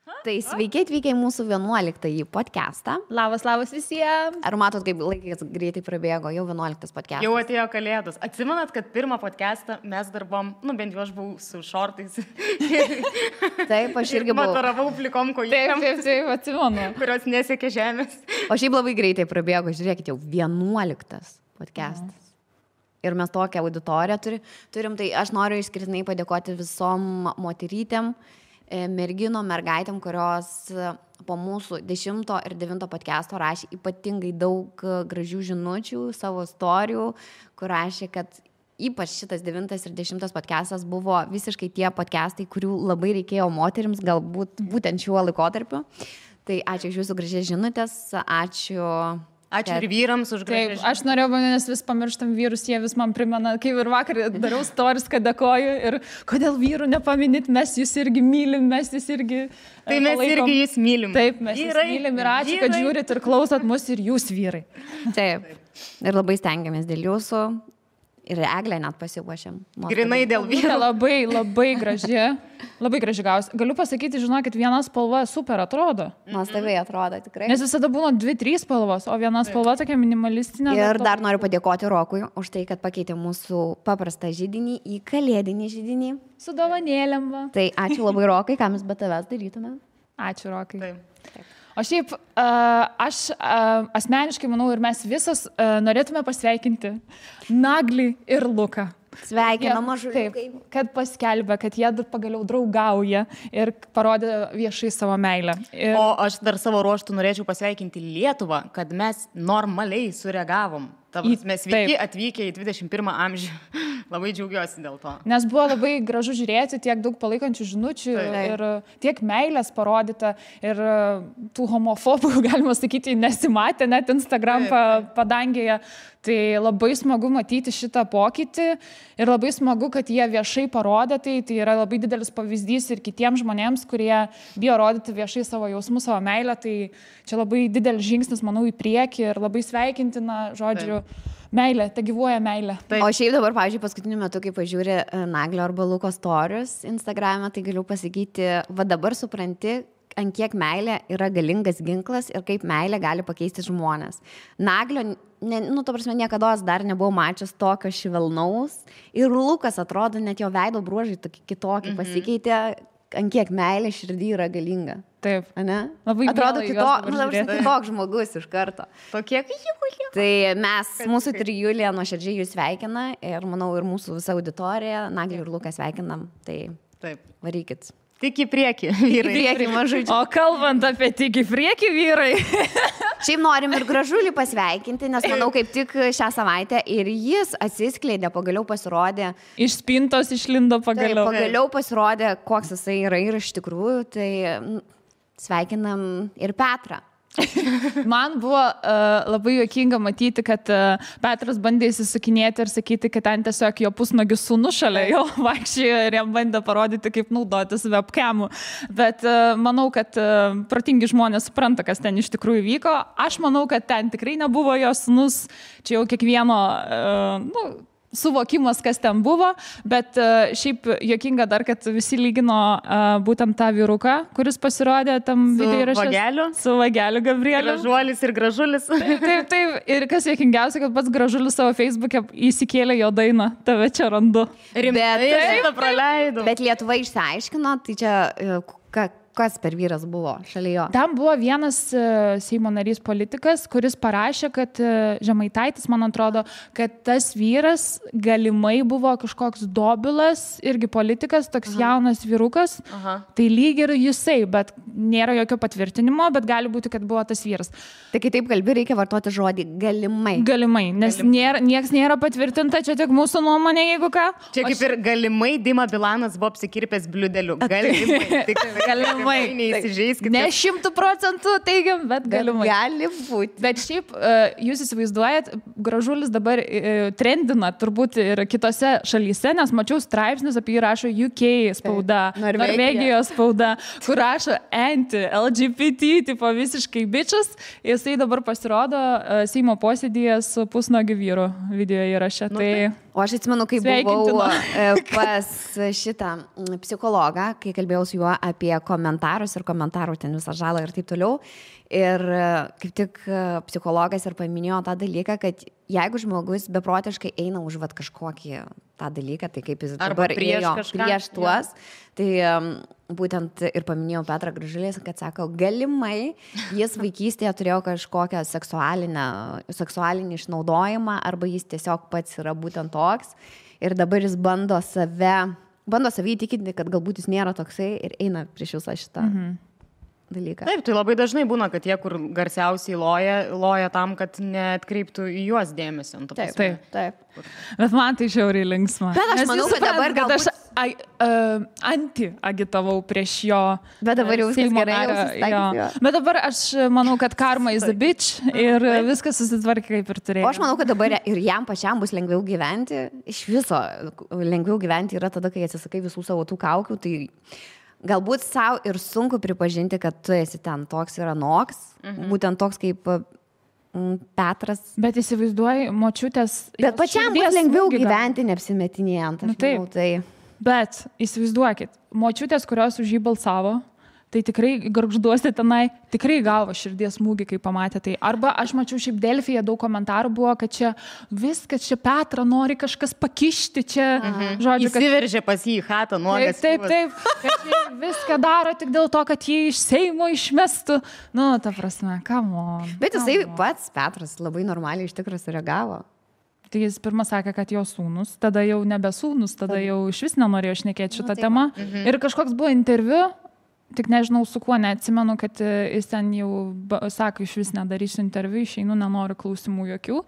Tai sveiki atvykę į mūsų 11-ąjį podcastą. Labas visiems. Ar matot, kaip laikas greitai prabėgo, jau 11 podcastas? Jau atėjo kalėdos. Atsimenat, kad pirmą podcastą mes darbom, bent jau aš buvau su šortais. Taip, aš irgi buvau. Mataravau plikom kojom. Taip, atsimenu. Kurios nesiekė žemės. O šiaip labai greitai prabėgo, žiūrėkit, jau 11 podcastas. Ir mes tokią auditoriją turim, tai aš noriu išskirtinai padėkoti visom moterytėm, merginom, mergaitėm, kurios po mūsų 10 ir 9 podcast'o rašė ypatingai daug gražių žinučių, savo istorijų, kur rašė, kad ypač šitas 9 ir 10 podcastas buvo visiškai tie podcastai, kurių labai reikėjo moterims, galbūt būtent šiuo laikotarpiu. Tai ačiū už jūsų gražias žinutės, Ačiū ir vyrams už gražias. Taip, aš norėjau, nes vis pamirštam vyrus, jie vis man primena, kaip ir vakar dariau stories, kad dėkoju ir kodėl vyrų nepaminit, mes jūs irgi mylim, mes jūs irgi Tai mes palaikom. irgi jūs mylim. Taip, mes jūs mylim ir ačiū, kad žiūrit ir klausot mus ir jūs vyrai. Taip. Ir labai stengiamės dėl jūsų. Ir Eglę net pasiuošėm. Grinai dėl vyrų. Labai graži. Labai graži gausi. Galiu pasakyti, žinokit, viena spalva super atrodo. Nuostabiai atrodo, tikrai. Nes visada būna 2-3 spalvos, o viena spalva tokia minimalistinė. Ir dar noriu padėkoti Rokui už tai, kad pakeitė mūsų paprastą židinį į kalėdinį židinį. Su dovanėlėm. Va. Tai ačiū labai Rokai, ką mes be tavęs darytume. Ačiū, Rokai. Taip. O šiaip aš asmeniškai manau ir mes visas norėtume pasveikinti Naglį ir Luką. Sveikinam mažuliukai. Taip, kad paskelbė, kad jie pagaliau draugauja ir parodė viešai savo meilę. Ir... O aš dar savo ruoštų norėčiau pasveikinti Lietuvą, kad mes normaliai sureagavom. Mes sveiki atvykę į 21 amžių. Labai džiaugiuosi dėl to. Nes buvo labai gražu žiūrėti, tiek daug palaikančių žinučių ir tiek meilės parodyta ir tų homofobų, galima sakyti, nesimatė net Instagram padangėje. Tai labai smagu matyti šitą pokytį ir labai smagu, kad jie viešai parodė tai yra labai didelis pavyzdys ir kitiems žmonėms, kurie bijo rodyti viešai savo jausmus, savo meilę. Tai čia labai didelis žingsnis, manau, į priekį ir labai sveikintina, žodžiu, meilė, te gyvuoja meilė. O šiaip dabar, pavyzdžiui, paskutiniu metu, kai pažiūri Naglio arba Luko stories Instagram'e, tai galiu pasakyti, va dabar supranti, ant kiek meilė yra galingas ginklas ir kaip meilė gali pakeisti žmonės. Naglio, ta prasme, niekada dar nebuvau mačius tokio švelnaus ir Lukas atrodo, net jo veido bruožai kitokį pasikeitė, ant kiek meilė širdį yra galinga. Taip. Ane? Labai atrodo kitoks žmogus iš karto. Tokie Tai mūsų trijulė nuoširdžiai jūs sveikina ir manau ir mūsų visa auditorija, Naglį ir Luką sveikinam. Tai varykit. Tik į priekį, vyrai. Į priekį, mažučiai. O kalbant apie tik į priekį, vyrai. Šiaip norim ir Gražulį pasveikinti, nes manau, kaip tik šią savaitę ir jis atsiskleidė, pagaliau pasirodė. Iš spintos išlindo pagaliau. Tai, pagaliau pasirodė, koks jisai yra ir iš tikrųjų, tai sveikinam ir Petrą. Man buvo labai juokinga matyti, kad Petras bandė įsisukinėti ir sakyti, kad ten tiesiog jo pusnagis sūnus šalia jo vaikščiojo ir jam bandė parodyti, kaip naudotis webcamu. Bet manau, kad protingi žmonės supranta, kas ten iš tikrųjų vyko. Aš manau, kad ten tikrai nebuvo jo sūnus, čia jau kiekvieno suvokimas, kas ten buvo, bet šiaip juokinga dar, kad visi lygino būtent tą vyruką, kuris pasirodė tam video įraše. Su Vageliu Gabrieliu. Gražuolis ir Gražulis. Taip. Ir kas juokingiausia, kad pats Gražulis savo Facebook'e įsikėlė jo dainą, tave čia randu. Bet Lietuva išsiaiškino, tai čia kas per vyras buvo šalia jo? Tam buvo vienas Seimo narys politikas, kuris parašė, kad Žemaitaitis, man atrodo, kad tas vyras galimai buvo kažkoks dobilas, irgi politikas, toks jaunas vyrukas. Tai lyg ir jisai, bet nėra jokio patvirtinimo, bet gali būti, kad buvo tas vyras. Tai kai taip kalbi, reikia vartoti žodį galimai. Galimai, nes nieks nėra patvirtinta, čia tik mūsų nuomonė, jeigu ką. Čia kaip ir galimai Dima Bilanas buvo apsikirpęs bliudeliu. Galimai. Neįsižeiskite. Ne 100% teigiam, bet galimai. Gali būti. Bet šiaip, jūs įsivaizduojat, Gražulis dabar trendina turbūt ir kitose šalyse, nes mačiau straipsnius apie jį rašo UK spauda, Norvegijos spauda, kur rašo anti-LGBT, tipo visiškai bičias. Jisai dabar pasirodo Seimo posėdyje su pusnuogiu vyru video įraše. Tai O aš atsimenu, kai buvau pas šitą psichologą, kai kalbėjau su juo apie komentarus ir komentarų ten visą žalą ir taip toliau. Ir kaip tik psichologas ir paminėjo tą dalyką, kad jeigu žmogus beprotiškai eina už kažkokį tą dalyką, tai kaip jis dabar ėjo prieš tuos, tai būtent ir paminėjau Petrą Gražulį, kad sako, galimai jis vaikystėje turėjo kažkokią seksualinį išnaudojimą arba jis tiesiog pats yra būtent toks ir dabar jis bando save įtikinti, kad galbūt jis nėra toksai ir eina prieš visą šitą. Dalyką. Taip, tai labai dažnai būna, kad tie, kur garsiausiai loja tam, kad neatkreiptų į juos dėmesio. Taip. Bet man tai žiauriai linksma. Bet aš manau, kad dabar galbūt... Aš anti-agitavau prieš jo. Bet dabar jau viskas gerai. Bet dabar aš manau, kad karma is a bitch ir viskas susitvarkė kaip ir turėjo. O aš manau, kad dabar ir jam pačiam bus lengviau gyventi. Iš viso lengviau gyventi yra tada, kai atsisakai visų savo tų kaukių. Tai... Galbūt savo ir sunku pripažinti, kad tu esi ten toks ir anoks, būtent toks kaip Petras. Bet įsivaizduoji, močiutės... Bet pačiam bus lengviau gyventi, neapsimetinėjant. Tai. Bet įsivaizduokit, močiutės, kurios už jį balsavo, tai tikrai gargžduosi tenai, tikrai gavo širdies smūgį, kai pamatė tai. Arba aš mačiau šiaip Delfyje daug komentarų buvo, kad čia viskas, čia Petrą nori kažkas pakišti, čia, žodžiu, kad... Įsiveržė pas jį į chatą, nuogas. Taip, kad jie viską daro tik dėl to, kad jį iš Seimo išmestų. Nu, ta prasme, come on. Bet jisai pats, Petras, labai normaliai iš tikrųjų sureagavo. Tai jis pirmą sakė, kad jo sūnus, tada jau nebe sūnus, tada jau iš vis nenorėjo šnekėti šitą temą. Ir kažkoks buvo interviu, tik nežinau su kuo, neatsimenu, kad jis ten jau sako, iš vis nedarysiu interviu, išeinu, nenoriu klausimų jokių.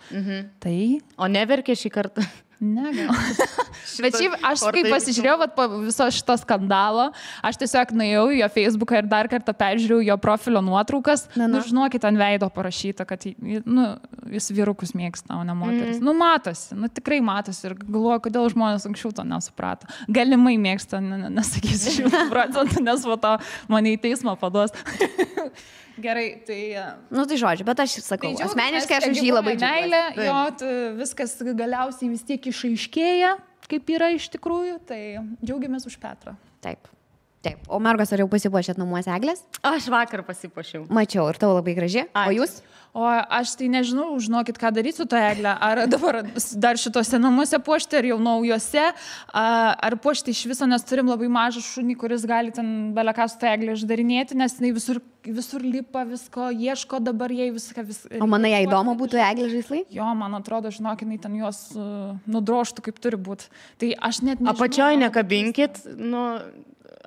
Tai... O neverkė šį kartą? Ne, gal. Bet šiaip aš kai pasižiūrėjau po viso šito skandalo, aš tiesiog nuėjau į jo Facebooką ir dar kartą peržiūrėjau jo profilio nuotraukas. Nu, žinokit, ant veido parašyta, kad jis vyrukus mėgsta, o ne moteris. Nu, matosi, tikrai matosi ir galvoju, kodėl žmonės anksčiau to nesuprato. Galimai mėgsta, nesakysiu 100%, nes po to mane į teismą paduos. Gerai, tai... Tai žodžiu, bet aš sakau, asmeniškai aš už jį labai džiaugiuosi. Jo, viskas galiausiai vis tiek išaiškėja, kaip yra iš tikrųjų, tai džiaugiamės už Petrą. Taip. O mergos, ar jau pasipuošėt namuose eglės? Aš vakar pasipuošiau. Mačiau, ir tavo labai graži. Ačiū. O jūs? O aš tai nežinau, žinokit, ką daryti su to eglę. Ar dabar dar šitose namuose puošti, ar jau naujuose, ar puošti iš viso, nes turim labai mažą šunį, kuris gali ten beleką su to eglę išdarinėti, nes jinai visur lipa visko, ieško dabar jai viską. O manai, jai įdomu būtų eglė žaislai? Jo, man atrodo, žinokit, jinai ten juos nudroštų, kaip turi būti. Tai aš net nežinau. Apačioj nekabinkit,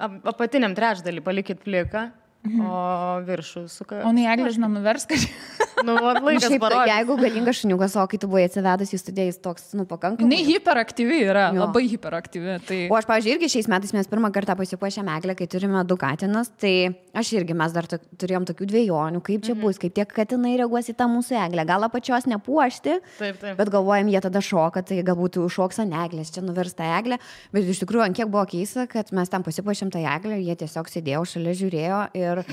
apatiniam trečdalį palikit pliką, o viršų suka. O ne eglė, žinau, nuvers kažkaip. Laikas parodė. Jeigu galingas šuniukas, o kai tu buvai atsivedus į studiją, jis toks, pakankamai. Jinai hiperaktyvi yra, labai hiperaktyvi. Tai... O aš, pavyzdžiui, irgi šiais metais mes pirmą kartą pasipuošėm eglę, kai turime 2 katinus, tai aš irgi mes dar turėjom tokių dvejonių, kaip čia bus, kaip tie katinai reaguos į tą mūsų eglę. Gal apačios nepuošti, bet galvojam, jie tada šoka, tai galbūt užšoks ant eglės, čia nuvers tą eglę. Bet iš tikrųjų, ant kiek buvo keista, kad mes tam pasipuošėm tą eglę, jie tiesiog sėdėjo šalia, žiūrėjo ir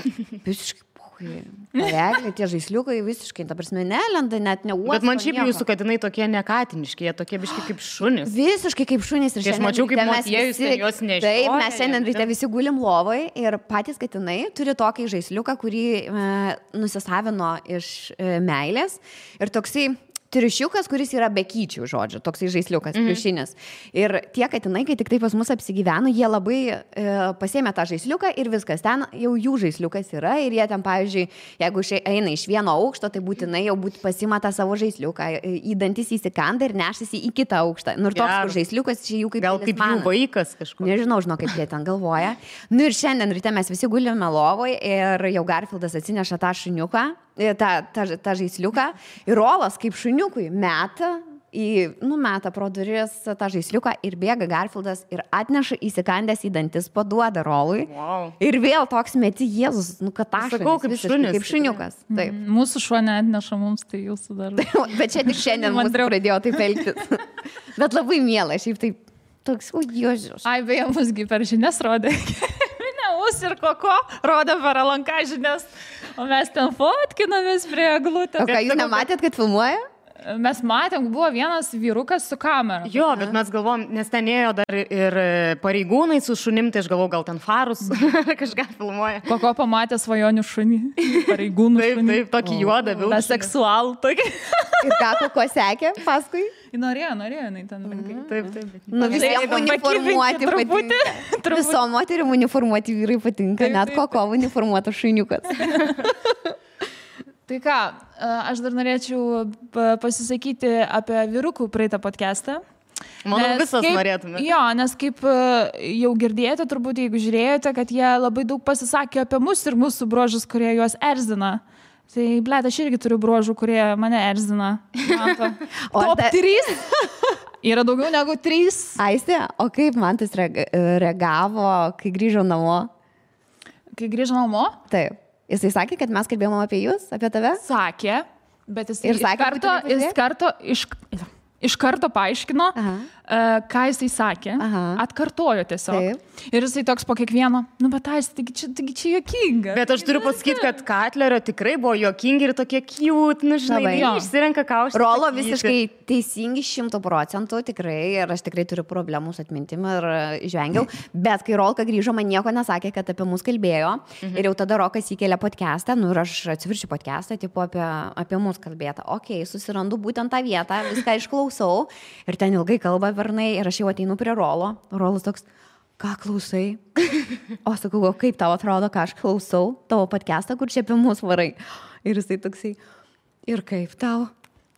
visiškai eglė, tie žaisliukai visiškai, ta prasme, nelenda, net neuosto. Bet man šiaip jūsų katinai tokie nekatiniški, jie tokie biški kaip šunys. Visiškai kaip šunys. Ir aš mačiau, kaip motiejus juos nešioja. Taip, mes šiandien ryte visi gulim lovai ir patys katinai turi tokį žaisliuką, kurį nusisavino iš meilės. Ir toksai triušiukas, kuris yra be kyčių, žodžiu, toksai žaisliukas, pliušinis. Ir tie katinai, kai tik tai pas mus apsigyveno, jie labai pasėmė tą žaisliuką ir viskas, ten jau jų žaisliukas yra ir jie ten, pavyzdžiui, jeigu eina iš vieno aukšto, tai būtinai jau pasima tą savo žaisliuką, į dantis įsikanda ir nešasi į kitą aukštą. Ir toks žaisliukas čia jų kaip... Gal kaip jų vaikas kažkoks. Nežinau, kaip jie ten galvoja. Ir šiandien ryte mes visi gulime lovoj ir jau Garfieldas atsineša tą šuniuką, tą žaisliuką ir Rolas kaip šuniukui meta pro duris tą žaisliuką ir bėga Garfieldas ir atneša įsikandęs į dantis, paduoda Rolui. Wow. Ir vėl toks meti Jėzus, katašonis, kaip šuniukas. Taip. Mūsų šuo neatneša mums, tai jūsų dar. Bet čia tik šiandien mūsų pradėjo taip elgtis. Bet labai miela, šiaip taip toks, Jėzus. Ai, beje, musgi per žinias rodė. Ir koko rodė per Alanką žinias, o mes ten fotkinomės prie eglutės. O ką, jūs nematėt, kad filmuoja? Mes matėm, buvo vienas vyrukas su kamera. Jo, bet mes galvom, nes ten ėjo dar ir pareigūnai su šunim, tai aš galvoju, gal ten farus kažką filmuoja. Koko pamatė svajonių šunį, pareigūnų šunį. Taip, tokį juodą vilką. Seksualų tokį. Ir ką Koko sekė paskui? Norėjo, jinai ten rankai. Taip. Nu, visiems uniformuoti patinka. Visom moterim uniformuoti vyrai patinka, net Koko uniformuotas šuniukas. Tai ką, aš dar norėčiau pasisakyti apie vyrukų praeitą podcastą. Manau, visas norėtume. Jo, nes kaip jau girdėjote, turbūt jeigu žiūrėjote, kad jie labai daug pasisakė apie mus ir mūsų bruožus, kurie juos erzina. Tai, blėt, aš irgi turiu bruožų, kurie mane erzina. Top 3? Yra daugiau negu 3. Aistė, o kaip Mantas reagavo, kai grįžo namo? Kai grįžo namo? Taip. Jisai sakė, kad mes kalbėjome apie jūs, apie tave? Sakė, bet jis iš karto paaiškino, ką jisai sakė, atkartojo tiesiog. Taip. Ir jisai toks po kiekvieno, nu bet taigi čia juokinga. Bet aš turiu pasakyti, kad Katlerio tikrai buvo juokingi ir tokie cute, nu žinai, išsirenka ką aš. Rolo visiškai teisingi 100% tikrai ir aš tikrai turiu problemų su atmintim ir žvengiau, bet kai Rolka grįžo, man nieko nesakė, kad apie mus kalbėjo ir jau tada Rokas įkėlė podcastą, nu ir aš atsiviršiu podcastą, tipo apie mus kalbėtą. Okei, susirandu būtent tą vietą, viską išklausau ir ten ilgai kalba vernai ir aš jau ateinu prie Rolo. Rolas toks, ką klausai? O sakau, kaip tau atrodo, ką aš klausau, tavo podcastą, kur čia apie mus varai. Ir jisai toksai, ir kaip tau?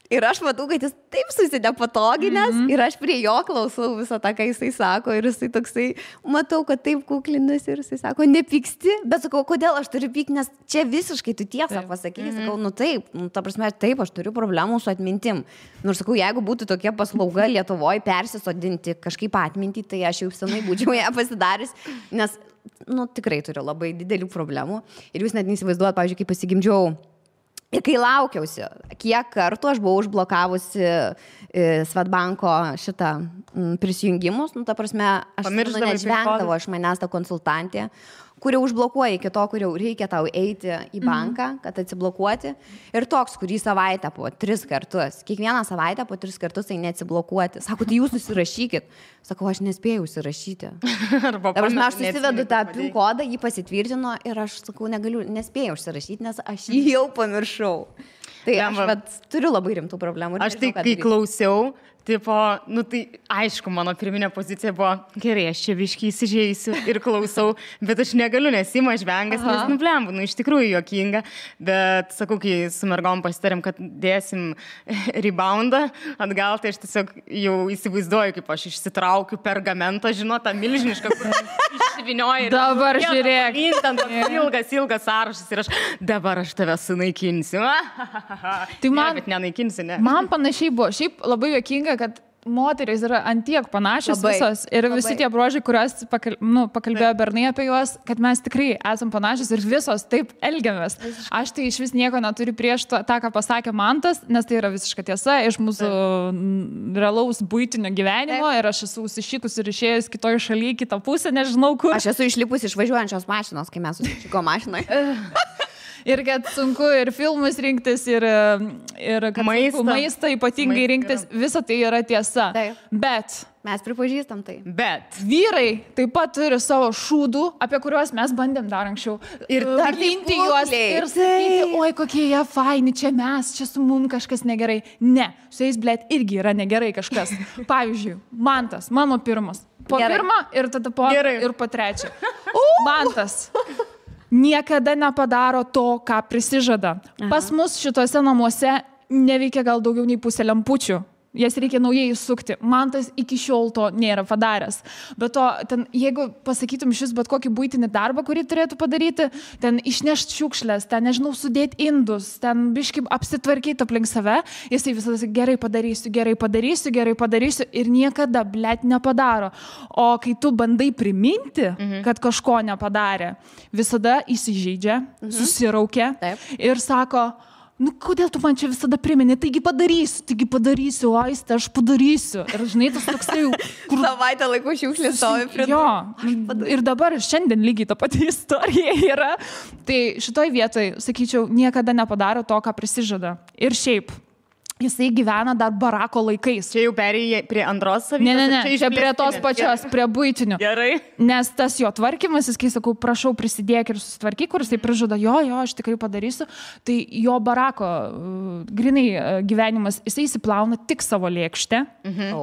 Ir aš matau, kad jis taip susidė patoginės ir aš prie jo klausau visą tą, ką jisai sako. Ir jisai toksai, matau, kad taip kuklinas ir jisai sako, nepyksti. Bet sakau, kodėl aš turiu pykti, nes čia visiškai tu tiesą pasakai. Sakau, nu taip, nu, ta prasme, taip, aš turiu problemų su atmintim. Nors sakau, jeigu būtų tokia paslauga Lietuvoje persisodinti kažkaip atmintį, tai aš jau senai būčiau ją pasidaręs, nes, nu, tikrai turiu labai didelių problemų. Ir jūs net neįsivaizduojat, pavyzdžiui, kai pasigimdžiau. Ir kai laukiausi, kiek kartų aš buvau užblokavusi Swedbanko šitą prisijungimus, nu, ta prasme, aš nežvengdavo iš manęs tą konsultantę, kuri užblokuoja iki to, kur jau reikia tau eiti į banką, kad atsiblokuoti. Ir toks, kurį savaitę po 3 kartus, kiekvieną savaitę po 3 kartus tai neatsiblokuoti. Sako, tai jūs susirašykit. Sakau, aš nespėjau užsirašyti. Aš susivedu tą PIN kodą, jį pasitvirtino ir aš sakau, nespėjau užsirašyti, nes aš jį jau pamiršau. Tai aš turiu labai rimtų problemų. Aš tai, kai klausiau, tipo, nu tai aišku, mano pirminė pozicija buvo, gerai, aš čia biškį įsižeisiu ir klausau, bet aš negaliu, nes ima žvengas, nes nublembu, nu iš tikrųjų juokinga, bet sakau, kai su mergom pasitarėm, kad dėsim reboundą atgal, tai aš tiesiog jau įsivaizduoju, kaip aš išsitraukiu pergamentą, žinot, tą milžinišką, kur išsivinioju. Dabar žiūrėk. Ilgas sąrašas ir dabar aš tave sunaikinsiu. Tai man, bet nenaikinsiu, ne. Man panašiai buvo, šiaip labai juokinga, kad moterys yra antiek panašios visos ir visi tie bruožai, kuriuos pakalbėjo Bernai apie juos, kad mes tikrai esam panašios ir visos taip elgiamės. Aš tai iš vis nieko neturiu prieš tą, ką pasakė Mantas, nes tai yra visiška tiesa iš mūsų realaus buitinio gyvenimo ir aš esu užsišikus ir išėjus kitoje šalyje, kitą pusę, nežinau kur. Aš esu išlipus iš važiuojančios mašinos, kai mes susišiko mašinoje. Ir kad sunku ir filmus rinktis, ir kad maistą ypatingai rinktis, visa tai yra tiesa. Taip. Bet mes pripažįstam tai. Bet vyrai taip pat turi savo šūdų, apie kuriuos mes bandėm dar anksčiau. Ir dalinti juos ir sakyti, oi kokie jie faini, čia su mum kažkas negerai. Ne, su jais, blėt, irgi yra negerai kažkas. Pavyzdžiui, Mantas, mano pirmas. Po pirmą ir tada po ir po trečią. Mantas niekada nepadaro to, ką prisižada. Pas mus šituose namuose neveikia gal daugiau nei pusė lempučių. Jas reikia naujai įsukti. Mantas iki šiol to nėra padaręs. Bet to, ten, jeigu pasakytum šis bet kokį buitinį darbą, kurį turėtų padaryti, ten išnešti šiukšlės, ten, nežinau, sudėti indus, ten biškai apsitvarkyti aplink save, jisai visada gerai padarysiu ir niekada, blėt, nepadaro. O kai tu bandai priminti, kad kažko nepadarė, visada įsižeidžia, susiraukia ir sako, nu, kodėl tu man čia visada primeni, taigi padarysiu, Aiste, aš padarysiu. Ir žinai, tas toksai jau... Savaitę laiko šiukšlės stovi prie... Jo, ir dabar šiandien lygiai ta pati istorija yra. Tai šitoj vietoj, sakyčiau, niekada nepadaro to, ką prisižada. Ir šiaip, jisai gyvena dar barako laikais. Čia jau perėjai prie antros savybės? Ne, čia prie tos pačios, prie buitinių. Gerai. Nes tas jo tvarkymas, kai sakau, prašau prisidėk ir susitvarkyk, kur jisai prižada, jo, aš tikrai padarysiu, tai jo barako grinai gyvenimas, jisai įsiplauna tik savo lėkštę,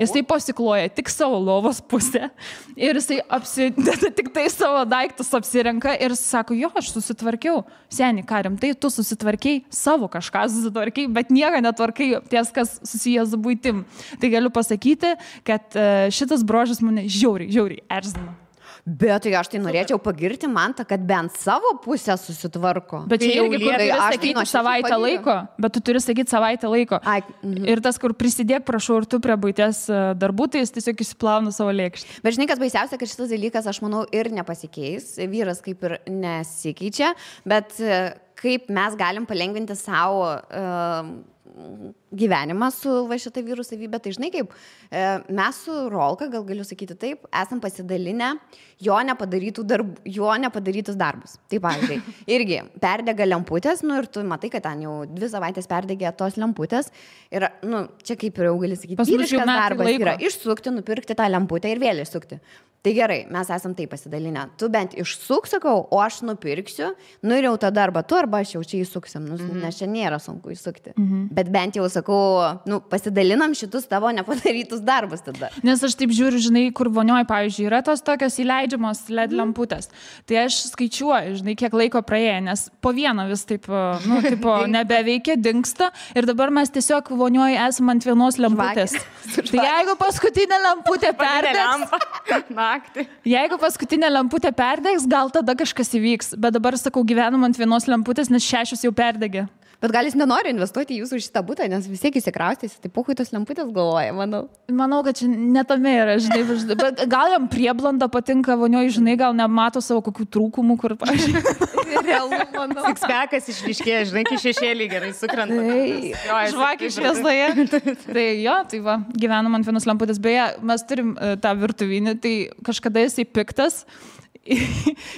jisai pasikloja tik savo lovos pusę ir jisai apsideda tik tai savo daiktus apsirenka ir sako, jo, aš susitvarkiau. Seni, ką rimtai, tu susitvarkiai, savo kažką susitvarkiai, bet nieko netvarkai ties, kas susijęs su buitim. Tai galiu pasakyti, kad šitas brožas mane žiauriai erzina. Bet tai aš tai norėčiau pagirti Mantą, kad bent savo pusę susitvarko. Bet čia irgi turi sakyti savaitę laiko. Bet tu turi sakyti savaitę laiko. Ir tas, kur prisidėk, prašau, ir tu prie buities darbų, tai jis tiesiog įsiplauna savo lėkštę. Bet žinai, kas baisiausia, kad šitas dalykas, aš manau, ir nepasikeis. Vyras kaip ir nesikeičia, bet kaip mes galim palengvinti savo gyvenimą su va šitą vyrų savybę, tai žinai kaip, mes su Rolka, gal galiu sakyti taip, esam pasidalinę jo nepadarytus darbus. Tai pavyzdžiui, irgi perdega lemputės, ir tu matai, kad ten jau 2 savaitės perdegė tos lemputės ir, čia kaip ir jau gali sakyti, vyriškas darbas yra išsukti, nupirkti tą lemputę ir vėl išsukti. Tai gerai, mes esam taip pasidalinę. Tu bent išsuk, sakau, o aš nupirksiu, ir jau tada arba tu, arba aš jau čia įsuksim, nes čia nėra sunku įsukti. Bet bent jau, sakau, pasidalinam šitus tavo nepadarytus darbus tada. Nes aš taip žiūriu, žinai, kur vonioje, pavyzdžiui, yra tos tokios įleidžiamos LED lemputės. Tai aš skaičiuoju, žinai, kiek laiko praėjo, nes po vieną vis taip, nebeveikia, dingsta ir dabar mes tiesiog vonioje esame ant vienos lemputės. Tai jeigu paskutinė lemputė perdegs, jeigu paskutinė lemputė perdegs, gal tada kažkas įvyks. Bet dabar, sakau, gyvenam ant vienos lemputės, nes 6 jau perdegė. Bet gal jis nenori investuoti į jūsų šitą butą, nes vis tiek įsikraustys, tai puhui tos lemputės galvoja, manau. Manau, kad čia netame yra, žinai, bet gal jam prieblanda patinka vonioje, žinai, gal nemato savo kokių trūkumų, kur, pavyzdžiui, realu, manau. Sixpackas išryškėja, žinai, kai šešėlį gerai sukrenta. Žvakį šviesoje. Tai jo, tai va, gyvenam ant vienos lemputės. Beje, mes turim tą virtuvinį, tai kažkada jisai piktas.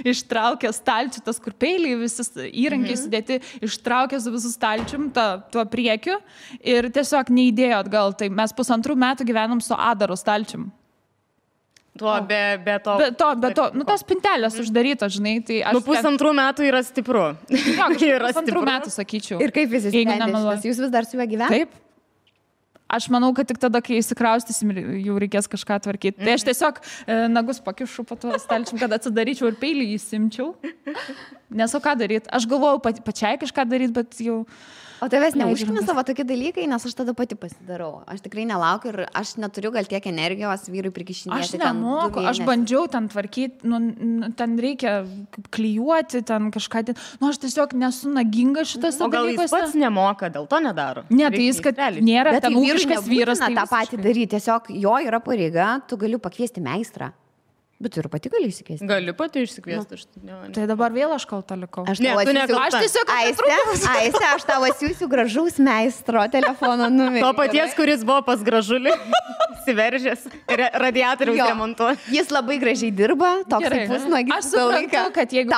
Ištraukė stalčių, tas kur peiliai, visus įrankiai sudėti, ištraukė su visų stalčium tuo priekiu ir tiesiog neįdėjo atgal. Tai mes 1,5 metų gyvenam su Adaro stalčium. Be to, tos pintelės uždarytos, žinai, tai aš... 1,5 metų yra stipru. Jo, 1,5 metų, sakyčiau. Ir kaip visi sprendės, jūs vis dar su juo gyvenate? Taip. Aš manau, kad tik tada, kai įsikraustysim, jau reikės kažką tvarkyti. Tai aš tiesiog nagus pakišu po to stalčium, kad atsidaryčiau ir peilį įsimčiau. Nes o ką daryti? Aš galvojau pačiai kažką daryti, bet jau... O tavęs neužkimė savo tokie dalykai, nes aš tada pati pasidarau. Aš tikrai nelaukiu ir aš neturiu gal tiek energijos vyrui prikišinėti. Aš nemoku, aš bandžiau ten tvarkyti, ten reikia klijuoti, ten kažką. Aš tiesiog nesu naginga šitas dalykas. O gal jis pats nemoka, dėl to nedaro? Ne, tai jis, kad nėra ten ūkiškas vyras. Tą patį daryti, tiesiog jo yra pareiga, tu gali pakviesti meistrą. Bet tu ir pati gali išsikviesti. Galiu pati išsikviesti. Tai dabar vėl aš kalta likau. Aš tiesiog Aiste, aš tavo siūsiu gražaus meistro telefono numerį. To paties, kuris buvo pas Gražulį, įsiveržęs, radiatoriaus remontuoti. Jis labai gražiai dirba, toks kaip pusnuogis. Aš suprantu, kad jeigu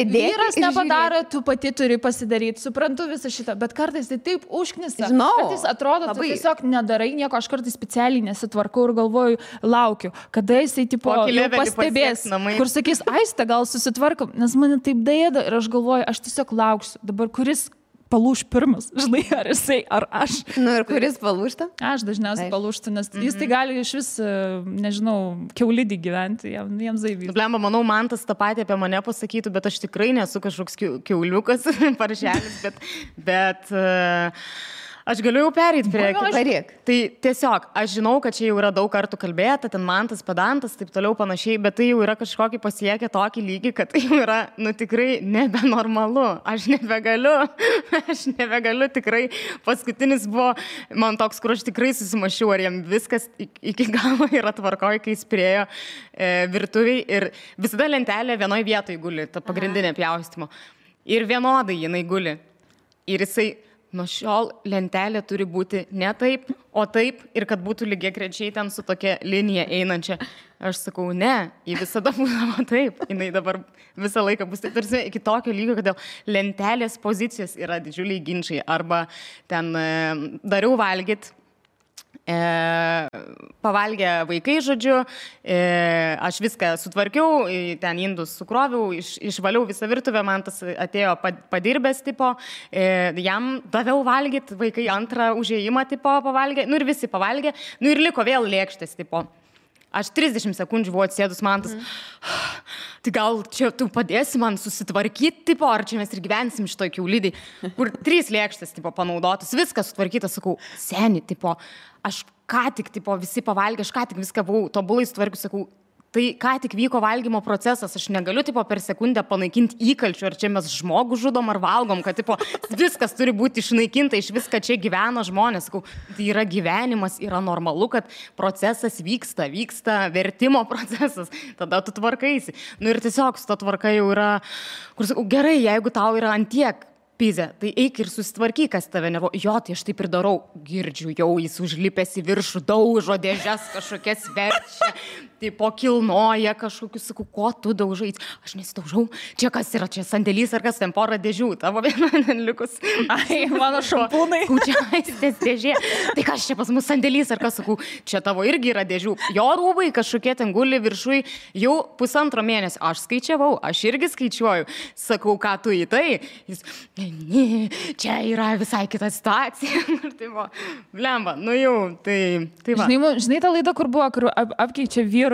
vyras nepadaro, tu pati turi pasidaryti. Suprantu visą šitą, bet kartais tai taip užknisa. Kartais atrodo, tu tiesiog nedarai nieko, aš kartais specialiai nesitvarkau ir galvoju, laukiu, kada jisai tipo pastebės, kur sakys, Aiste, gal susitvarkom, nes mane taip dėda ir aš galvoju, aš tiesiog lauksiu. Dabar kuris palūš pirmas, žinai, ar jisai, ar aš. Ir kuris palūšta? Aš dažniausiai palūštu, nes jis tai gali iš vis, nežinau, kiaulidį gyventi, jiems zaivys. Blemba, manau, Mantas tą patį apie mane pasakytų, bet aš tikrai nesu kažkoks kiauliukas, paršelis, bet aš galiu jau perėti prie... Tai tiesiog, aš žinau, kad čia jau yra daug kartų kalbėta, ten Mantas, pedantas, taip toliau panašiai, bet tai jau yra kažkokį pasiekę tokį lygį, kad tai jau yra, tikrai nebenormalu. Aš nebegaliu tikrai. Paskutinis buvo man toks, kur aš tikrai susimašiau, ar jam viskas iki galo yra tvarkoj, kai jis priejo virtuviai ir visada lentelė vienoje vietoje guli, ta pagrindinė pjaustymo. Ir vienodai jinai guli. Ir jisai nuo šiol lentelė turi būti ne taip, o taip ir kad būtų lygiagrečiai ten su tokia linija einančia. Aš sakau, ne, ji visada būdavo taip, jinai dabar visą laiką bus taip, tarsi iki tokio lygio, kad dėl lentelės pozicijos yra didžiuliai ginčiai, arba ten dariau valgyt, pavalgė vaikai, žodžiu, aš viską sutvarkiau, ten indus sukroviau, išvaliau visą virtuvę, man tas atėjo padirbęs tipo, jam daviau valgyti, vaikai antrą užėjimą tipo pavalgė, nu ir visi pavalgė, nu ir liko vėl lėkštės tipo. Aš 30 sekundžių buvau atsėdus, man tas, tai gal čia tu padėsi man susitvarkyti, tipo, ar čia mes ir gyvensim šitoj kiaulidai, kur 3 lėkštės, tipo, panaudotas, viskas sutvarkytas, sakau, seni, tipo, aš ką tik, tipo, visi pavalgė, aš ką tik viską buvau tobulai sutvarkius, sakau, tai ką tik vyko valgymo procesas, aš negaliu, tipo, per sekundę panaikinti įkalčių, ar čia mes žmogų žudom ar valgom, kad, tipo, viskas turi būti išnaikinta, iš viską čia gyvena žmonės, sakau, tai yra gyvenimas, yra normalu, kad procesas vyksta vertimo procesas, tada tu tvarkaisi. Nu ir tiesiog su to tvarka jau yra, kur sakau, gerai, jeigu tau yra antiek pizė, tai eik ir susitvarkyk, kas tave nervuoja. Jo, tai aš taip ir darau. Girdžiu, jau jis užlipęs į viršų, daužo dėžes kažkokias verčia, tipo kilnoja kažkokius, sakau, ko tu daužai? Aš nesidaužau. Čia kas yra, čia sandėlys ar kas, ten porą dėžių, tavo viena likus. Ai, mano šampūnai. Čia aistės dėžė. Tai kas čia pas mus sandėlys ar kas, sakau, čia tavo irgi yra dėžių. Jo rūbai kažkokie ten guli viršui jau 1,5 mėnesio. Aš skaičiavau, aš irgi skaičiuoju. Sakau, ką tu į tai? Jis, ne, čia yra visai kita situacija. Tai buvo, blemba, nu jau, tai va. Žinai tą laidą, kur buvo, kur apkeičia vyrus,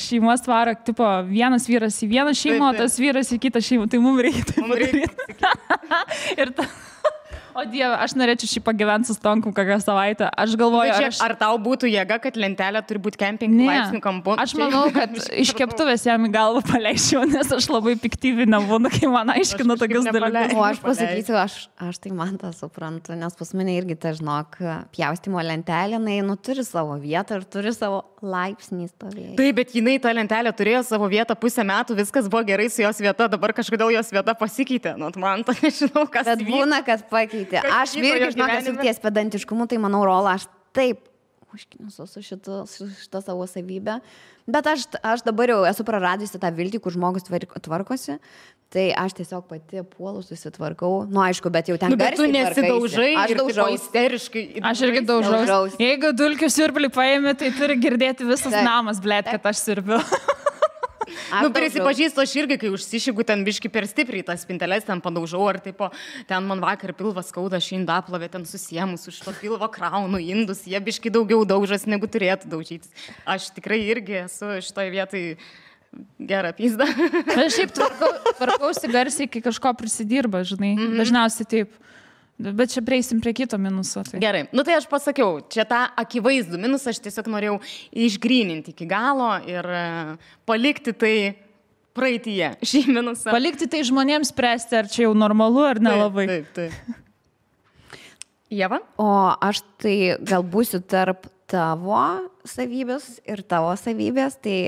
šeimos tvaro, tipo, vienas vyras į vieną šeimą, o tas vyras į kitą šeimą, tai mums reikia taip padaryti. Ir ta... O Dieve, aš norėčiau šį pagyventi su Stonkum kokią savaitę. Aš galvoju, ar tau būtų jėga, kad lentelė turi būti kemping laipsnių kampu? Aš manau, kad iš keptuvės jam į galvą paleisčiau, nes aš labai piktyvinę būnu, kai man aiškina tokius dalykus. O aš pasakysiu, aš tai man tą suprantu, nes pas mane irgi ta, žinok, pjaustimo lentelė, jinai turi savo vietą ir turi savo laipsnį stovėti. Taip, bet jinai tą lentelę turėjo savo vietą 1,5 metų, viskas buvo gerai su jos vieta, dabar kažkodėl jos vieta pasikeitė. Nu, man to nežinau, kas. Bet būna, kad pakeitė. Aš irgi, žinok, esu ties pedantiškumu, tai manau, Rola, aš taip užkniusiu su šitą savo savybę. Bet aš dabar jau esu praradusi tą viltį, kur žmogus tvarkosi. Tai aš tiesiog pati puolu, susitvarkau. Nu, aišku, bet jau ten bet tu nesidaužai, aš daužau isteriškai. Aš irgi daužau. Jeigu dulkių siurblį paėmė, tai turi girdėti visas namas, blėt, kad aš sirbiu. Nu, prisipažįstu, aš irgi, kai užsišygu ten biški per stipriai, tas spinteles ten padaužau, ar taip, ten man vakar pilvas skauda, aš indaplovę ten susiemus, už to pilvo kraunu indus, jie biški daugiau daužas, negu turėtų daužytis. Aš tikrai irgi esu šitoje vietoj gerą pizdą. Aš šiaip tvarkausi garsiai, kai kažko prisidirba, žinai, dažniausiai taip. Bet čia prieisim prie kito minuso. Tai. Gerai, nu tai aš pasakiau, čia tą akivaizdų minusą aš tiesiog norėjau išgryninti iki galo ir palikti tai praeityje, šį minusą. Palikti tai žmonėms spręsti, ar čia jau normalu, ar nelabai. Taip. Ieva? O aš tai gal būsiu tarp tavo savybės ir tavo savybės, tai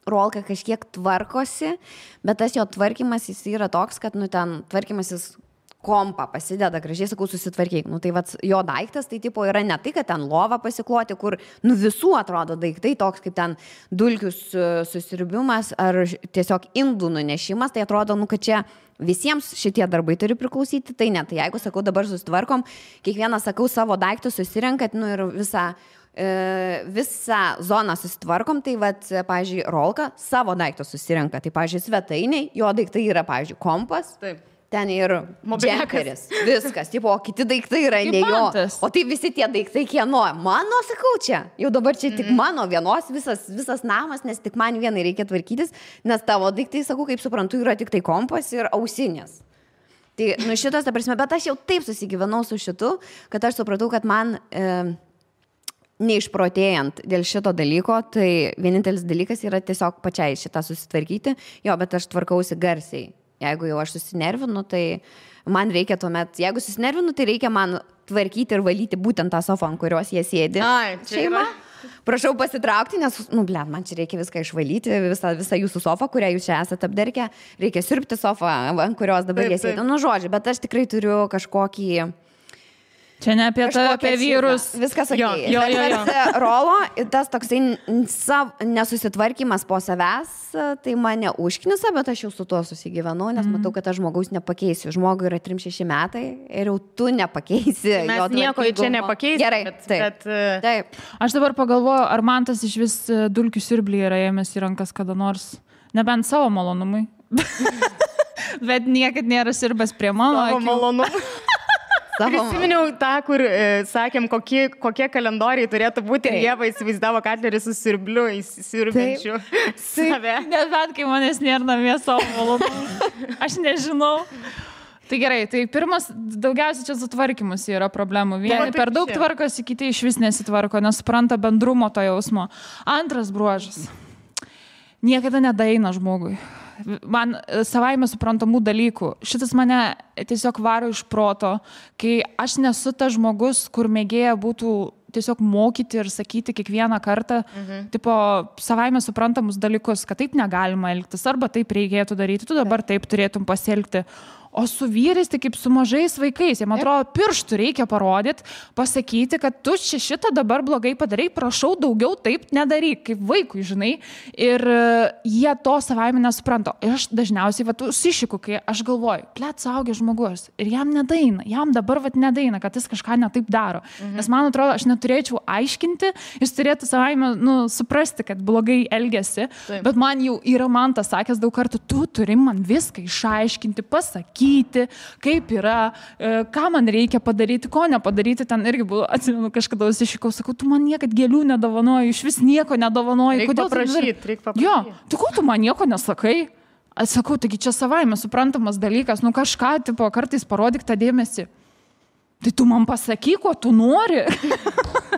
Rolka kažkiek tvarkosi, bet tas jo tvarkymas jis yra toks, kad ten tvarkymas jis kompą pasideda, gražiai sakau, susitvarkyk. Nu tai vat, jo daiktas, tai tipo yra ne tai, kad ten lova pasikloti, kur visų atrodo daiktai, toks kaip ten dulkių susirbimas ar tiesiog indų nunešimas, tai atrodo, kad čia visiems šitie darbai turi priklausyti, tai ne. Tai jeigu, sakau, dabar susitvarkom, kiekvieną, sakau, savo daiktus susirenkat, ir visą zoną susitvarkom, tai vat, pavyzdžiui, Rolka savo daiktus susirenka, tai, pavyzdžiui, svetainiai, jo daiktai yra, pavyzdžiui, kompas. Taip. Ten ir džemperis, viskas, tipo, o kiti daiktai yra ne jo, o tai visi tie daiktai kieno, mano, sakau, čia, jau dabar čia tik mano vienos visas namas, nes tik man vienai reikia tvarkytis, nes tavo daiktai, sakau, kaip suprantu, yra tik tai kompas ir ausinės. Tai, šitas, ta prasme, bet aš jau taip susigyvenau su šitu, kad aš supratau, kad man neišprotėjant dėl šito dalyko, tai vienintelis dalykas yra tiesiog pačiai šitą susitvarkyti, jo, bet aš tvarkausi garsiai. Jeigu jau aš susinervinu, tai man reikia tuomet, jeigu susinervinu, tai reikia man tvarkyti ir valyti būtent tą sofą, ant kurios jie sėdi. Ai, šeima. prašau pasitraukti, nes, man čia reikia viską išvalyti, visą jūsų sofą, kurią jūs čia esate apderkę, reikia siurbti sofą, ant kurios dabar jie sėdi. Žodžiu, bet aš tikrai turiu kažkokį... Čia ne apie apie vyrus. Viskas okei. Rolo, tas toksai nesusitvarkymas po savęs, tai mane užknisa, bet aš jau su tuo susigyvenau, nes matau, kad aš žmogaus nepakeisiu. Žmogui yra 3-6 metai ir jau tu nepakeisi. Mes nieko čia nepakeisi. Gerai, taip. Aš dabar pagalvoju, ar man tas iš vis dulkių siurblį yra ėmęs į rankas kada nors. Nebent savo malonumui. Bet niekad nėra sirbęs prie mano. Savo malonumui. Prisiminiau tą, kur sakėm, kokie kalendoriai turėtų būti ir Ieva įsivaizdavo Katlerį su sirbliu, įsirbenčiu save. Nebent, kai manęs nėra namie savo malonumui. Aš nežinau. Tai gerai, tai pirmas, daugiausiai čia sutvarkymus yra problemų. Vieni per daug tvarkosi, kiti iš vis nesitvarko, nesupranta bendrumo to jausmo. Antras bruožas. Niekada nedaeina žmogui. Man savaime suprantamų dalykų. Šitas mane tiesiog varo iš proto, kai aš nesu tas žmogus, kur mėgėja būtų tiesiog mokyti ir sakyti kiekvieną kartą, tipo, savaime suprantamus dalykus, kad taip negalima elgtis, arba taip reikėtų daryti, tu dabar taip turėtum pasielgti. O su vyrais, tai kaip su mažais vaikais, jiems atrodo, pirštų reikia parodyti, pasakyti, kad tu šitą dabar blogai padarai, prašau daugiau taip nedaryk, kaip vaikui, žinai. Ir jie to savaime nesupranta. Ir aš dažniausiai užsišiku, kai aš galvoju, suaugęs žmogus, ir jam nedaina, jam dabar nedaina, kad jis kažką netaip daro. Nes man atrodo, aš neturėčiau aiškinti, jis turėtų savaime suprasti, kad blogai elgiasi, bet man jau yra tas sakęs daug kartų, tu turi man viską išaiškinti, pasakyti, kaip yra, ką man reikia padaryti, ko nepadaryti. Ten irgi buvo, atsimenu, kažkada užsišikau, sakau, tu man niekad gėlių nedovanoji, iš vis nieko nedovanoji. Reikia paprašyti. Jo, tai ko tu man nieko nesakai? Aš sakau, taigi čia savaime suprantamas dalykas, kažką, tipo, kartais parodyk tą dėmesį. Tai tu man pasakyk, ko tu nori.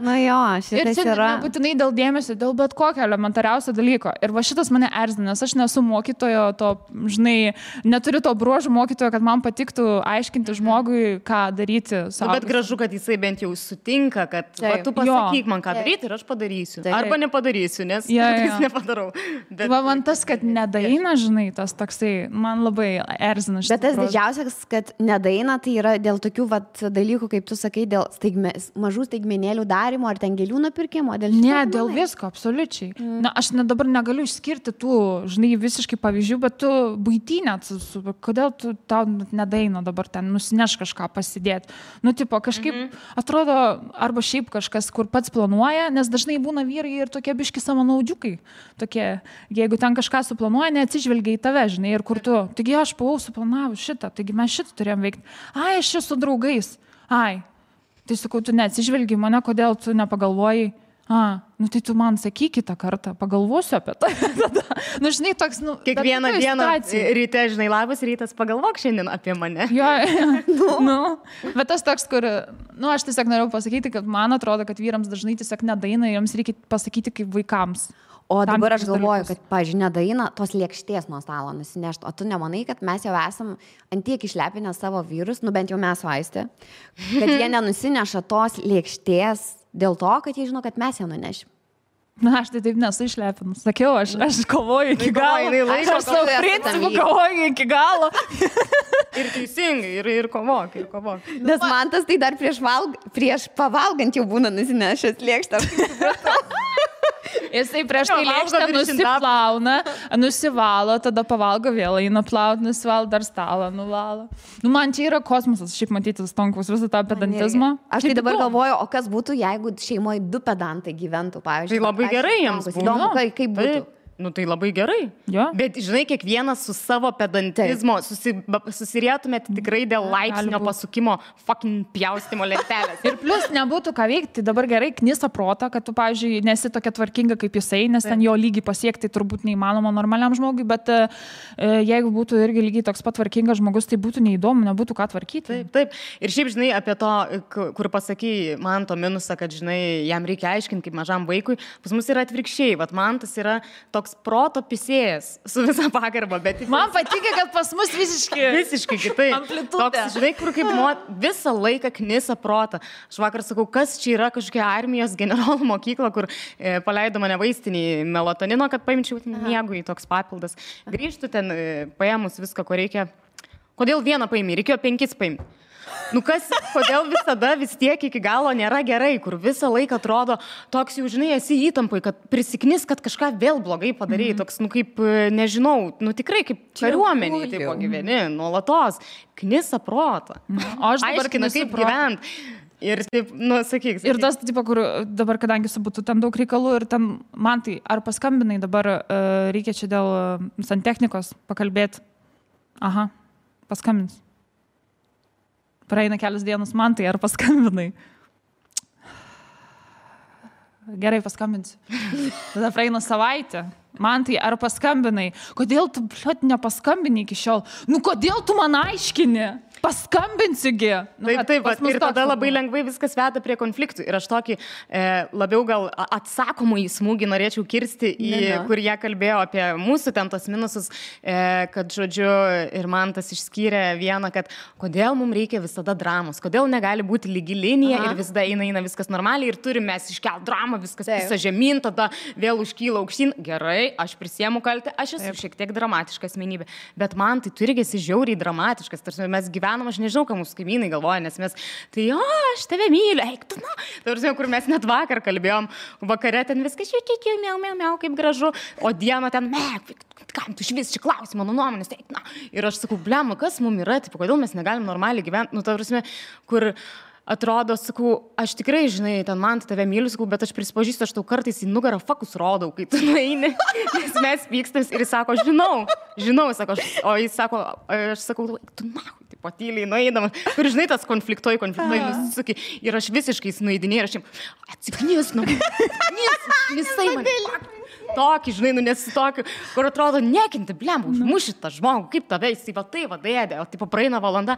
Jo, šitas ir čia yra. Nebūtinai dėl dėmesio, dėl bet kokio elementariausio dalyko. Ir va šitas mane erzina, nes aš nesu mokytojo, žinai, neturiu to bruožų mokytojo, kad man patiktų aiškinti žmogui, ką daryti. Bet gražu, kad jisai bent jau sutinka, kad tu pasakyk man, ką daryti ir aš padarysiu. Arba nepadarysiu, nes jis nepadarau. Bet man tas, kad nedaina, žinai, tas toksai, man labai erzina. Bet tas didžiausias, kad nedaina, tai yra dėl tokių dalykų, kaip tu sakai, dėl mažų staigmenėlių darimo ar ten gėlių nupirkimo? Dėl visko, absoliučiai. Na, aš dabar negaliu išskirti tų, žinai, visiškai pavyzdžių, bet tu buitinė, kodėl tu tau nedaina dabar ten nusineš kažką pasidėti. Tipo, kažkaip atrodo, arba šiaip kažkas, kur pats planuoja, nes dažnai būna vyrai ir tokie biški savanaudiukai. Tokie, jeigu ten kažką suplanuoja, neatsižvelgia į tave, žinai, ir kur tu. Taigi aš buvau suplanavus šitą, taigi mes šitą turėjom veikti. Aš čia su draugais. Tai sakau, tu neatsižvelgi mane, kodėl tu nepagalvoji, tai tu man sakyk kitą kartą, pagalvosiu apie tai. Žinai, toks, kiekvieną dieną ryte, žinai, labas rytas, pagalvok šiandien apie mane. Bet tas toks, kur, aš tiesiog norėjau pasakyti, kad man atrodo, kad vyrams dažnai tiesiog nedaina, jiems reikia pasakyti kaip vaikams. O dabar aš galvoju, kad, pavyzdžiui, nedaina tos lėkštės nuo stalo nusinešti. O tu nemanai, kad mes jau esam antiek išlepinę savo vyrus, bent jau mes vaistė, kad jie nenusineša tos lėkštės dėl to, kad jie žino, kad mes ją nunešim. Aš tai taip nesu išlepinus. Sakiau, aš kovoju iki galo. Aš savo principų kovoju iki galo. Ir teisingai, ir kovok. Nes man tas tai dar prieš pavalgant jau būna nusinešęs lėkštą. Jisai prieš tai lėkštę nusivalo, tada pavalgo vėl, eina plaut, nusivalo, dar stalą nuvalo. Man čia yra kosmosas, šiaip matyti Stonkaus visą tą pedantizmą. Aš tai dabar galvoju, o kas būtų, jeigu šeimoje 2 pedantai gyventų, pavyzdžiui. Tai labai gerai jiems būtų. Kaip būtų? Tai labai gerai. Bet, žinai, kiekvienas su savo pedantizmo susirėtumėt tikrai dėl laipsnio pasukimo fucking pjaustimo lentelės. Ir plus nebūtų ką veikti, tai dabar gerai knisa protą, kad tu, pavyzdžiui, nesi tokia tvarkinga kaip jisai, nes ten jo lygį pasiekti turbūt neįmanoma normaliam žmogui, bet jeigu būtų irgi lygiai toks pat tvarkingas žmogus, tai būtų neįdomu, nebūtų ką tvarkyti. Taip. Ir šiaip, žinai, apie to, kur pasakai man to minusą, kad, žinai, jam reikia aiškinti kaip mažam vaikui, pas mus yra atvirkščiai. Man tas yra toks toks proto pisėjas su visa pagarba, bet... Man patinka, kad pas mus visiškai kitaip. Amplitudė. Toks, žinai, kur kaip visą laiką knisa protą. Aš vakar sakau, kas čia yra kažkokia armijos generolų mokykla, kur paleido mane vaistinį melatonino, kad paimčiau miegui toks papildas. Grįžtu ten, paėmus viską, ko reikia. Kodėl vieną paimį? Reikėjo 5 paimti. Nu kodėl visada vis tiek iki galo nėra gerai, kur visą laiką atrodo toks jau, žinai, esi įtampai, kad prisiknis, kad kažką vėl blogai padarėjai, toks, nu kaip, nežinau, nu tikrai kaip kariuomeniai, taip gyveni, nuolatos, knisa protą. O aš dabar aiškina, kaip gyvent. Ir taip, nu, sakyk. Ir tas, tipo, kur dabar, kadangi būtų ten daug reikalų ir ten, man tai, ar paskambinai dabar, reikia čia dėl santechnikos pakalbėti? Aha, paskambins. Praeina kelias dienas, man tai, ar paskambinai? Gerai, paskambinsiu. Tada praeina savaitę. Man tai, ar paskambinai? Kodėl tu, bliot, nepaskambini iki šiol? Nu, kodėl tu man aiškini? Paskambinsiugi. Nu, taip, ir tada labai lengvai viskas veda prie konfliktų. Ir aš tokį labiau gal atsakomų į smūgį norėčiau kirsti, kur jie kalbėjo apie mūsų ten tos minusus, kad, žodžiu, ir man tas išskyrė vieną, kad kodėl mums reikia visada dramos, kodėl negali būti lygi linija ir visada eina viskas normaliai ir turime mes iškelt dramą, viskas visą žemyn, tada vėl užkyla aukštyn. Gerai, aš prisiemu kaltę, aš esu šiek tiek dramatiška asmenybė, bet man tai turi esi žiauriai dramatiškas, tarsi mes gyvename. Aš nežinau, ką mūsų kaimynai galvoja, nes mes, tai aš tave myliu, eik tu, na. Tarsi, kur mes net vakar kalbėjom, vakare ten viskas, miau, kaip gražu, o dieną ten, kam tu švis čia klausi mano nuomonės, eik, na. Ir aš sakau, blema, kas mums yra, taip, kodėl mes negalim normaliai gyventi, nu, tarsi, kur... Atrodo, sakau, aš tikrai, žinai, ten man tave myliu, sakau, bet aš prisipažįstu, aš tau kartais į nugarą fakus rodau, kai tu nueini, nes mes pykstams ir jis sako, žinau, sako, o jis sako, aš sakau, tu nahui, tipo, tyliai nueidamas, kur, žinai, tas konfliktuoji, nusisuki, ir aš visiškai nueidinėjau, ir aš jam, atsiknis, visai man. Tokį, žinai, nu nes tokį, kur atrodo, nekinti, blem, užmuši tą žmogų, kaip tave, jis va tai vadėdė, o tipo praeina valanda.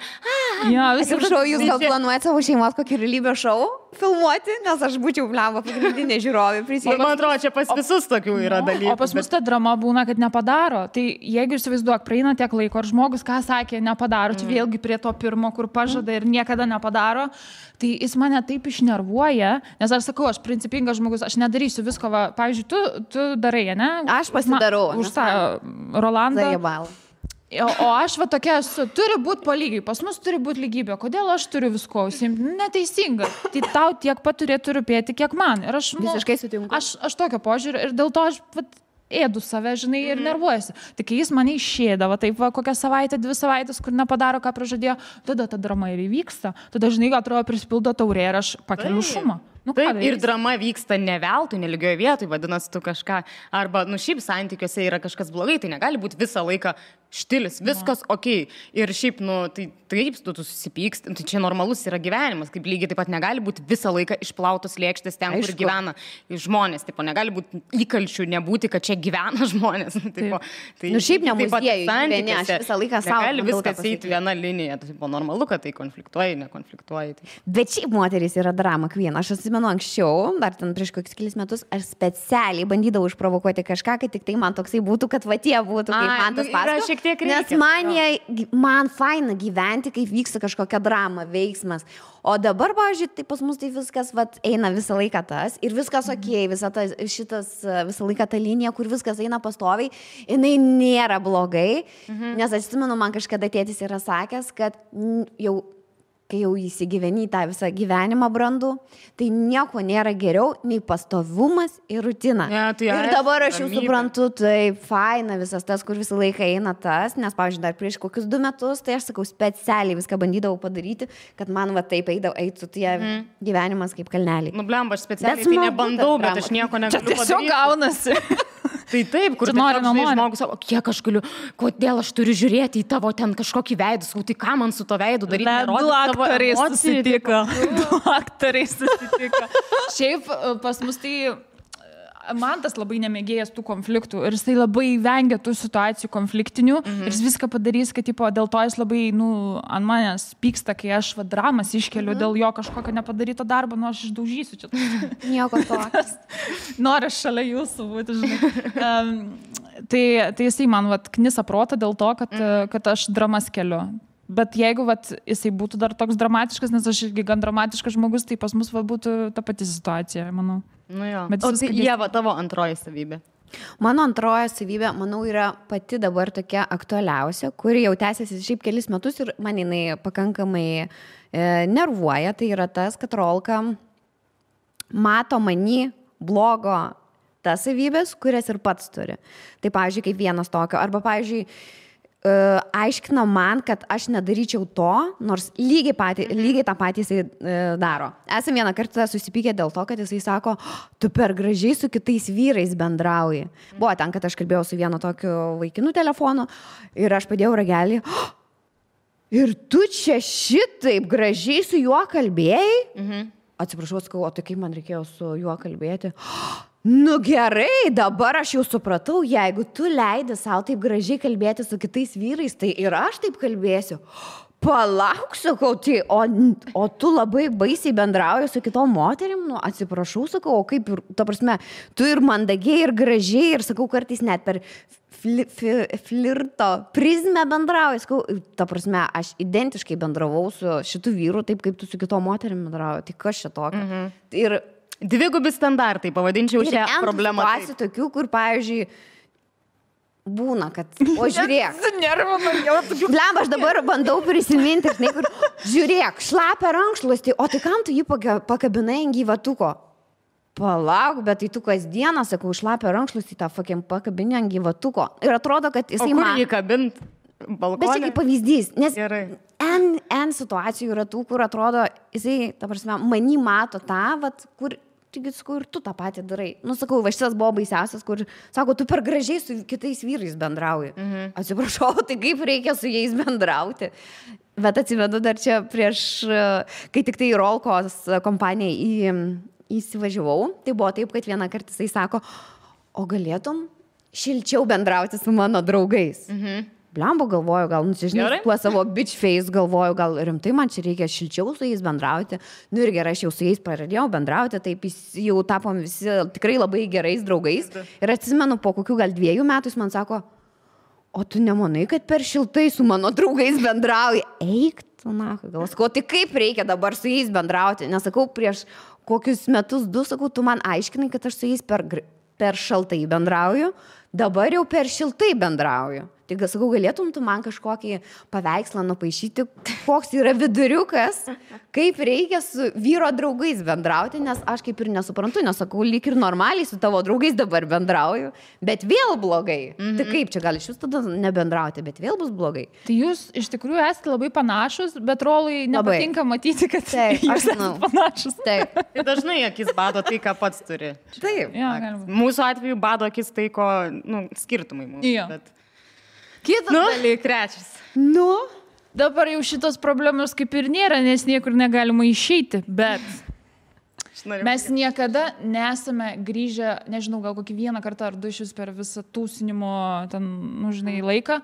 Atsiprašau, jūs gal planuojate savo šeimos kokį realybės šou filmuoti, nes aš būčiau blem pagrindinė žiūrovė prisijungti. Man atrodo, čia pas visus tokių yra dalykų. O pas mus ta drama būna, kad nepadaro. Tai jeigu įsivaizduok, praeina tiek laiko, ar žmogus, ką sakė, nepadaro, čia vėlgi prie to pirmo, kur pažada ir niekada nepadaro, tai jis mane taip išnervuoja, nes aš sakau, aš principingas žmogus, aš nedarysiu visko, va, pavyzdžiui, tu darai, ne? Aš pasidarau. Už tą Rolandą. Zajebal. O aš va tokia esu, turi būti po lygiai, pas mus turi būti lygybė. Kodėl aš turiu visko užsiimti? Neteisinga. Tai tau tiek pat turėtų rūpėti, kiek man. Ir aš visiškai sutinku. Aš tokio požiūrio ir dėl to aš ėdu save, žinai, ir nervuojasi. Tai kai jis mane išėdavo, taip va, kokią savaitę, 2 savaitės, kur nepadaro, ką pražadėjo, tada ta drama ir įvyksta. Tada, žinai, atrodo, prisipildo taurė ir aš pakeliu šumą. Nu, taip, ir drama vyksta ne veltui, nelygioje vietoje, vadinasi, tu kažką, arba, nu, šiaip santykiuose yra kažkas blogai, tai negali būti visą laiką štilis, viskas okei. Ir šiaip, nu, tai taip, tu susipyksti, tai čia normalus yra gyvenimas, kaip lygiai taip pat negali būti visą laiką išplautos lėkštės ten, kur gyvena žmonės, taip, negali būti įkalčių, nebūti, kad čia gyvena žmonės. Tai, nu, šiaip ne muziejui, gyveni, aš visą laiką savo. Negali viskas eiti viena linija, tai normalu, kad tai konfliktuoji, nekonfliktuoji. Tai. Bet šiaip moteris yra drama queen, aš atsimenu anksčiau, dar ten prieš kokius kelis metus, aš specialiai bandydavau išprovokuoti kažką, kad tik tai man toksai būtų, kad va tie būtų, kaip man tas pasakoja. Nes man faina gyventi, kaip vyksta kažkokia drama, veiksmas. O dabar, pavyzdžiui, tai pas mus tai viskas eina visą laiką tas ir viskas okei, visą laiką ta linija, kur viskas eina pastoviai, jinai nėra blogai, nes atsimenu, man kažkada tėtis yra sakęs, kad kai jau įsigyveni tą visą gyvenimą brandų, tai nieko nėra geriau nei pastovumas ir rutina. Ir dabar aš jau suprantu, tai faina visas tas, kur visą laiką eina tas, nes, pavyzdžiui, dar prieš kokius 2 metus, tai aš sakau, specialiai viską bandydavau padaryti, kad man va taip eitų tie gyvenimas kaip kalneliai. Nu, blemba, aš specialiai tai nebandau, bet aš nieko negaliu padaryti. Tiesiog gaunasi. Tai taip, kur žmogus sako, kiek aš galiu, kodėl aš turiu žiūrėti į tavo ten kažkokį veidą, tai ką man su to veidu daryti, nerodyti tavo emociją. Du aktoriai susitiko. Šiaip pas mus tai, man tas labai nemėgėjas tų konfliktų ir jisai labai vengia tų situacijų konfliktinių ir jis viską padarys, kad tipo, dėl to jis labai ant manęs pyksta, kai aš dramas iškeliu dėl jo kažkokio nepadaryto darbo, aš išdaužysiu čia. Nieko tokios. Noriu šalia jūsų būti, žinai. Tai jisai man knisa protą dėl to, kad aš dramas keliu. Bet jeigu jisai būtų dar toks dramatiškas, nes aš irgi gan dramatiškas žmogus, tai pas mus būtų ta pati situacija, manau. Nu jo. O tai Ieva, tavo antroji savybė? Mano antroji savybė, manau, yra pati dabar tokia aktualiausia, kuri jau tęsiasi šiaip kelis metus ir man jinai pakankamai nervuoja. Tai yra tas, kad Rolka mato many blogo tas savybės, kurias ir pats turi. Tai, pavyzdžiui, kaip vienas tokio. Arba, pavyzdžiui, aiškino man, kad aš nedaryčiau to, nors lygiai tą patį jisai daro. Esame vieną kartą susipykę dėl to, kad jisai sako, tu per gražiai su kitais vyrais bendrauji. Buvo ten, kad aš kalbėjau su vienu tokiu vaikinu telefonu ir aš padėjau ragelį. Ir tu čia šitaip gražiai su juo kalbėjai? Atsiprašau, sakau, o tai kaip man reikėjo su juo kalbėti? Nu gerai, dabar aš jau supratau, jeigu tu leidi savo taip gražiai kalbėti su kitais vyrais, tai ir aš taip kalbėsiu. Palauk, sakau, tai, o tu labai baisiai bendrauji su kitom moterim, nu atsiprašau, sakau, o kaip ir, ta prasme, tu ir mandagiai, ir gražiai, ir sakau, kartais net per flirto prizmę bendrauji, sakau, ta prasme, aš identiškai bendravau su šitų vyrų, taip kaip tu su kitom moterim bendrauji, tai kas čia tokio? Ir dvigubi standartai, pavadinčiau šią problemą. Ir situacijų tokių, kur, pavyzdžiui, būna, kad, o žiūrėk. Blem, aš dabar bandau prisiminti, žinai, kur, žiūrėk, šlapia rankšluostį, o tai kam tu jį pakabinai ant gyvatuko? Palauk, bet tai tu kasdieną, sakau, šlapia rankšluostį, tą pakabinį ant gyvatuko. Ir atrodo, kad jisai man... O kur jį kabint? Balkonė? Bet čia kaip pavyzdys, nes N situacijų yra tų, kur atrodo, jisai, ta prasme, many mato tą, kur, taigi, sakau, ir tu tą patį darai. Nu, sakau, šitas buvo baisiausias, kur, sako, tu per gražiai su kitais vyrais bendrauji. Atsiprašau, tai kaip reikia su jais bendrauti. Bet atsivedu dar čia prieš, kai tik tai Rolkos kompanijai įsivažiavau, tai buvo taip, kad vieną kartą jisai sako, o galėtum šilčiau bendrauti su mano draugais. Blembo galvoju, gal, nusižinai, tuo savo bitch face galvoju, gal rimtai man čia reikia šilčiau su jais bendrauti. Nu ir gerai, aš jau su jais pradėjau bendrauti, taip jau tapom visi tikrai labai gerais draugais. Ir atsimenu, po kokių gal 2 metų jis man sako, o tu nemanai, kad per šiltai su mano draugais bendrauji? Eik, tu na, gal sakau, tai kaip reikia dabar su jais bendrauti? Nesakau, prieš kokius metus 2, sakau, tu man aiškinai, kad aš su jais per šaltai bendrauju, dabar jau per šiltai bendrauju. Tai sakau, galėtum tu man kažkokį paveikslą nupaišyti, koks yra viduriukas, kaip reikia su vyro draugais bendrauti, nes aš kaip ir nesuprantu, nesakau, lyg ir normaliai su tavo draugais dabar bendrauju, bet vėl blogai. Tai kaip čia gali iš jūs tada nebendrauti, bet vėl bus blogai. Tai jūs iš tikrųjų esate labai panašus, bet Rolui nepatinka matyti, kad jūs esate panašus. Taip. Tai dažnai akis bado tai, ką pats turi. Taip. Ja, mūsų atveju bado akis tai, ko, skirtumai mūsų. Ja. Bet... Kitas dalykas. Trečias. Dabar jau šitos problemos kaip ir nėra, nes niekur negalima išeiti, bet mes niekada nesame grįžę, nežinau, gal kokį 1 kartą ar 2 per visą tūsinimo ten, žinai, laiką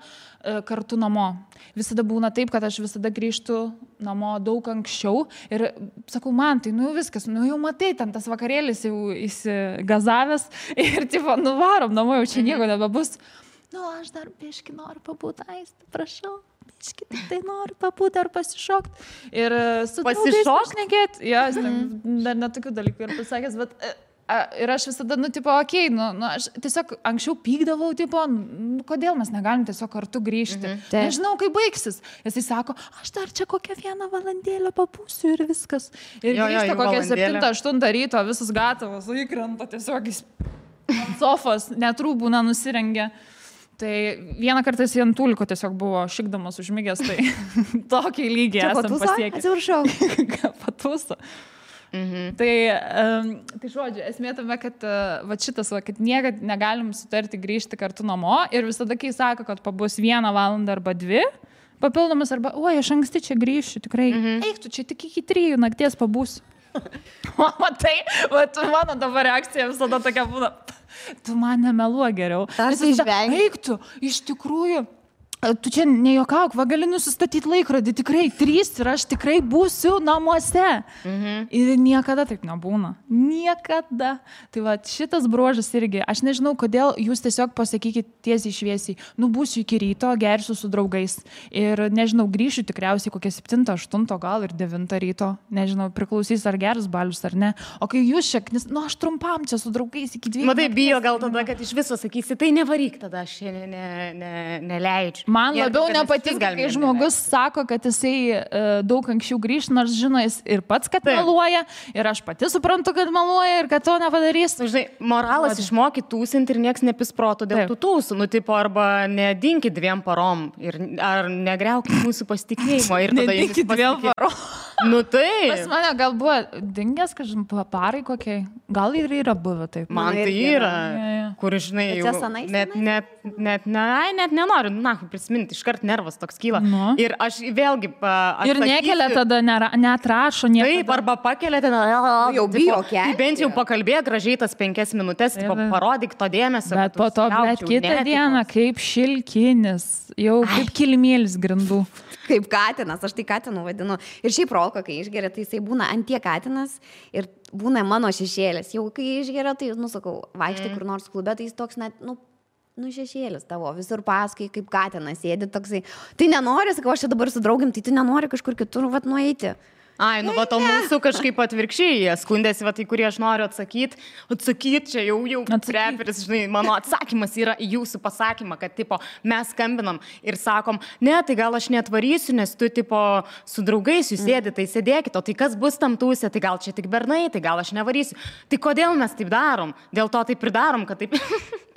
kartu namo. Visada būna taip, kad aš visada grįžtu namo daug anksčiau ir sakau, man tai, viskas, jau matai, ten tas vakarėlis jau įsigazavęs ir tipo, varom namo, jau čia nieko nebebus. Aš dar biškį noriu pabūti, Aiste, prašau, biškį tai noriu pabūti ar pasišokti. Ir su draugais pašnekėti, dar netokių dalykų ir pasakęs, bet ir aš visada, aš tiesiog anksčiau pykdavau, kodėl mes negalim tiesiog kartu grįžti. Nežinau, kaip baigsis. Jisai sako, aš dar čia kokią 1 valandėlę papūsiu ir viskas. Ir grįžta kokią 7-8 ryto, visas gatavas, įkrenta tiesiog ant sofos, net rūbų nenusirengė. Tai 1 kartą jis ant tūliko tiesiog buvo šikdamas užmigęs, tai tokį lygį esam pasiekę. Atsiprašau. Patūso. Tai žodžiu, esmė tame, kad šitas, kad niekad negalim sutarti grįžti kartu namo ir visada, kai sako, kad pabus 1 valandą arba 2, papildomas arba, oi, aš anksti čia grįšiu, tikrai. Eik, tu čia tik iki 3 nakties pabūsiu. Matai, mano dabar reakcija visada tokia būna. Tu man nemeluo geriau. Tarsi išvengi. Eik tu, iš tikrųjų. Tu čia nejuokauk, va gali nusistatyti laikrodį, tikrai 3 ir aš tikrai būsiu namuose. Ir niekada taip nebūna. Niekada. Tai va šitas bruožas irgi, aš nežinau, kodėl jūs tiesiog pasakykit tiesiai šviesiai, būsiu iki ryto, gersiu su draugais. Ir nežinau, grįšiu tikriausiai kokią 7, 8, gal ir 9 ryto. Nežinau, priklausys ar geras balius ar ne. O kai jūs šaknis, aš trumpam čia su draugais iki 2. Matai, bijo gal tada, kad iš viso sakysi, tai nevaryk tada, aš neleidžiu. Man labiau nepatinka, kai žmogus sako, kad jisai daug anksčiau grįž, nors žino jis ir pats, kad meluoja, ir aš pati suprantu, kad meluoja ir kad to nepadarys. Žinai, moralas išmokyti tūsinti ir nieks nepis proto dėl tų tūsų, tipo, arba nedinkit 2 parom, ar negriaukit mūsų pasitikėjimo. Nedinkit 2 parom. Tai. Pas mane gal buvo dingęs, kažkaip parai kokiai, gal ir yra buvę taip. Man tai yra, kur, žinai, jau net nenoriu, prisiminti, iškart nervas toks kyla. Ir aš vėlgi atsakysiu. Ir nekelia tada, neatrašo nieko. Taip, arba pakelia ten, jau bijo kelti. Tai bent jau pakalbėk gražiai tas 5 minutės, parodyk to dėmesio. Bet po to, bet kitą dieną, kaip šilkinis, jau kaip kilimėlis grindų. Kaip katinas, aš tai katinu vadinu. Ir šiaip Rolko, kai išgeria, tai jisai būna antie katinas ir būna mano šešėlis. Jau kai išgeria, tai, sakau, vaikštai kur nors klube, tai jis toks net, šešėlis tavo, visur paskui, kaip katinas sėdi toksai. Tai nenori, sakau, aš čia dabar su draugim, tai tu nenori kažkur kitur, nueiti. Ai, o mūsų kažkaip atvirkščiai, jie skundėsi, tai kurie aš noriu atsakyti, čia jau reperis, žinai, mano atsakymas yra į jūsų pasakymą, kad, tipo, mes skambinam ir sakom, ne, tai gal aš netvarysiu, nes tu, tipo, su draugais jūs sėdi, tai sėdėkit, o tai kas bus tam tūsė, tai gal čia tik bernai, tai gal aš nevarysiu. Tai kodėl mes taip darom? Dėl to taip ir darom, kad taip...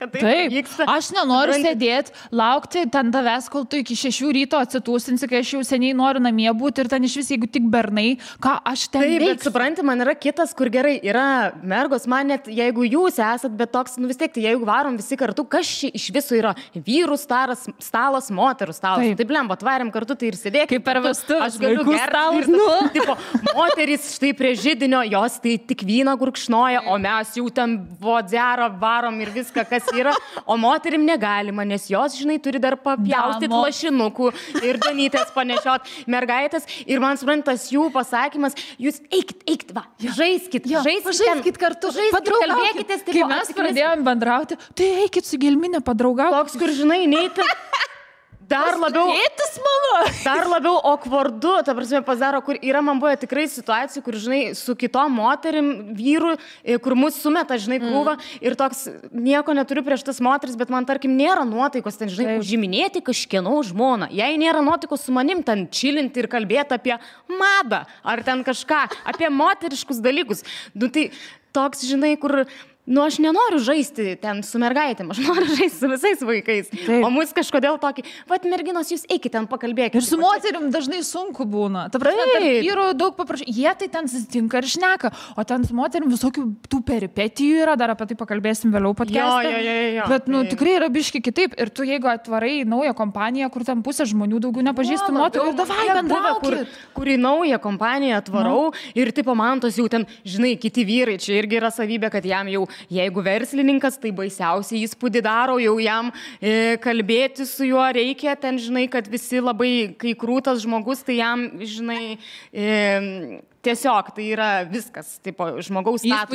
Taip, aš nenoriu sėdėti, laukti ten tavęs, kol tu iki 6 ryto atsitūsinsi, kai aš jau seniai noriu namie būti ir ten iš vis, jeigu tik bernai, ką aš ten veiksiu. Taip, bet supranti, man yra kitas, kur gerai, yra mergos, man net, jeigu jūs esat, bet toks, vis tiek, tai jeigu varom visi kartu, kas čia iš viso yra vyrų stalas, moterų stalas. Taip, lemba, atvarėm kartu, tai ir sėdėk. Kaip per vestuvės, aš galiu gerti. Tipo, moterys štai prie židinio, jos tai tik vyną gurkšnoja, o mes jau ten vodzerą varom ir viską, kas yra, o moterim negalima, nes jos, žinai, turi dar papjaustyti lašinukų ir danytės panešiot mergaitės. Ir man suprantas jų pasakymas, jūs eikit, va, žaiskit kartu, kalbėkitės. Kai mes pradėjom bendrauti, tai eikit su Gelminė padraugauti. Toks, kur, žinai, neiti. Dar labiau okvardu, ta prasme, pasidaro, kur yra, man buvo tikrai situacijų, kur, žinai, su kitom moterim, vyrų, kur mus sumeta, žinai, krūva ir toks, nieko neturiu prieš tas moteris, bet man, tarkim, nėra nuotaikos ten, žinai, užiminėti kažkieno žmoną. Jei nėra nuotaikos su manim ten čilinti ir kalbėti apie madą ar ten kažką, apie moteriškus dalykus. Tai toks, žinai, kur... aš nenoriu žaisti ten su mergaitėm, aš noriu žaisti su visais vaikais. Taip. O mus kažkodėl tokį, merginos, jūs eikit ten pakalbėkite. Ir su moterim dažnai sunku būna. Ta prasme, tarp vyrų daug paprašy. Jie tai ten susitinka ir šneka, o ten su moterim visokių tų peripetijų yra, dar apie tai pakalbėsim vėliau podcast'e. Jo. Bet, tikrai yra biški kitaip. Ir tu, jeigu atvarai naują kompaniją, kur ten pusė žmonių daugiau nepažįstų moterų, ir davai bendraukit. Kur į naują kompaniją atvarau ir tipo man tos jau ten, žinai, kiti vyrai, čia irgi yra savybė, kad jam jau jeigu verslininkas, tai baisiausiai įspūdį daro, jau jam kalbėti su juo reikia, ten, žinai, kad visi labai, kai krūtas žmogus, tai jam, žinai, tiesiog tai yra viskas, tipo, žmogaus statusas.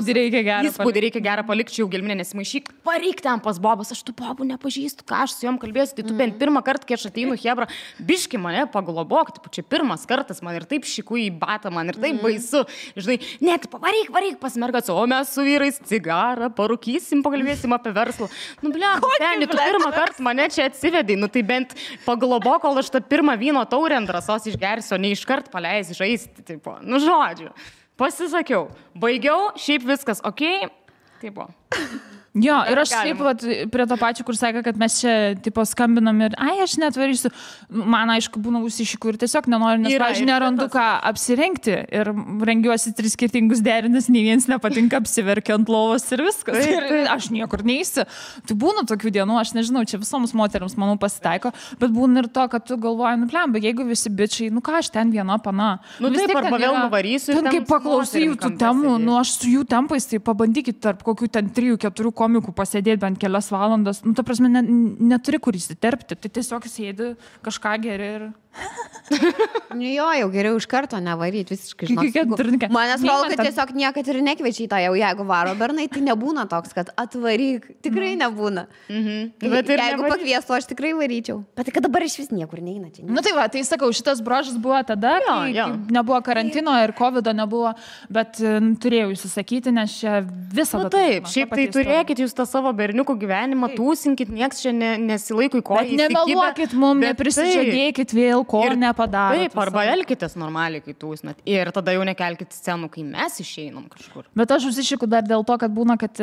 Įspūdį reikia gerą palikti, jau Gelminė nesimaišyk, pareik ten pas Bobas, aš tų Bobų nepažįstu, ką aš su jom kalbėsiu, tai tu bent pirmą kartą, kai aš ateinu, hebra, biški mane paglobok, tipo, čia pirmas kartas, man ir taip šiku į batą, man ir taip baisu, žinai, net varyk pas mergas, o mes su vyrais cigarą parūkysim, pakalbėsim apie verslą. Tu pirmą kartą mane čia atsivedai, tai bent paglobok, kol aš tą pirmą vyno taurę ant drąsos išgersiu, o ne iškart paleisi žaisti, tipo, žodžiu, pasisakiau, baigiau, šiaip viskas, okei, taip buvo. Jo, ir aš taip pat prie to pačio, kur sakė, kad mes čia tipo skambinam ir, aš netvarysiu. Man aišku, būna užsišikų ir tiesiog nenoriu, nes, pavyzdžiui, nerandu ką apsirengti ir rengiuosi 3 skirtingus derinius, nei vienas nepatinka, apsiverkiu ant lovos ir viskas. Ir aš niekur neįsiu. Tai būna tokių dienų, aš nežinau, čia visoms moteriams, manau, pasitaiko, bet būna ir to, kad tu galvoji, bet jeigu visi bičiai, ką aš ten viena pana. Taip, arba vėl nuvarysiu. Ten kaip paklausai jų tų temų, aš su jų tempais, tai pabandykit tarp kokių ten 3-4 komikų pasėdėti bent kelias valandas. Ta prasme, neturi kur įsiterpti. Tai tiesiog sėdi, kažką geri ir... Jo, jau geriau iš karto nevaryti visiškai. Manęs valgo, kad tiesiog niekad ir nekviečiai tą jau, jeigu varo bernai, tai nebūna toks, kad atvaryk. Tikrai nebūna. Bet jeigu pakviestų, aš tikrai varyčiau. Bet kad dabar iš vis niekur neina čia. Tai va, tai sakau, šitas brožas buvo tada, kai nebuvo karantino ir covido nebuvo, bet turėjau įsisakyti, nes čia visada... Taip, šiaip tai turėkit jūs tą savo berniukų gyvenimą, tūsinkit, nieks čia nesilaiko į koją. Bet nemeluokit mum, neprisižadėkit vėl, ko nepadaro. Taip, arba elkitės normaliai, kai tūsnat. Ir tada jau nekelkit scenų, kai mes išeinam kažkur. Bet aš užsišiku dar dėl to, kad būna, kad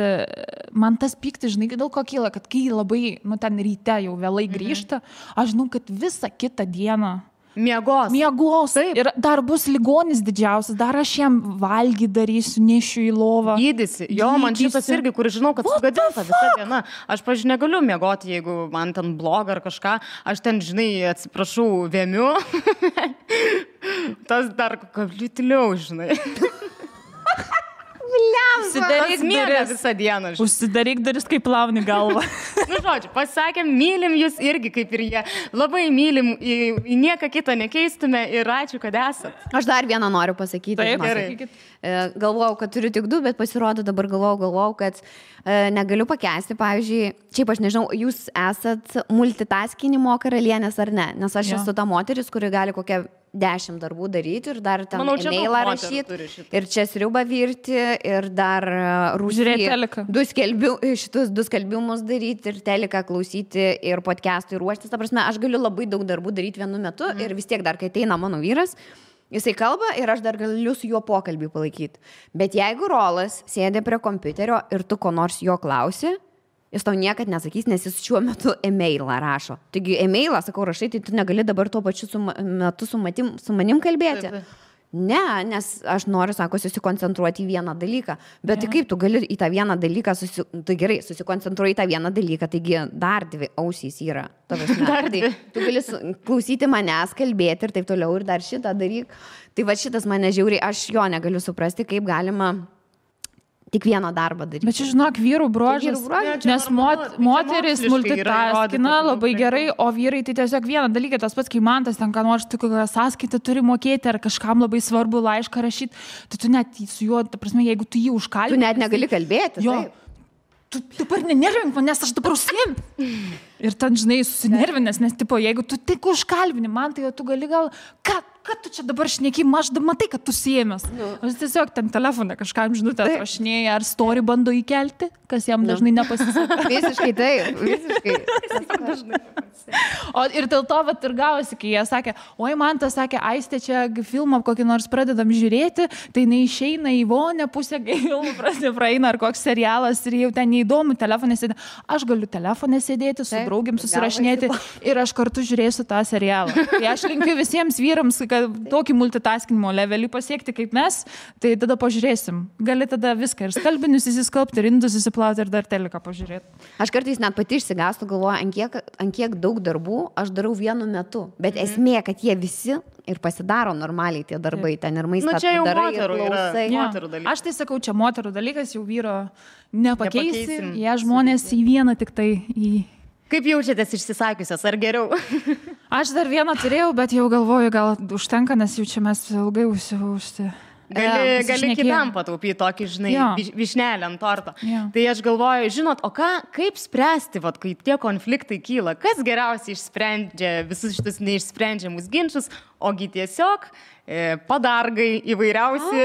man tas pyktis, žinai, dėl ko kyla, kad kai labai, ten ryte jau vėlai grįžta, aš žinau, kad visą kitą dieną Miegos. Taip. Ir dar bus ligonis didžiausias, dar aš jam valgy darysiu, nešiu į lovą. Gydysi. Jo, man šitas irgi, kur žinau, kad sugadinta visą dieną. Aš, pavyzdžiui, negaliu miegoti, jeigu man ten bloga ar kažką. Aš ten, žinai, atsiprašau, vėmiu. Tas dar kablitiliau, žinai. Užsidaryk duris, kaip plauni galvą. Žodžiu, pasakėm, mylim jūs irgi kaip ir jie. Labai mylim, į nieką kitą nekeistume ir ačiū, kad esat. Aš dar vieną noriu pasakyti. Taip, gerai. Galvojau, kad turiu tik 2, bet pasirodo dabar galvojau, kad negaliu pakęsti. Pavyzdžiui, šiaip aš nežinau, jūs esat multitaskinimo karalienės ar ne, nes aš esu ta moteris, kuri gali kokią 10 darbų daryti ir dar ten e-mailą rašyti ir čia sriubą virti ir dar šitus 2 skelbimus daryti ir teliką klausyti ir podcast'ui ruoštis. Ta prasme, aš galiu labai daug darbų daryti vienu metu ir vis tiek dar, kai ateina mano vyras, jisai kalba ir aš dar galiu su juo pokalbį palaikyti. Bet jeigu Rolas sėdė prie kompiuterio ir tu ko nors jo klausi, jis tau niekad nesakys, nes jis šiuo metu e-mailą rašo. Taigi e-mailą, sakau, rašai, tai tu negali dabar tuo pačiu metu su manim kalbėti. Taip. Ne, nes aš noriu, sako, susikoncentruoti į vieną dalyką. Bet tai kaip tu gali į tą vieną dalyką, tai gerai, susikoncentruoji į tą vieną dalyką, taigi dar 2 ausys yra. Tai tu gali klausyti manęs, kalbėti ir taip toliau ir dar šitą daryk. Tai va šitas mane žiauriai, aš jo negaliu suprasti, kaip galima tik vieną darbą daryti. Bet čia, žinok, vyrų bruožas, nes moteris multitaskina labai gerai, o vyrai tai tiesiog vieną dalyką, tas pats, kai man tas ten, ką nors tu kokią sąskaitą turi mokėti ar kažkam labai svarbu laišką rašyti, tai tu net su juo, ta prasme, jeigu tu jį užkalbini. Tu net negali kalbėti. Jo. Tu dabar nenervink, nes aš dabar užsiim. Ir ten, žinai, susinervinęs, nes, tipo, jeigu tu tik užkalbini man, tai tu gali gal, kad tu čia dabar šneki, aš matai, kad tu siemės. Aš tiesiog ten telefone kažkam žinutę atrašinėja, ar story bando įkelti, kas jam dažnai nepasiseka. Visiškai taip, visiškai. O ir dėl to vat ir gavosi, kai jie sakė, oi man tas sakė, Aistė, čia filmą kokį nors pradedam žiūrėti, tai neišeina į vonę, pusę filmų praeina ar koks serialas ir jau ten neįdomu, telefone sėdė. Aš galiu telefone sėdėti, su draugiam susirašinėti ir aš kartu žiūrėsiu tą serialą. Tai aš linkiu visiems vyrams, kad tokį multitaskinimo levelį pasiekti kaip mes, tai tada pažiūrėsim. Gali tada viską ir skalbinius įsiskalbti, ir indus įsiplauti ir dar teliką pažiūrėti. Aš kartais net pati išsigastu, galvoju, ant kiek daug darbų aš darau vienu metu. Bet esmė, kad jie visi ir pasidaro normaliai tie darbai ten ir maistą darai ir klausai. Aš tai sakau, čia moterų dalykas, jau vyro nepakeisim. Jie žmonės į vieną tik tai į... Kaip jaučiatės išsisakiusios, ar geriau? Aš dar vieną turėjau, bet jau galvoju, gal užtenka, nes jau čia mes ilgai užsi. Gali kitam pataupyti tokį, žinai, vyšnelę ant torto. Tai aš galvoju, žinot, o kaip spręsti, vat, kai tie konfliktai kyla? Kas geriausiai išsprendžia visus šitus neišsprendžiamus ginčius? ogi tiesiog padargai įvairiausi.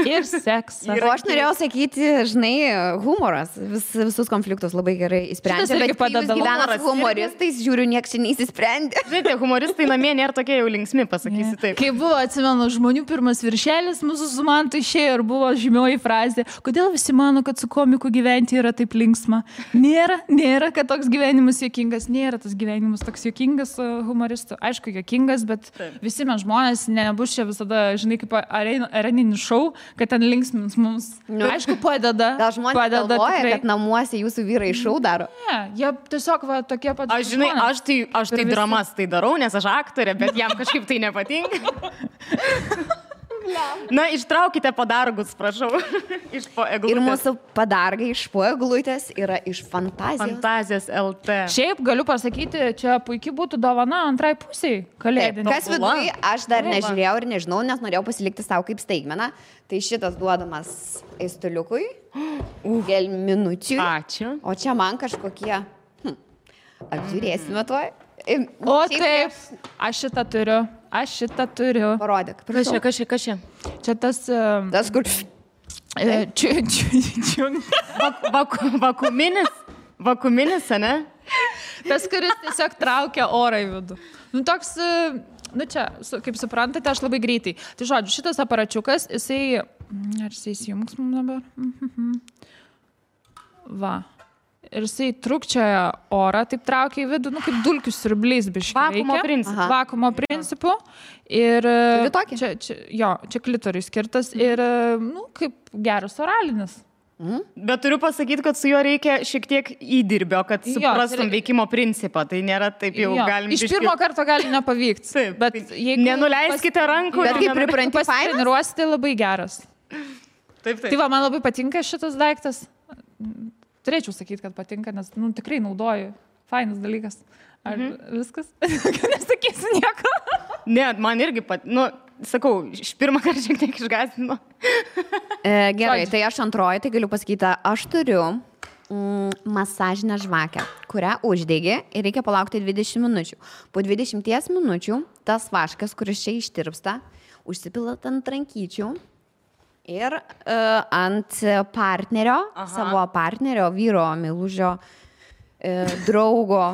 Ir seksas. O aš norėjau sakyti, žinai, humoras visus konfliktus labai gerai įsprendžia. Šitas irgi Bet kai jūs padeda. gyvenat su humoristais, žiūriu, nieks čia neįsisprendė. Žinai, humoristai namie nėra tokie jau linksmi, pasakysi taip. Kai buvo, atsimenu, žmonių pirmas viršelis, mūsų su Mantu išėjo ir buvo žymioji frazė, kodėl visi mano, kad su komiku gyventi yra taip linksma. Nėra, kad toks gyvenimas juokingas, nėra tas gyvenimas toks juokingas su humoristu. Aišku, juokingas, bet visi mes žmonės nebus čia visada, žinai, kaip areninis šou, kad ten linksmins mums. Aišku, padeda. Gal žmonės galvoja, kad namuose jūsų vyrai šou daro? Ne, jie tiesiog va, tokie pat. Aš žinai, aš tai dramas tai darau, nes aš aktorė, bet jam kažkaip tai nepatinka. Na, ištraukite padargus, prašau. Iš po eglutės. Ir mūsų padargai iš po eglutės yra iš fantazijos. Fantazijos LT. Šiaip galiu pasakyti, čia puikiai būtų dovana antrai pusiai kalėdinė. Kas viduje, aš dar nežiūrėjau ir nežinau, nes norėjau pasilikti savo kaip staigmeną. Tai šitas duodamas eistuliukui, gelminučiui. Ačiū. O čia man kažkokie, apžiūrėsime tuoj. O taip, aš šitą turiu. Parodyk. Kas čia? Čia tas... Tas, kur... Vakuminis, ne? Tas, kuris tiesiog traukia orą į vidų. Nu, toks, nu čia, kaip suprantate, aš labai greitai. Tai žodžiu, šitas aparačiukas, jisai... Ar jisai įsijungs mums dabar? Va. Ir jisai trukčioja orą, taip traukia į vidų, nu, kaip dulkių siurbliais biškai. Vakuumo principu. Vakuumo principu. Ir čia klitoriui skirtas ir, nu, kaip geras oralinis. Bet turiu pasakyti, kad su juo reikia šiek tiek įdirbio, kad suprastum veikimo principą. Tai nėra taip jau galim... Iš pirmo karto gali nepavykti. Taip, bet jeigu nenuleiskite rankų. Bet kaip pripranti pasitreniruosite, labai geras. Taip. Tai va, man labai patinka šitas daiktas. Turėčiau sakyti, kad patinka, nes nu, tikrai naudoju. Fainas dalykas. Ar viskas? Nesakysiu nieko. Ne, man irgi sakau, iš pirmą kartą šiek tiek išgąsdino. Gerai, tai aš antroji, tai galiu pasakyti, aš turiu masažinę žvakę, kurią uždegi ir reikia palaukti 20 minučių. Po 20 minučių tas vaškas, kuris čia ištirpsta, užsipilat ant rankyčių. Ir ant partnerio, savo partnerio, vyro, meilužio, draugo,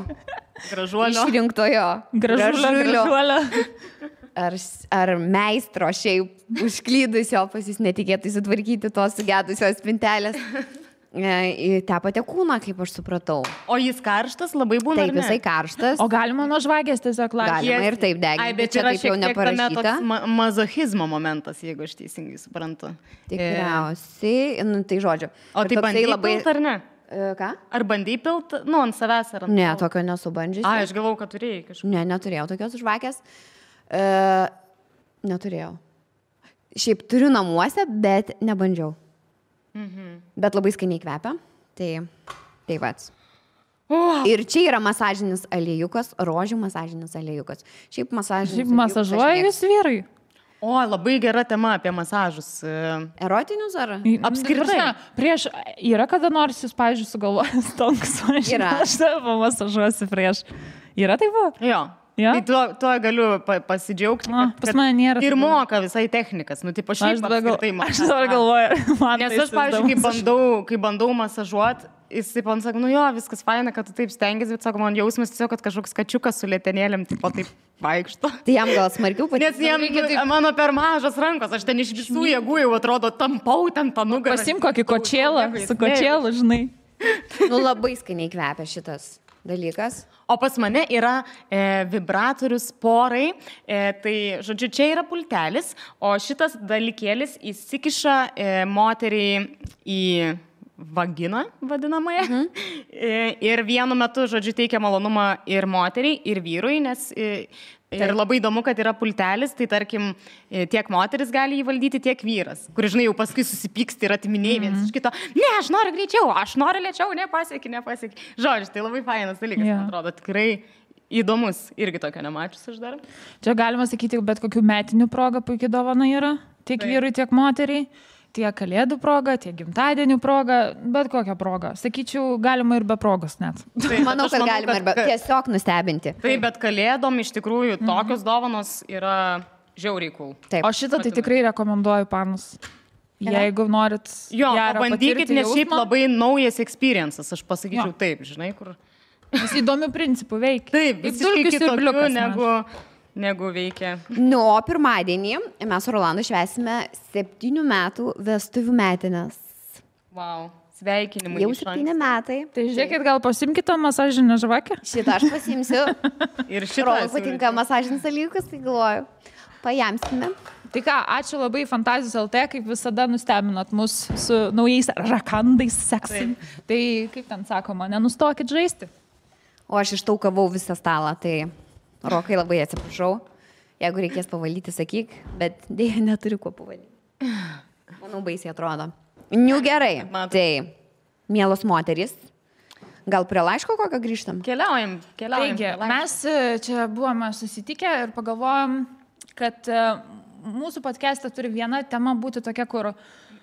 išrinktojo, gražulio, ar meistro šiaip užklydusio pas jis netikėtai sutvarkyti tos sugedusios spintelės. Tepate kūną, kaip aš supratau. O jis karštas labai būna? Taip, jisai karštas. O galima nuo žvakės tiesiog lakti? Galima ir taip deginti. Ai, bet čia taip jau neparašyta. Mazochizmo momentas, jeigu aš teisingai suprantu. Tikriausiai, nu, tai žodžiu. O tai bandai labai... pilt ar ne? Ką? Ar bandai pilt, nu, ant savęs ar ant... Ne, tokio nesubandžiusi. Ai, aš galvau, kad turėjai kažką. Ne, neturėjau tokios žvakės. Neturėjau. Šiaip turiu namuose, bet nebandžiau. Bet labai skaniai kvepia. Tai vats. Ir čia yra masažinis aliejukas, rožių masažinis aliejukas. Šiaip masažuoja jūs vyrai? O, labai gera tema apie masažus. Erotinius ar? Apskritai. Prieš, yra kada nors jūs, pavyzdžiui, sugalvojęs tonkus, aš tave masažuosiu prieš. Yra taip buvo? Jo. Ja? Tai tuo galiu pasidžiaugti. Pas mane nėra. Ir moka visai technikas. Nu, tai šiaip apskritai aš dabar galvoju. Nes aš, pavyzdžiui, kai bandau masažuoti, jisai man sako, nu jo, viskas faina, kad tu taip stengiasi, bet sako, man jausmas tiesiog, kad kažkoks kačiukas su lėtenėlėm taip vaikšto. Tai jam gal smarkiau patinka. Nes jam mano per mažas rankos, aš ten iš visų jėgų jau atrodo tampau ten tą nugarą. Pasim kokį kočėlą, su kočėlu, žinai. Nu, labai skaniai kvepia šitas dalykas. O pas mane yra vibratorius porai, tai, žodžiu, čia yra pultelis, o šitas dalykėlis įsikiša moteriai į vaginą, vadinamąją. Ir vienu metu, žodžiu, teikia malonumą ir moteriai, ir vyrui, nes... Ir labai įdomu, kad yra pultelis, tai tarkim, tiek moteris gali jį valdyti, tiek vyras, kur, žinai, jau paskui susipyksti ir atiminėjai vienas iš kito. Ne, aš noriu greičiau, aš noriu lėčiau, nepasieki. Žodžiu, tai labai fainas dalykas, man atrodo, tikrai įdomus, irgi tokio nemačius aš dar. Čia galima sakyti, bet kokių metinių proga puikiai dovana yra, tiek vyrui, tiek moteriai. tiek kalėdų proga, tiek gimtadienių proga, bet kokią progą. Sakyčiau, galima ir be progos net. Manau, kad galima ir tiesiog nustebinti. Taip, bet kalėdom iš tikrųjų tokios dovanos yra žiauriai cool. Taip. O šitą tai tikrai rekomenduoju, panus. Jeigu norit bandykit, nes šiaip labai naujas experiences, aš pasakyčiau taip, žinai, kur... Nes įdomių principų veikia. Taip, visiškai kitokių negu veikia. O pirmadienį mes su Rolandu švęsime 7 metų vestuvių metinės. Wow, sveikinimai. Jau 7 metai. Tai žiūrėkit, gal pasimkite masažinę žvakę? Šitą aš pasimsiu. Ir šitą. Rolandui patinka masažinis dalykas, tai galvoju. Pajamsime. Tai ką, ačiū labai Fantazijos LT, kaip visada nustebinot mus su naujais rakandais seksai. Tai kaip ten sakoma, nenustokit žaisti. O aš ištaukavau visą stalą, tai Rokai labai atsiprašau. Jeigu reikės pavalyti, sakyk, bet dėja neturiu kuo pavalyti. Manau, baisiai atrodo. Gerai. Tai, mielos moterys, gal prie laiško kokio grįžtam? Keliaujam. Taigi, mes čia buvome susitikę ir pagalvojom, kad mūsų podcast'e turi viena tema būti tokia, kur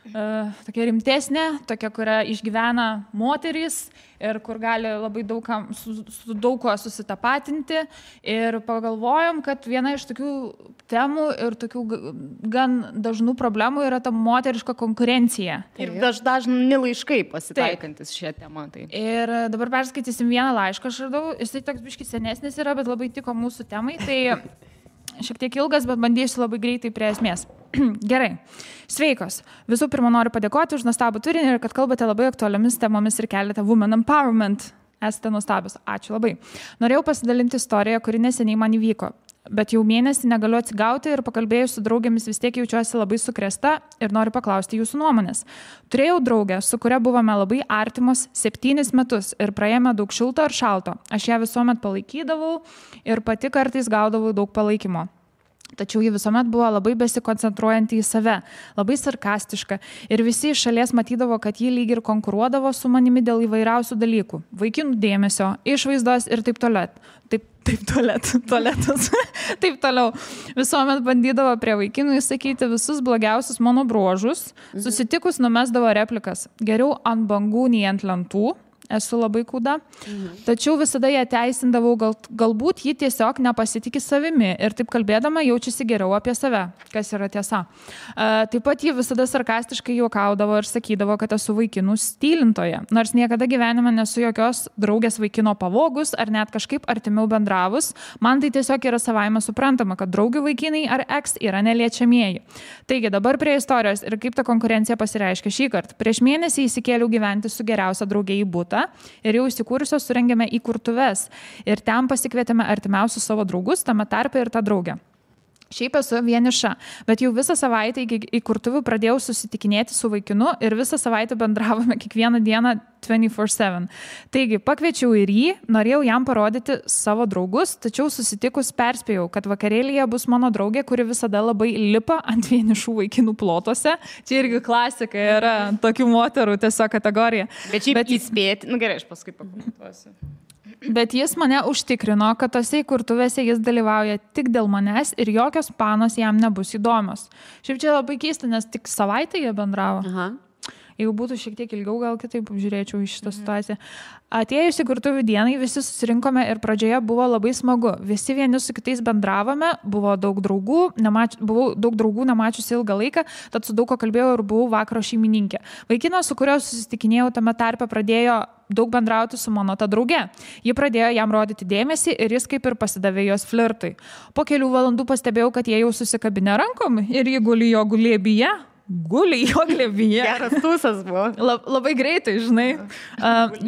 tokia rimtesnė, tokia, kurią išgyvena moterys ir kur gali labai su daug ko susitapatinti. Ir pagalvojom, kad viena iš tokių temų ir tokių gan dažnų problemų yra ta moteriška konkurencija. Ir dažni laiškai pasitaikantis šią temą. Tai. Ir dabar perskaitysim vieną laišką, aš radau, jisai toks biškis senesnis yra, bet labai tiko mūsų temai. Tai šiek tiek ilgas, bet bandysiu labai greitai prie esmės. Gerai. Sveikos. Visų pirma, noriu padėkoti už nuostabų turinį ir kad kalbate labai aktualiomis temomis ir keliate women empowerment. Esate nuostabios. Ačiū labai. Norėjau pasidalinti istoriją, kuri neseniai man įvyko. Bet jau mėnesį negaliu atsigauti ir pakalbėjus su draugėmis vis tiek jaučiuosi labai sukrėsta ir noriu paklausti jūsų nuomonės. Turėjau draugę, su kuria buvome labai artimos 7 metus ir praėjome daug šilto ir šalto. Aš ją visuomet palaikydavau ir pati kartais gaudavau daug palaikymo. Tačiau ji visuomet buvo labai besikoncentruojanti į save, labai sarkastiška ir visi iš šalies matydavo, kad ji lyg ir konkuruodavo su manimi dėl įvairiausių dalykų. Vaikinų dėmesio, išvaizdos ir taip toliau. Tualetas. Taip toliau. Visuomet bandydavo prie vaikinų įsakyti visus blogiausius mano bruožus. Susitikus numesdavo replikas. Geriau ant bangų nei ant lentų. Esu labai kūda. Tačiau visada ją teisindavau, galbūt ji tiesiog nepasitikė savimi ir taip kalbėdama jaučiasi geriau apie save, kas yra tiesa. Taip pat ji visada sarkastiškai juokaudavo ir sakydavo, kad esu vaikinų stylintoje. Nors niekada gyvenime nesu jokios draugės vaikino pavogus ar net kažkaip artimiau bendravus, man tai tiesiog yra savaime suprantama, kad draugių vaikinai ar ex yra neliečiamieji. Taigi dabar prie istorijos ir kaip ta konkurencija pasireiškia šį kartą. Prieš mėnesį įsikėliau gyventi su geriausia draugė į butą. Ir jau įsikūrusios surengėme įkurtuves ir ten pasikvietėme artimiausius savo draugus, tame tarpe ir tą draugę. Šiaip esu vieniša, bet jau visą savaitę iki įkurtuvių pradėjau susitikinėti su vaikinu ir visą savaitę bendravome kiekvieną dieną 24/7. Taigi pakviečiau ir jį, norėjau jam parodyti savo draugus, tačiau susitikus perspėjau, kad vakarėlyje bus mano draugė, kuri visada labai lipa ant vienišų vaikinų plotuose. Čia irgi klasika yra tokių moterų tiesiog kategorija. Bet šiaip įspėti, gerai, aš paskui pakomentuosiu. Bet jis mane užtikrino, kad tose įkurtuvėse jis dalyvauja tik dėl manęs ir jokios panos jam nebus įdomios. Šiaip čia labai keista, nes tik savaitę jie bendravo. Aha. Jeigu būtų šiek tiek ilgiau, gal kitaip žiūrėčiau į šitą situaciją. Atėjus įkurtuvių dienai visi susirinkome ir pradžioje buvo labai smagu. Visi vieni su kitais bendravome, buvo daug draugų, buvau daug draugų nemačiusi ilgą laiką, tad su daug ko kalbėjau ir buvau vakaro šeimininkė. Vaikinas, su kuriuo susitikinėjau tame tarpe, pradėjo daug bendrauti su mano ta drauge. Ji pradėjo jam rodyti dėmesį ir jis kaip ir pasidavė jos flirtui. Po kelių valandų pastebėjau, kad jie jau susikabinę rankom ir ji guli jo glėbyje. Guli jo glėbyje. Geras tūsas buvo. Labai greitai, žinai.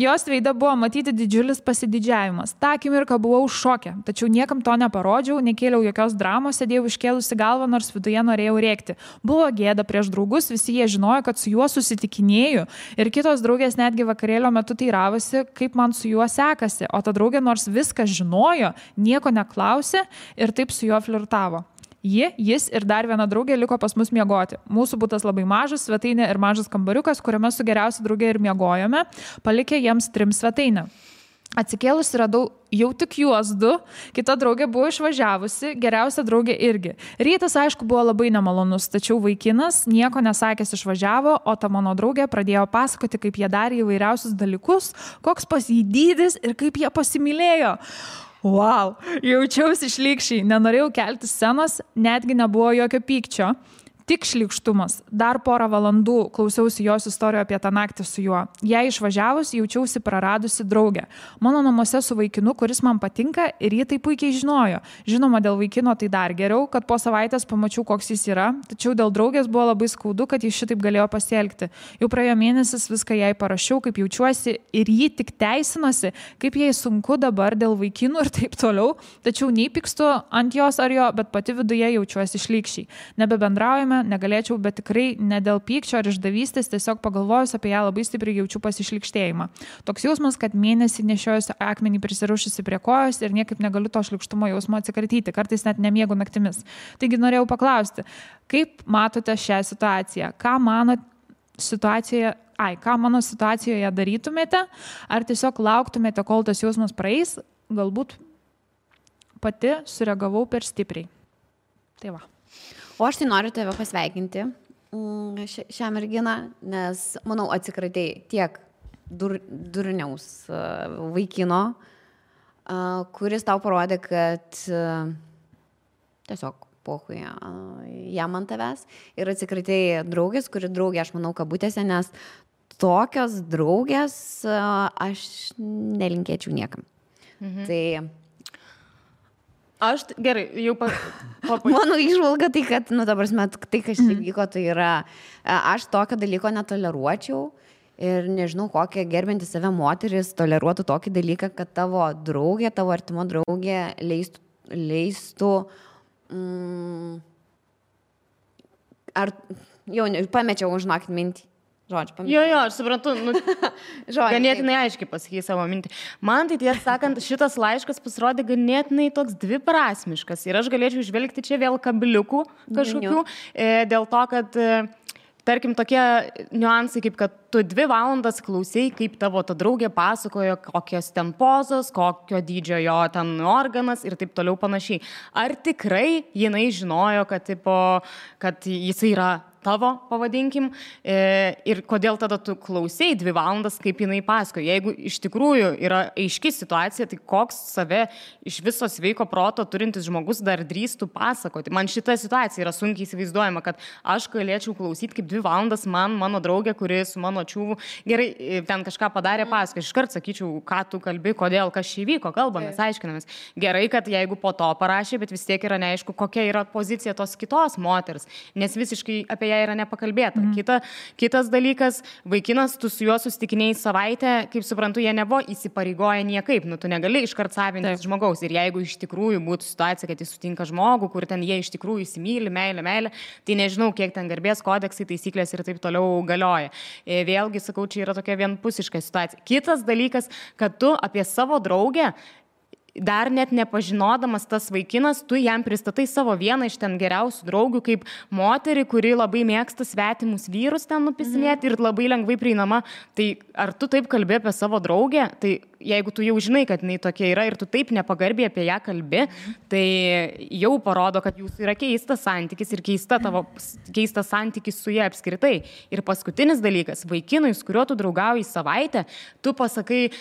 Jos veide buvo matyti didžiulis pasididžiavimas. Ta akimirka buvau šoke, tačiau niekam to neparodžiau, nekėliau jokios dramos, sėdėjau iškėlusi galvą, nors viduje norėjau rėkti. Buvo gėda prieš draugus, visi jie žinojo, kad su juo susitikinėju ir kitos draugės netgi vakarėlio metu teiravosi, kaip man su juo sekasi, o ta draugė nors viską žinojo, nieko neklausė ir taip su juo flirtavo. Jis ir dar viena draugė liko pas mus miegoti. Mūsų butas labai mažas, svetainė ir mažas kambariukas, kuriame su geriausia draugė ir miegojome, palikę jiems 3 svetainę. Atsikėlusi radau jau tik juos du, kita draugė buvo išvažiavusi, geriausia draugė irgi. Rytas, aišku, buvo labai nemalonus, tačiau vaikinas nieko nesakęs išvažiavo, o ta mano draugė pradėjo pasakoti, kaip jie darė įvairiausius dalykus, koks pas jį dydis ir kaip jie pasimylėjo. Wow, jaučiausi šlykščiai, nenorėjau kelti scenos, netgi nebuvo jokio pykčio. Tik šlykštumas. Dar porą valandų klausiausi jos istorijų apie tą naktį su juo. Jei išvažiavus, jaučiausi praradusi draugę. Mano namuose su vaikinu, kuris man patinka ir jį tai puikiai žinojo. Žinoma, dėl vaikino tai dar geriau, kad po savaitės pamačiau, koks jis yra, tačiau dėl draugės buvo labai skaudu, kad jis šitaip galėjo pasielgti. Jau praėjo mėnesis, viską jai parašiau, kaip jaučiuosi ir jį tik teisinosi, kaip jai sunku dabar dėl vaikinų ir taip toliau, tačiau nei pykstu ant jos ar jo, bet pati viduje jaučiuosi šlykščiai. Nebebendraujame, negalėčiau, bet tikrai ne dėl pykčio ar išdavystės, tiesiog pagalvojus apie ją labai stipriai jaučiu pasišlykštėjimą. Toks jausmas, kad mėnesį nešiojusi akmenį prisirišusi prie kojos ir niekaip negaliu to šlykštumo jausmo atsikratyti, kartais net nemiegu naktimis. Taigi norėjau paklausti, kaip matote šią situaciją? Ką mano situacijoje darytumėte? Ar tiesiog lauktumėte, kol tas jausmas praeis? Galbūt pati sureagavau per stipriai. Tai va. O aš tai noriu tave pasveikinti šią merginą, nes, manau, atsikratei tiek durniaus vaikino, kuris tau parodė, kad tiesiog pohui jam ant tavęs, ir atsikratei draugės, kuri draugė, aš manau, kabutėse, nes tokios draugės aš nelinkėčiau niekam. Tai aš gerai, jau mano įžvalga tai, kad, ta prasme, tai, kas čia vyko, tai yra, aš tokio dalyko netoleruočiau ir nežinau, kokia gerbinti save moteris toleruotų tokį dalyką, kad tavo draugė, tavo artimo draugė leistų ar jau pamečiau, žinokit, mintį. Žodžiu, jo, aš suprantu, ganėtinai aiškiai pasakyti savo mintį. Man tai tiesą sakant, šitas laiškas pasirodė ganėtinai toks dviprasmiškas ir aš galėčiau žvelgti čia vėl kabliukų kažkokių, dėl to, kad tarkim tokie niuansai, kaip kad tu 2 valandas klausai, kaip tavo ta draugė pasakojo, kokios ten pozos, kokio dydžio jo ten organas ir taip toliau panašiai. Ar tikrai jinai žinojo, kad jisai yra tavo, pavadinkim, ir kodėl tada tu klausai 2 valandas, kaip jinai pasakoja. Jeigu iš tikrųjų yra aiški situacija, tai koks save iš viso sveiko proto turintis žmogus dar drįstų pasakoti. Man šita situacija yra sunkiai įsivaizduojama, kad aš galėčiau klausyti kaip 2 valandas mano draugė, kuri su mano čiūvu gerai ten kažką padarė, pasakoja. Iškart sakyčiau, ką tu kalbi, kodėl, kas čia įvyko, kalbamės, aiškinamės. Gerai, kad jeigu po to parašė, bet vis tiek yra neaišku, kokia yra pozicija tos kitos moters, nes visiškai apie ją yra nepakalbėta. Kitas dalykas, vaikinas, tu su juo susitikinėjai savaitę, kaip suprantu, jie nebuvo įsipareigoję niekaip, tu negali iškart savintis žmogaus. Ir jeigu iš tikrųjų būtų situacija, kad jis sutinka žmogų, kur ten jie iš tikrųjų įsimyli, meilė, tai nežinau, kiek ten garbės kodeksai, taisyklės ir taip toliau galioja. Vėlgi, sakau, čia yra tokia vienpusiška situacija. Kitas dalykas, kad tu apie savo draugę dar net nepažinodamas tas vaikinas, tu jam pristatai savo vieną iš ten geriausių draugių kaip moterį, kuri labai mėgsta svetimus vyrus ten nupisinėti ir labai lengvai prieinama. Tai ar tu taip kalbi apie savo draugę? Tai jeigu tu jau žinai, kad jinai tokia yra ir tu taip nepagarbiai apie ją kalbi, tai jau parodo, kad jūsų yra keistas santykis ir keistas santykis su ja apskritai. Ir paskutinis dalykas, vaikinui, su kuriuo tu draugauji savaitę, tu pasakai,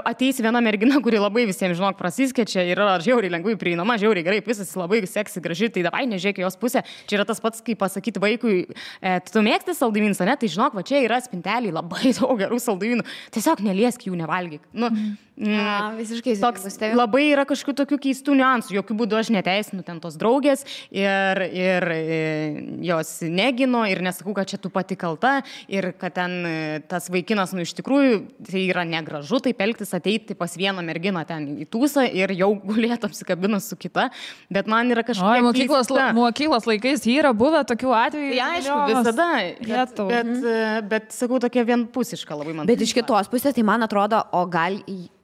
ateis viena mergina, kuri labai visiems, žinok, prasiskečia ir yra žiauriai lengvai prieinama, žiauriai gerai, visas labai seksi, graži, tai davai nežiūrėk jos pusę. Čia yra tas pats, kaip pasakyti vaikui, tu mėgsti saldumynus, ne? Tai žinok, va čia yra spinteliai labai daug gerų saldumynų, tiesiog neliesk jų, nevalgyk. Visiškai toks labai yra kažkokių tokių keistų niuansų, jokių būdų aš neteisinu ten tos draugės ir jos negino ir nesakau, kad čia tu pati kalta ir kad ten tas vaikinas, iš tikrųjų, tai yra negražu taip elgtis, ateiti pas vieną merginą ten į tūsą ir jau gulėtų apsikabinus su kita, bet man yra kažkokia mokyklos laikais yra buvę tokių atvejų. Ja, aišku, visada, bet sakau, tokia vienpusiška labai man. Bet iš kitos pusės, tai man atrodo,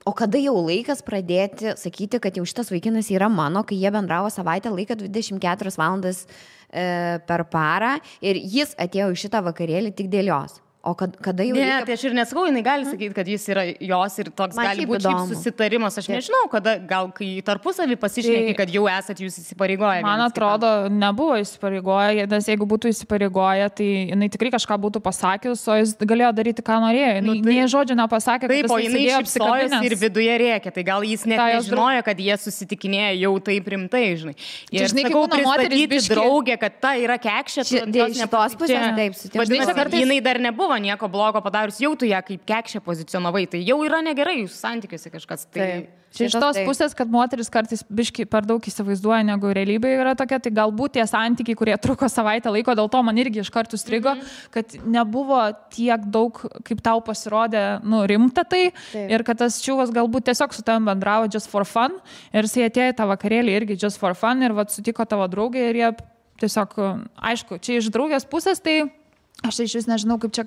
o kada jau laikas pradėti sakyti, kad jau šitas vaikinas yra mano, kai jie bendravo savaitę laiką 24 valandas per parą ir jis atėjo į šitą vakarėlį tik dėl jos. O kada jau... Ne, tai aš ir nesakau, jinai gali sakyti, kad jis yra jos ir toks Man gali šiaip būti įdomu. susitarimas. Aš nežinau, kada gal kai tarpusavį pasišneki, kad jau esat jūs įsipareigoję. Man atrodo, nebuvo įsipareigoję, nes jeigu būtų įsipareigoję, tai jinai tikrai kažką būtų pasakius, o jis galėjo daryti, ką norėjo. Nei žodžio nepasakė, taip, kad o jinai šypsojosi ir viduje rėkė, tai gal jis net nežinojo, kad jie susitikinėja jau taip rimtai, žinai. Ir žinai, sakau, kaip būna moterys pristatyti biškį- draugę, kad ta yra kekšė, Iš šitos pusės, taip, sutinku. Vadinasi, kartais- jinai dar nebuvo nieko blogo padarius, jau tu ją kaip kekšė pozicionavai, tai jau yra negerai jūsų santykiuose kažkas. Tai... Čia iš tos pusės, kad moteris kartais biški per daug įsivaizduoja, negu realybė yra tokia, tai galbūt tie santykiai, kurie truko savaitę laiko, dėl to man irgi iš karto strigo, kad nebuvo tiek daug, kaip tau pasirodė, rimta tai. Ir kad tas čiūvas galbūt tiesiog su tavim bendravo just for fun. Ir jis atėjo į tą vakarėlį irgi just for fun ir sutiko tavo draugę ir jie tiesiog, aišku, čia iš draugės pusės tai... Aš iš vis nežinau, kaip čia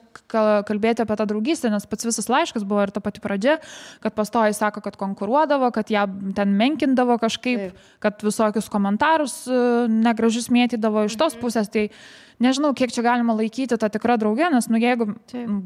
kalbėti apie tą draugystę, nes pats visas laiškas buvo ir ta pati pradžia, kad pastoji sako, kad konkuruodavo, kad ją ten menkindavo kažkaip, kad visokius komentarus negražius mėtydavo iš tos pusės. Tai nežinau, kiek čia galima laikyti tą tikrą draugę, nes, jeigu,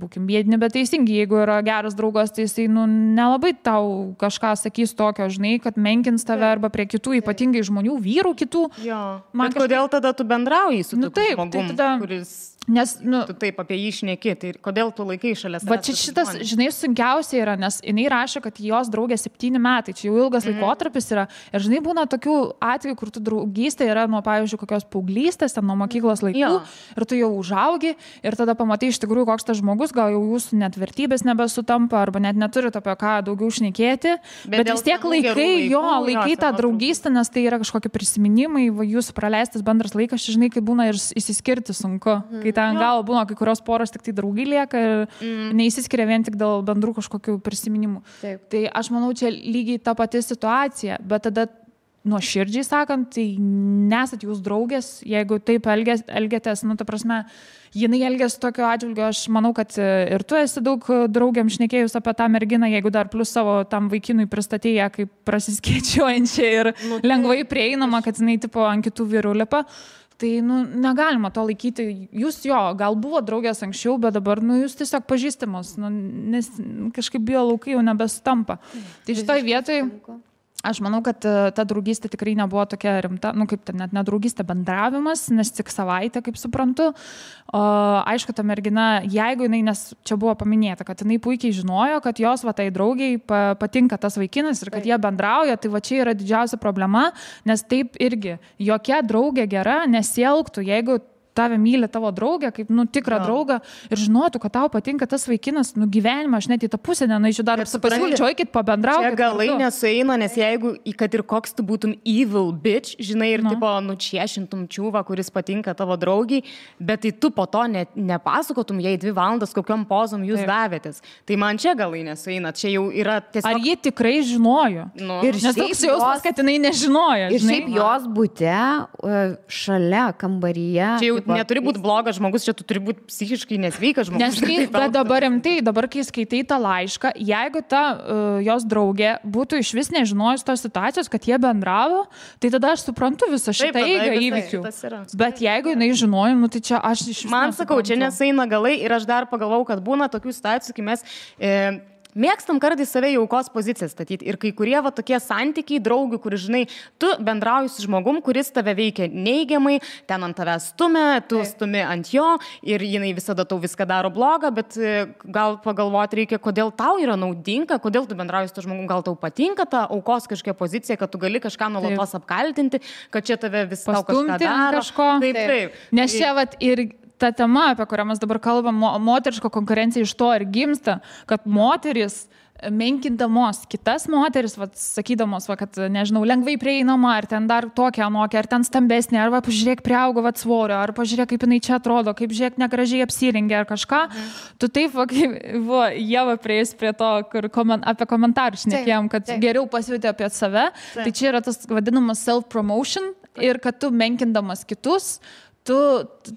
būkim biedni, bet teisingi, jeigu yra geras draugas, tai jisai, nelabai tau kažką sakys tokio, žinai, kad menkins tave arba prie kitų, ypatingai žmonių, vyrų kitų. Jo. Man kodėl tada tu bendrauji su tokiu žmogum, kuris... Nes, tu taip apie jį šneki, tai kodėl tu laikai šalia savęs? Va čia šitas, žinai, sunkiausia yra, nes jinai rašo, kad jos draugė 7 metai, čia jau ilgas laikotarpis yra. Ir žinai, būna tokių atvejų, kur tu draugystė yra nuo, pavyzdžiui, kokios paauglystės, nuo mokyklos laikų, ir tu jau užaugi, ir tada pamatai iš tikrųjų, koks tas žmogus, gal jau jūsų net vertybės nebesutampa, arba net neturit apie ką daugiau šnekėti. Bet vis tiek laikai tą draugystę, nes tai yra kažkokie prisiminimai, jūsų praleistas bendras laikas, žinai, kaip būna ir įsiskirti sunku. Ten gal būna kai kurios poros tik tai draugai lieka ir neįsiskiria vien tik dėl bendrų kažkokių prisiminimų. Taip. Tai aš manau, čia lygiai ta pati situacija, bet tada nuoširdžiai sakant, tai nesat jūs draugės, jeigu taip elgiatės, ta prasme, jinai elgiasi tokio atžvilgio, aš manau, kad ir tu esi daug draugiam šnekėjus apie tą merginą, jeigu dar plus savo tam vaikinui pristatėję kaip prasiskėčiuojančią ir lengvai prieinama, kad jinai tipo ant kitų vyrų lipa. Tai, negalima to laikyti. Jūs gal buvo draugės anksčiau, bet dabar, jūs tiesiog pažįstamos, nes kažkaip biolaukai jau nebesutampa. Tai šitoj vietoj, aš manau, kad ta draugystė tikrai nebuvo tokia rimta, kaip ten net nedraugystė, bendravimas, nes tik savaitę, kaip suprantu. Aišku, ta mergina, jeigu jinai, nes čia buvo paminėta, kad jinai puikiai žinojo, kad jos tai draugiai patinka tas vaikinas ir kad jie bendrauja, tai va čia yra didžiausia problema, nes taip irgi jokia draugė gera nesielgtų, jeigu tave myli tavo draugė, kaip tikrą draugą ir žinotų, kad tau patinka tas vaikinas, gyvenimą, aš net į tą pusę nenaičiu dar pasiūlyčiau, eikit pabendraukit. Čia galai nesueina, nes jeigu, kad ir koks tu būtum evil bitch, žinai, ir tipo nučiešintum čiūvą, kuris patinka tavo draugiai, bet tai tu po to nepasakotum jai 2 valandas, kokiom pozom jūs davėtės. Tai man čia galai nesueina, čia jau yra tiesiog... Ar ji tikrai žinojo? Ir nes toks jausmas, kad jinai nežinojo. Ir šiaip jos bute, šalia kambaryje... Čia jau neturi būti blogas žmogus, čia tu turi būti psichiškai nesveikas žmogus. Bet dabar rimtai, dabar kai skaitai tą laišką, jeigu ta jos draugė būtų iš vis nežinojus tos situacijos, kad jie bendravo, tai tada aš suprantu visą šitą eigą įvykių. Bet jeigu jinai žinojom, tai čia aš iš vis... Man sakau, čia nesueina galai ir aš dar pagalvau, kad būna tokių situacijų, kai mes... Mėgstam kartais save į aukos poziciją statyti ir kai kurie tokie santykiai draugių, kur, žinai, tu bendrauji su žmogum, kuris tave veikia neigiamai, ten ant tavęs stumia, tu stumi ant jo ir jinai visada tau viską daro blogą, bet gal pagalvoti reikia, kodėl tau yra naudinga, kodėl tu bendrauji su to žmogum, gal tau patinka ta aukos kažkokia pozicija, kad tu gali kažką nuolatos apkaltinti, kad čia tave vis tau kažką daro. Taip. Nes čia ir ta tema, apie kurią mes dabar kalbam, moteriško konkurencija iš to ir gimsta, kad moteris menkindamos kitas moteris, sakydamos, kad, nežinau, lengvai prieinama, ar ten dar tokia anokia, ar ten stambesnė, ar pažiūrėk priaugo svorio, ar pažiūrėk, kaip jinai čia atrodo, kaip žiūrėk negražiai apsirengia, ar kažką. Tu taip, Ieva prieis prie to, kur apie komentarus šnekėjom, kad geriau pasiūti apie save. Tai čia yra tas vadinamas self-promotion ir kad tu menkindamas kitus, tu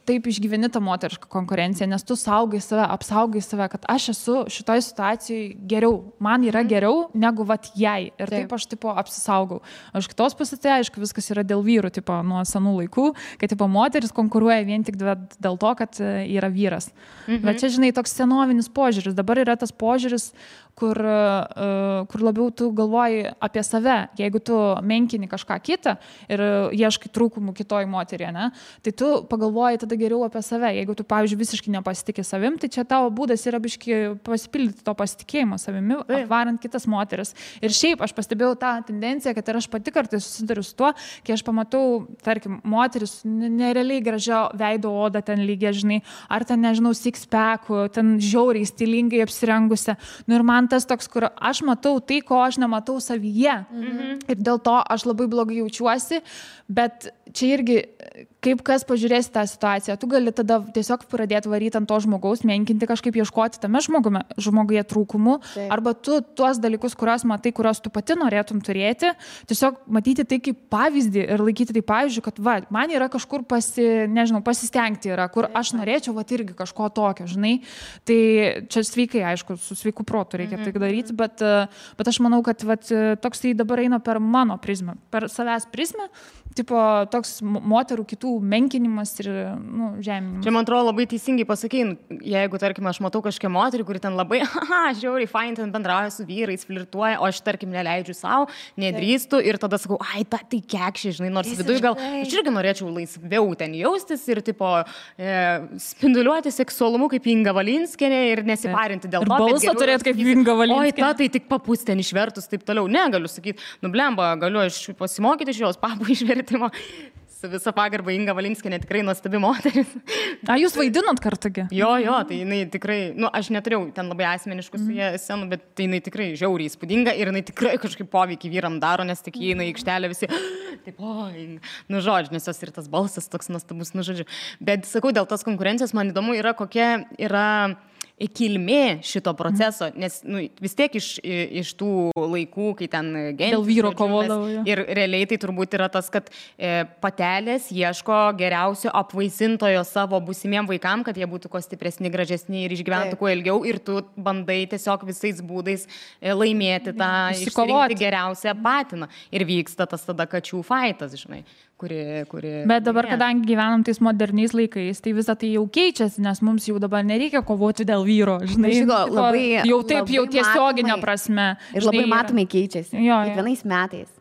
taip išgyveni tą moterišką konkurenciją, nes tu saugai save, apsaugai save, kad aš esu šitoj situacijai geriau, man yra geriau negu vat jai. Ir taip aš tipo apsisaugau. Aš kitos pusės, tai aišku, viskas yra dėl vyrų, tipo nuo senų laikų, kad tipo moteris konkuruoja vien tik dėl to, kad yra vyras. Bet čia, žinai, toks senovinis požiūris. Dabar yra tas požiūris, kur labiau tu galvoji apie save. Jeigu tu menkini kažką kitą ir ieškai trūkumų kitoj moteriai, ne, tai tu pagalvoji tada geriau apie save. Jeigu tu, pavyzdžiui, visiškai nepasitikė savim, tai čia tavo būdas yra biški pasipildyti to pasitikėjimo savimi, apvarant kitas moteris. Ir šiaip aš pastebėjau tą tendenciją, kad ir aš pati kartais susiduriu su tuo, kai aš pamatau, tarkim, moteris nerealiai gražio veido odą ten lygiai, žinai, ar ten, nežinau, six-packų, ten žiauriai stilingai apsirengusi. Nu ir man tas toks, kur aš matau tai, ko aš nematau savyje. Ir dėl to aš labai blogai jaučiuosi, bet čia irgi, kaip kas pažiūrėsi tą situaciją, tu gali tada tiesiog pradėti varyti ant to žmogaus, menkinti kažkaip, ieškoti tame žmoguje trūkumų, arba tu tuos dalykus, kuriuos matai, kuriuos tu pati norėtum turėti, tiesiog matyti tai kaip pavyzdį ir laikyti tai pavyzdžiui, kad va, man yra kažkur pasistengti yra, kur aš norėčiau va irgi kažko tokio, žinai. Tai čia sveikai, aišku, su sveiku protu reikia tai daryti, bet aš manau, kad va, toks tai dabar eina per mano prizmę, per savęs prizmę, tipo toks moterų kitų menkinimas ir žeminimas. Čia, man atrodo, labai teisingai pasakei, jeigu, tarkim, aš matau kažkokią moterį, kuri ten labai, žiauriai, fain, ten bendrauja su vyrais, flirtuoja, o aš, tarkim, neleidžiu savo, nedrįstu ir tada sakau, tai kekšė, žinai, nors viduje gal, aš irgi norėčiau laisviau ten jaustis ir, tipo, spinduliuoti seksualumu kaip Inga Valinskienė ir nesiparinti dėl to. Ir balsą turėti kaip Inga Valinskienė. Tai tik papus ten išvertus, taip toliau. Ne, galiu sakyti, blemba, galiu aš pasimokyti iš jos papų išvertimo. Su visa pagarba Inga Valinskienė tikrai nuostabi moteris. Jūs vaidinot kartugi? Jo, tai jinai tikrai, aš neturėjau ten labai asmeniškų su jie scenų, bet tai jinai tikrai žiauriai įspūdinga ir jinai tikrai kažkaip poveikį vyram daro, nes tik jinai aikštelė visi, taip, žodžiu, nes jos ir tas balsas toks nuostabus, žodžiu. Bet sakau, dėl tos konkurencijos man įdomu yra, kokia yra kilmė šito proceso, nes vis tiek iš tų laikų, kai ten dėl vyro kovodavo. Ir realiai tai turbūt yra tas, kad patelės ieško geriausio apvaisintojo savo būsimiem vaikam, kad jie būtų kuo stipresni, gražesni ir išgyventų kuo ilgiau ir tu bandai tiesiog visais būdais laimėti tą išsirinkti geriausią patiną. Ir vyksta tas tada kačių faitas, žinai. Bet dabar, kadangi gyvenam tais moderniais laikais, tai visą tai jau keičiasi, nes mums jau dabar nereikia kovoti dėl vyro, žinai. Jau taip, jau tiesioginė prasme. Ir labai matomai keičiasi. Kiekvienais metais.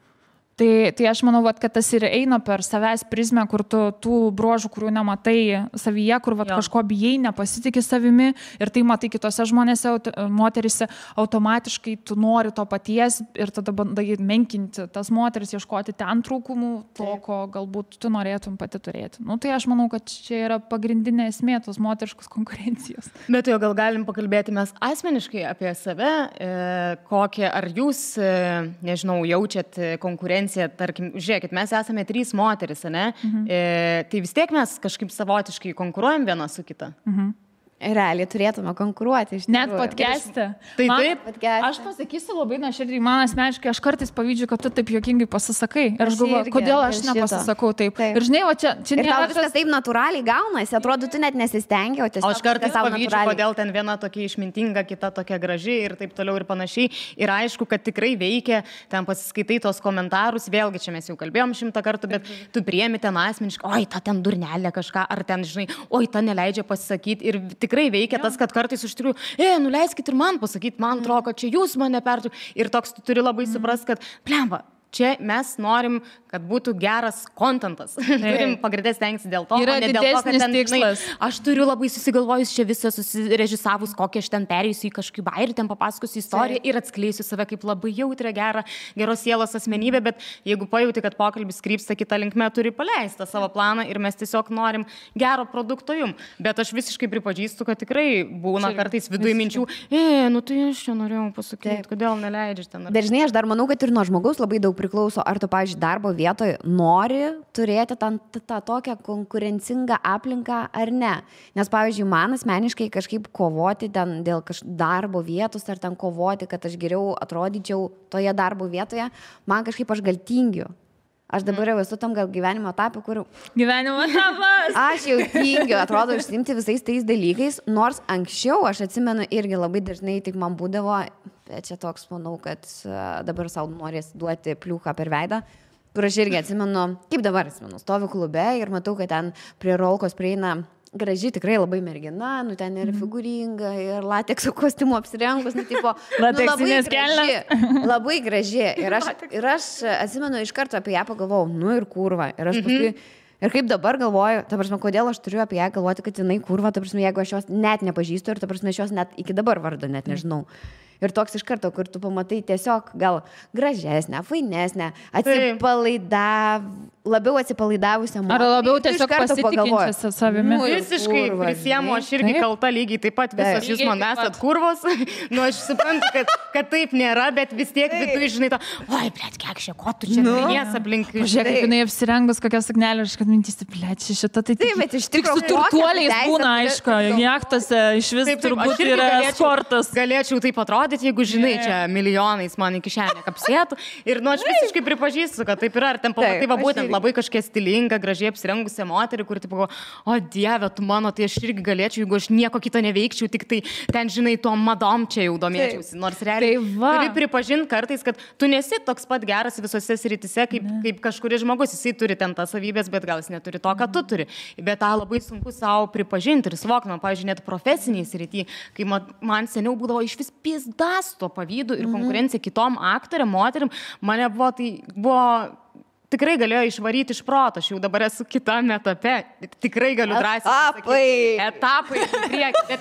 Tai aš manau, kad tas ir eina per savęs prizmę, kur tu tų bruožų, kurių nematai savyje, kur kažko bijai, nepasitikė savimi ir tai matai kitose žmonėse, moterise, automatiškai tu nori to paties ir tada bandai menkinti tas moteris, ieškoti ten trūkumų, to, ko galbūt tu norėtum pati turėti. Tai aš manau, kad čia yra pagrindinė esmė tos moteriškos konkurencijos. Bet jau gal galim pakalbėti mes asmeniškai apie save, kokią, ar jūs, nežinau, jaučiat konkurenciją. Tarkim, žiūrėkit, mes esame 3 moteris, ne? Tai vis tiek mes kažkaip savotiškai konkuruojam viena su kita. Realiai turėtume konkuruoti. Net podcast'e. Tai taip. Aš pasakysiu labai nuoširdžiai, man asmeniškai, aš kartais pavydžiu, kad tu taip juokingai pasisakai. Ir aš galvoju, kodėl aš nepasisakau taip. Ir žinai, o čia nėra viskas taip natūraliai gaunasi, atrodo, tu net nesistengi, o tiesiog. Aš kartais pavydžiu, kodėl ten viena tokia išmintinga, kita tokia graži ir taip toliau ir panašiai. Ir aišku, kad tikrai veikia, ten pasiskaitai tos komentarus, vėlgi čia mes jau kalbėjom 100 kartų, bet tu priemi ten asmeniškai, oi, ta ten durnelė kažką, ar ten, žinai, oi, ta neleidžia pasisakyti. Ir tikrai veikia tas, kad kartais iš tikrųjų, nuleiskit ir man pasakyti, man atrodo, kad čia jūs mane pertų. Ir toks tu turi labai suprast, kad, blemba, čia mes norim, kad būtų geras kontentas. Turim pagrindės stengtis dėl to, yra ne dėl to, kad ten, žinai, aš turiu labai susigalvojus čia visą susirežisavus, kokią aš ten perėjusiu į kažkokį bairį, ten papasakosiu istoriją ir atskleisiu save kaip labai jautrę, geros sielos asmenybę, bet jeigu pajauti, kad pokalbis krypsta kitą linkmę, turi paleisti savo planą ir mes tiesiog norim gero produkto jum. Bet aš visiškai pripažįstu, kad tikrai būna kartais viduje minčių, tai aš čia norėjau pasakyti, kodėl neleidžiu ten. Bet žinai, aš dar manau, kad ir nuo žmogaus labai daug priklauso, ar tu, pavyzdžiui, darbo vietoje nori turėti tą tokią konkurencingą aplinką ar ne. Nes, pavyzdžiui, man asmeniškai kažkaip kovoti ten dėl darbo vietos ar ten kovoti, kad aš geriau atrodyčiau toje darbo vietoje, man kažkaip aš gal tingiu. Aš dabar jau esu tam gal gyvenimo etapui, kur... Gyvenimo etapas. Aš jau tingiu, atrodo, užsiimti visais tais dalykais, nors anksčiau, aš atsimenu, irgi labai dažnai tik man būdavo, bet čia toks, manau, kad dabar savo norės duoti pliūką per veidą, kur aš irgi atsimenu, kaip dabar atsimenu, stoviu klube ir matau, kad ten prie rolkos prieina graži, tikrai labai mergina, nu ten ir figūringa, ir latekso kostiumu apsirengus, nu tipo, lateksinės kelnes. Labai graži. Ir aš atsimenu, iš karto apie ją pagalvojau, nu ir kurva. Ir aš paskui, ir kaip dabar galvoju, ta prasme, kodėl aš turiu apie ją galvoti, kad jinai kurva, ta prasme, jeigu aš jos net nepažįstu ir ta prasme, aš jos net iki dabar vardo net nežinau. Ir toks iš karto, kur tu pamatai tiesiog gal gražesnę, fainesnę, labiau atsipalaidavusią moterį. Ar labiau tiesiog pasitikinčią savimi. Visiškai prisiemu, aš irgi kalta lygiai taip pat, visos jūs man esat kurvos. Nu, aš suprantu, kad taip nėra, bet vis tiek viduje, žinai, oi, blėt, kiek šia, ko tu čia minės aplink. Žiūrėk, kaip jinai apsirengus kokią suknelę, aš kad mintysi, blėt, šitą tai bet iš tik su turtuoliais būna, aišku, jachtose iš vis turbūt yra sportas. Galėčiau taip atrodyti, jeigu, žinai, čia milijonais man į kišenę kapsėtų. Ir, nu, aš visiškai pripažįstu, kad taip yra. Ar ten pamatai, va, būtent labai kažkokia stilinga, gražiai apsirengusią moterį, kuri, tipo, o Dieve, tu mano, tai aš irgi galėčiau, jeigu aš nieko kito neveikčiau, tik tai ten, žinai, tuo madom čia jau domėčiausi. Nors realiai turi pripažinti kartais, kad tu nesi toks pat geras visose srityse, kaip kažkuris žmogus. Jisai turi ten tas savybės, bet gal jis neturi to, ką tu turi. Bet tą labai sunku savo pripažinti ir suvokti. Man, pavyzdžiui, net profesiniai srity, kai man seniau būdavo iš vis pizdas to pavydu ir konkurencija kitom aktoriam, moterim, mane buvo tikrai galėjo išvaryti iš proto, aš jau dabar esu kitame etape, tikrai galiu drąsiai etapai į priekį,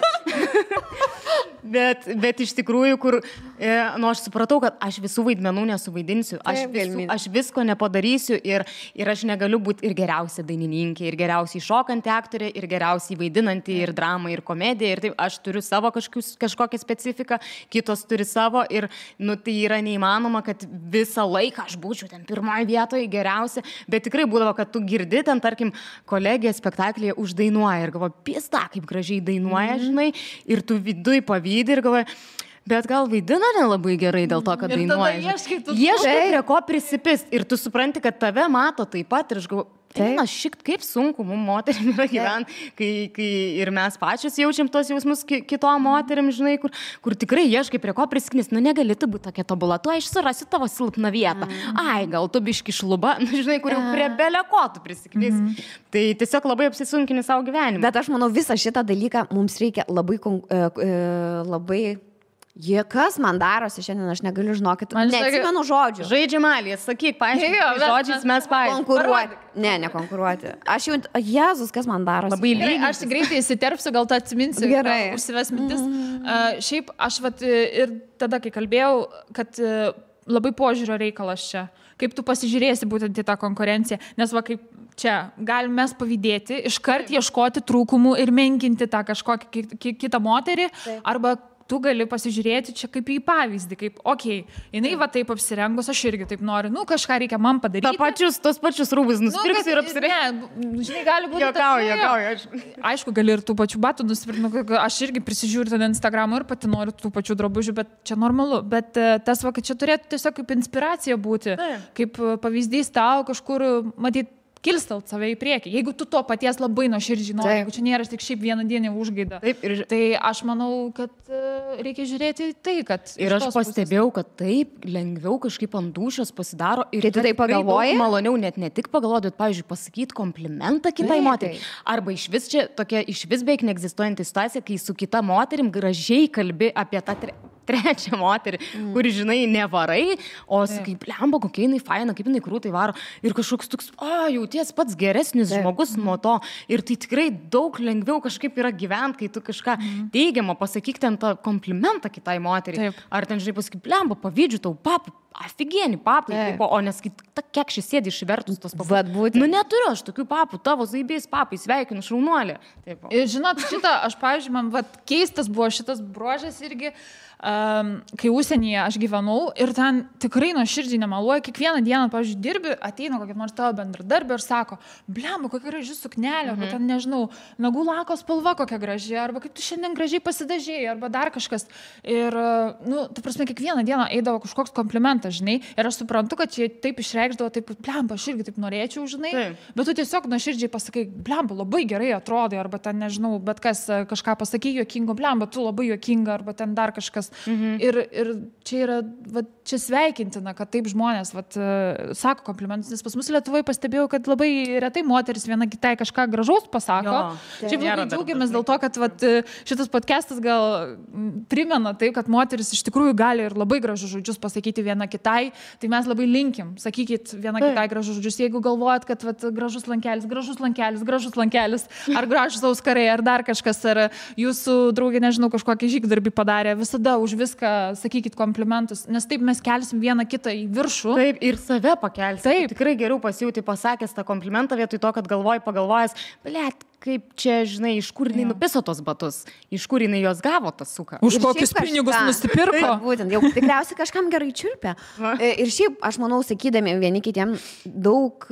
bet iš tikrųjų, kur, nu, aš supratau, kad aš visų vaidmenų nesuvaidinsiu, aš visko nepadarysiu ir aš negaliu būti ir geriausia dainininkė, ir geriausiai šokanti aktorė, ir geriausiai vaidinanti, ir dramą, ir komediją, ir taip, aš turiu savo kažkokią specifiką, kitos turi savo ir, nu, tai yra neįmanoma, kad visą laiką aš būčiau ten pirmoje vietoje geriausia, bet tikrai būdavo, kad tu girdi ten, tarkim, kolegija spektaklyje uždainuoja ir galvoja, pista, kaip gražiai dainuoja, žinai, ir tu viduj pavydi ir galvoja, bet gal vaidina nelabai gerai dėl to, kad dainuoja. Ieškai prie ko prisipist ir tu supranti, kad tave mato taip pat ir aš galvoju, kaip sunku mums moterim yra gyventi, kai ir mes pačios jaučiam tos jausmus kitom moterim, žinai, kur tikrai ieškai prie ko prisiknis, nu negali tu būti tokia tobula, tu aš surasiu tavo silpną vietą, ai, gal tu biški šluba, nu, žinai, kur jau prie belio ko tu prisiknis. Tai tiesiog labai apsisunkini savo gyvenimą. Bet aš manau, visą šitą dalyką mums reikia labai kas man darosi šiandien, aš negaliu žinokit, neatsimenu žodžių. Žaidžiamalį, sakyk, paaiškink, žodžiais mes paaiškink. Konkuruoti. Ne, Aš jau, Jėzus, kas man darosi. Labai lygiai. Aš greitai įsiterpsiu, gal tu atsiminsi. Gerai. Užsives mintis. Šiaip, aš ir tada, kai kalbėjau, kad labai požiūrio reikalas čia. Kaip tu pasižiūrėsi būtent į tą konkurenciją. Nes va, kaip čia, galim mes pavydėti, iškart ieškoti trūkumų ir menkinti tą kažkokią kitą moterį, arba tu gali pasižiūrėti čia kaip į pavyzdį, kaip, jinai va taip apsirengus, aš irgi taip noriu, kažką reikia man padaryti. Tos pačius rūbus nusipirksi ir apsirengi. Žinai, gali būti. Jokauju. Aišku, gali ir tų pačių batų nusipirkti, aš irgi prisižiūriu ten Instagramą ir pati noriu tų pačių drabužių, bet čia normalu. Bet tas va, kad čia turėtų tiesiog kaip inspiracija būti, kaip pavyzdys tau kažkur matyti, kilstelt save į priekį. Jeigu tu to paties labai nuoširdžiai nori, jeigu čia nėra tik šiaip vieną dieną užgaida. Tai aš manau, kad reikia žiūrėti tai, kad... Ir aš pastebėjau, kad taip lengviau kažkaip ant dūšios pasidaro. Ir tu tai pagalvoji? Maloniau net ne tik pagalvoti, bet, pavyzdžiui, pasakyti komplimentą kitai moteriai. Arba iš vis čia tokia iš vis beveik neegzistuojanti situacija, kai su kita moterim gražiai kalbi apie tą trečią moterį, kuri, žinai, nevarai, o sakai, blemba, kokia jinai faina, kaip jinai krūtai varo. Ir kažkoks toks, jauties pats geresnis žmogus nuo to. Ir tai tikrai daug lengviau kažkaip yra gyventi, kai tu kažką teigiamą pasakyk ten tą komplimentą kitai moteriai. Ar ten, žinai, pasakyk, blemba, pavydžiu tau, papai, aфиgieni papai, o nesakyt, kiek šis sėdi išvertus tos papai. Nu neturiu aš tokių papų, tavo zaibės papai, sveikinu, šaunuolė. Ir žinot, šitą, aš, pavyzdžiui, man keistas buvo šitas bruožas irgi, kai užsienyje aš gyvenau ir ten tikrai nuoširdžiai nemaluoju, kiekvieną dieną, pavyzdžiui, dirbi, ateina kokia nors tavo bendradarbė ir sako, blemba, kokia graži suknelė, arba ten, nežinau, nagų lako spalva kokia graži, arba kaip tu šiandien gražiai pasidažėjai, arba dar kažkas. Ir, ta prasme, kiekvieną dieną eidavo kažkoks komplimentas. komplimentas, žinai, ir aš suprantu, kad čia taip išreikšdavo, taip, blemba, aš irgi taip norėčiau, žinai, bet tu tiesiog nuoširdžiai pasakai, blemba, labai gerai atrodai, arba ten, nežinau, bet kas kažką pasakai juokingo, blemba, tu labai juokinga, arba ten dar kažkas. Ir čia yra, va, čia sveikintina, kad taip žmonės, va, sako komplimentus, nes pas mus Lietuvoje pastebėjau, kad labai retai moteris viena kitai kažką gražaus pasako. Šiaip labai džiaugiamės dėl to, kad va, šitas podcastas gal primena tai, kad moteris iš tikrųjų gali ir labai gražus žodžius pasakyti viena kitai, tai mes labai linkim, sakykit viena kitai gražus žodžius, jeigu galvojat, kad va, gražus lankelis, ar gražus auskarai, ar dar kažkas, ar jūsų draugė, nežinau, kažkokį žygdarbį padarė, visada už viską sakykit komplimentus, nes taip mes kelsim vieną kitą į viršų. Taip, ir save pakelsim. Taip. Tikrai geriau pasijauti pasakęs tą komplimentą vietoj to, kad pagalvojęs, blėt, kaip čia, žinai, iš kur jinai nupiso tos batus, iš kur jinai jos gavo tą suką. Už kokius pinigus nusipirko. Taip, būtent, jau tikriausiai kažkam gerai čiulpia. Ir šiaip, aš manau, sakydami vieni kitiem daug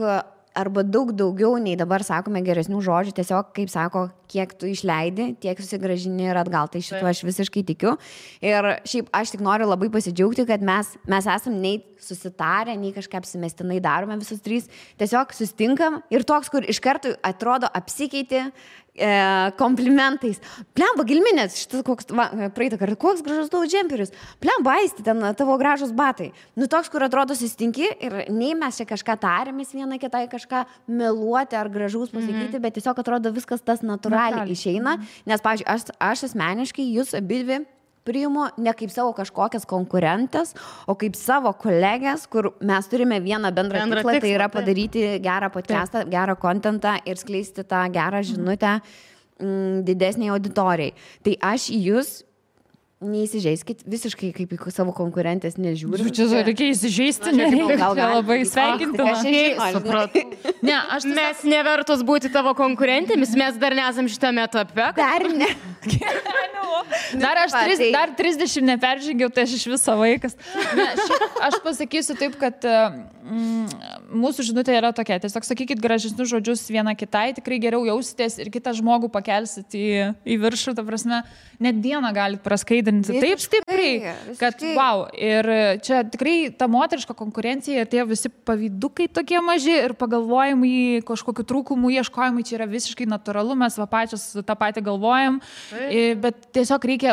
daugiau nei dabar sakome geresnių žodžių, tiesiog, kaip sako, kiek tu išleidi, tiek susigražini ir atgal, tai šituo aš visiškai tikiu. Ir šiaip aš tik noriu labai pasidžiaugti, kad mes esam nei susitarę, nei kažką apsimestinai darome visus trys, tiesiog sustinkam ir toks, kur iš karto atrodo apsikeiti komplimentais. Plemba, Gilminės, šitas koks, praeitą kartą, koks gražus tavo džemperis. Plemba, Aisti, ten tavo gražus batai. Nu, toks, kur atrodo sustinki ir nei mes čia kažką tarėmės viena kitai, kažką meluoti ar gražus pasakyti, bet tiesiog atrodo viskas tas natūraliai išeina. Nes, pavyzdžiui, aš asmeniškai jūs abidvi priimu ne kaip savo kažkokias konkurentės, o kaip savo kolegės, kur mes turime vieną bendrą tikslą, tai yra padaryti gerą podcastą, gerą kontentą ir skleisti tą gerą žinutę didesniai auditorijai. Tai aš į jūs neįsižeiskit, visiškai kaip į savo konkurentės nežiūriu. Čia reikia įsižeisti, gal labai sveikintina. Mes nevertos būti tavo konkurentėmis, mes dar nesam šitame etape. Dar ne. Dar 30 neperžengiau, tai aš iš viso vaikas. Aš pasakysiu taip, kad mūsų žinutė yra tokia. Tiesiog sakykit gražesnius žodžius viena kitai, tikrai geriau jausitės ir kitą žmogų pakelsit į viršų, ta prasme, net dieną galit praskaidinti taip stipriai, kad wow. Ir čia tikrai ta moteriška konkurencija ir tie visi pavydukai tokie maži ir pagalvojimai, kažkokių trūkumų ieškojimai, čia yra visiškai natūralu, mes va pačios tą patį galvojam, bet tiesiog reikia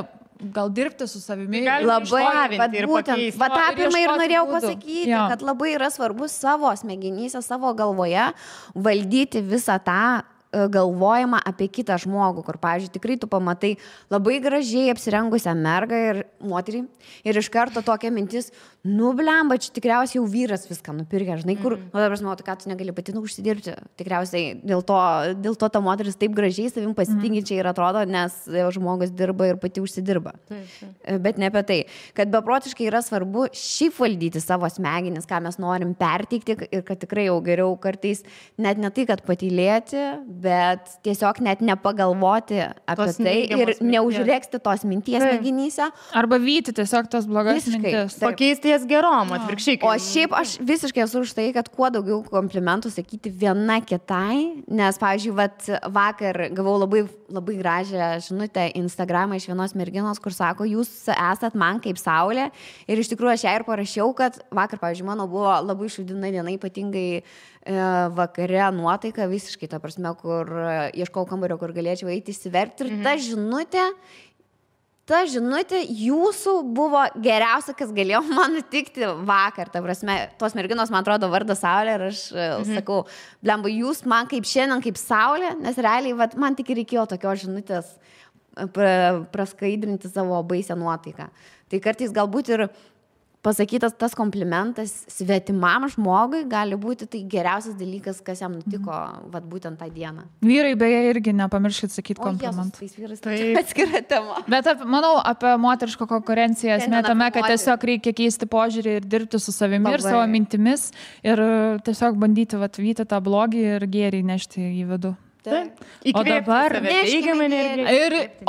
gal dirbti su savimi. Labai, būtent, va tą pirmą ir norėjau pasakyti, kad labai yra svarbu savo smegenyse, savo galvoje valdyti visą tą galvojimą apie kitą žmogų, kur, pavyzdžiui, tikrai tu pamatai labai gražiai apsirengusią mergą ir moterį ir iš karto tokia mintis, nu blemba, čia tikriausiai jau vyras viską nupirkė, žinai, kur, nu dabar žinau, ką tu negali pati užsidirbti, tikriausiai dėl to ta moteris taip gražiai savim pasitinkinčiai ir atrodo, nes žmogus dirba ir pati užsidirba. Bet ne apie tai, kad beprotiškai yra svarbu šiaip valdyti savo smegenis, ką mes norim perteikti ir kad tikrai jau geriau kartais net ne tai, kad patylėti, bet tiesiog net nepagalvoti apie tai ir neužrėksti tos minties smegenyse. Arba vyti tiesiog tos blogas mintis. Pakeisti jas gerom, atvirkščiai. O šiaip aš visiškai esu už tai, kad kuo daugiau komplimentų sakyti viena kitai, nes, pavyzdžiui, vakar gavau labai, labai gražią žinutę Instagramą iš vienos merginos, kur sako, jūs esat man kaip saulė ir iš tikrųjų aš ją ir parašiau, kad vakar, pavyzdžiui, mano buvo labai šūdina diena, ypatingai vakare nuotaika visiškai, ta prasme, kur ieškau kambario, kur galėčiau eiti įsiverkti ir ta žinutė jūsų buvo geriausia, kas galėjo man nutikti vakar, ta prasme, tos merginos, man atrodo, vardas Saulė ir aš sakau, blemba, jūs man kaip šiandien, kaip Saulė, nes realiai, man tik reikėjo tokios žinutės praskaidrinti savo baisę nuotaiką. Tai kartais galbūt ir pasakytas tas komplimentas svetimam žmogui gali būti tai geriausias dalykas, kas jam nutiko būtent tą dieną. Vyrai beje irgi nepamirškit sakyti komplimentą. Tais vyrais tai atskira tema. Bet manau apie moterišką konkurenciją esmė tame, kad tiesiog reikia keisti požiūrį ir dirbti su savimi ir savo mintimis ir tiesiog bandyti vyti tą blogį ir gėrį nešti į vidų.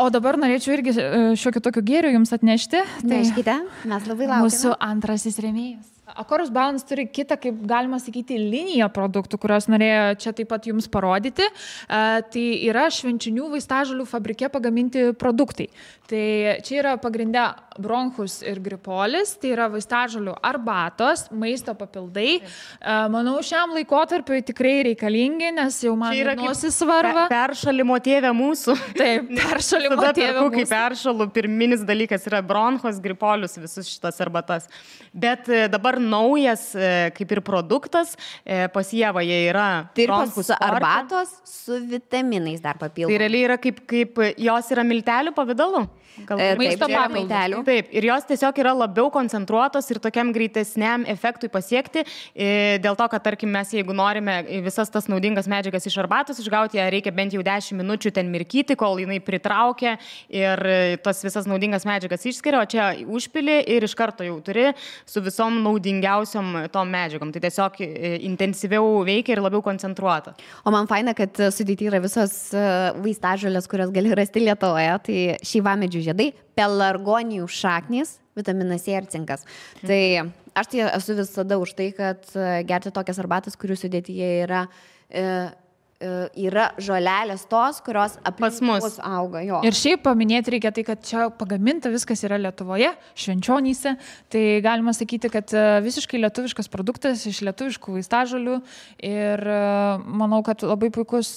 O dabar norėčiau irgi šiokį tokių gėrių jums atnešti. Neškite, mes labai laukiame. Mūsų antrasis rėmėjas. Akorus Balance turi kitą, kaip galima sakyti, liniją produktų, kurios norėjo čia taip pat jums parodyti. Tai yra švenčinių vaistažolių fabrike pagaminti produktai. Tai čia yra pagrindę bronchus ir gripolis, tai yra vaistažolių arbatos, maisto papildai. Manau, šiam laikotarpiui tikrai reikalingi, nes jau man nosis svarba. Peršalimo tėvė mūsų. Taip, peršalimo tėvė mūsų. Kai peršalu, pirminis dalykas yra bronchos, gripolius, visus šitas arbatas. Bet dabar naujas, kaip ir produktas, pas Ievą jie yra bronchus arbatos su vitaminais dar papildomai. Tai realiai yra kaip jos yra miltelių pavidalu. Maisto papildų. Taip, ir jos tiesiog yra labiau koncentruotos ir tokiam greitesniam efektui pasiekti, dėl to, kad, tarkim, mes jeigu norime visas tas naudingas medžiagas iš arbatos išgauti, ją reikia bent jau 10 minučių ten mirkyti, kol jinai pritraukia ir tas visas naudingas medžiagas išskiria, o čia užpili ir iš karto jau turi su visom naudingiausiom tom medžiagom. Tai tiesiog intensyviau veikia ir labiau koncentruota. O man faina, kad sudėti yra visos vaistažolės, kurios gali rasti Lietuvoje, tai šeivamedžių žiedai, pelargonijų šaknys, vitaminas C ir cinkas. Tai aš tai esu visada už tai, kad gerti tokias arbatas, kurių sudėtyje yra žolelės tos, kurios aplink mus auga. Jo. Ir šiaip paminėti reikia tai, kad čia pagaminta viskas yra Lietuvoje, Švenčionyse. Tai galima sakyti, kad visiškai lietuviškas produktas iš lietuviškų vaistažolių. Ir manau, kad labai puikus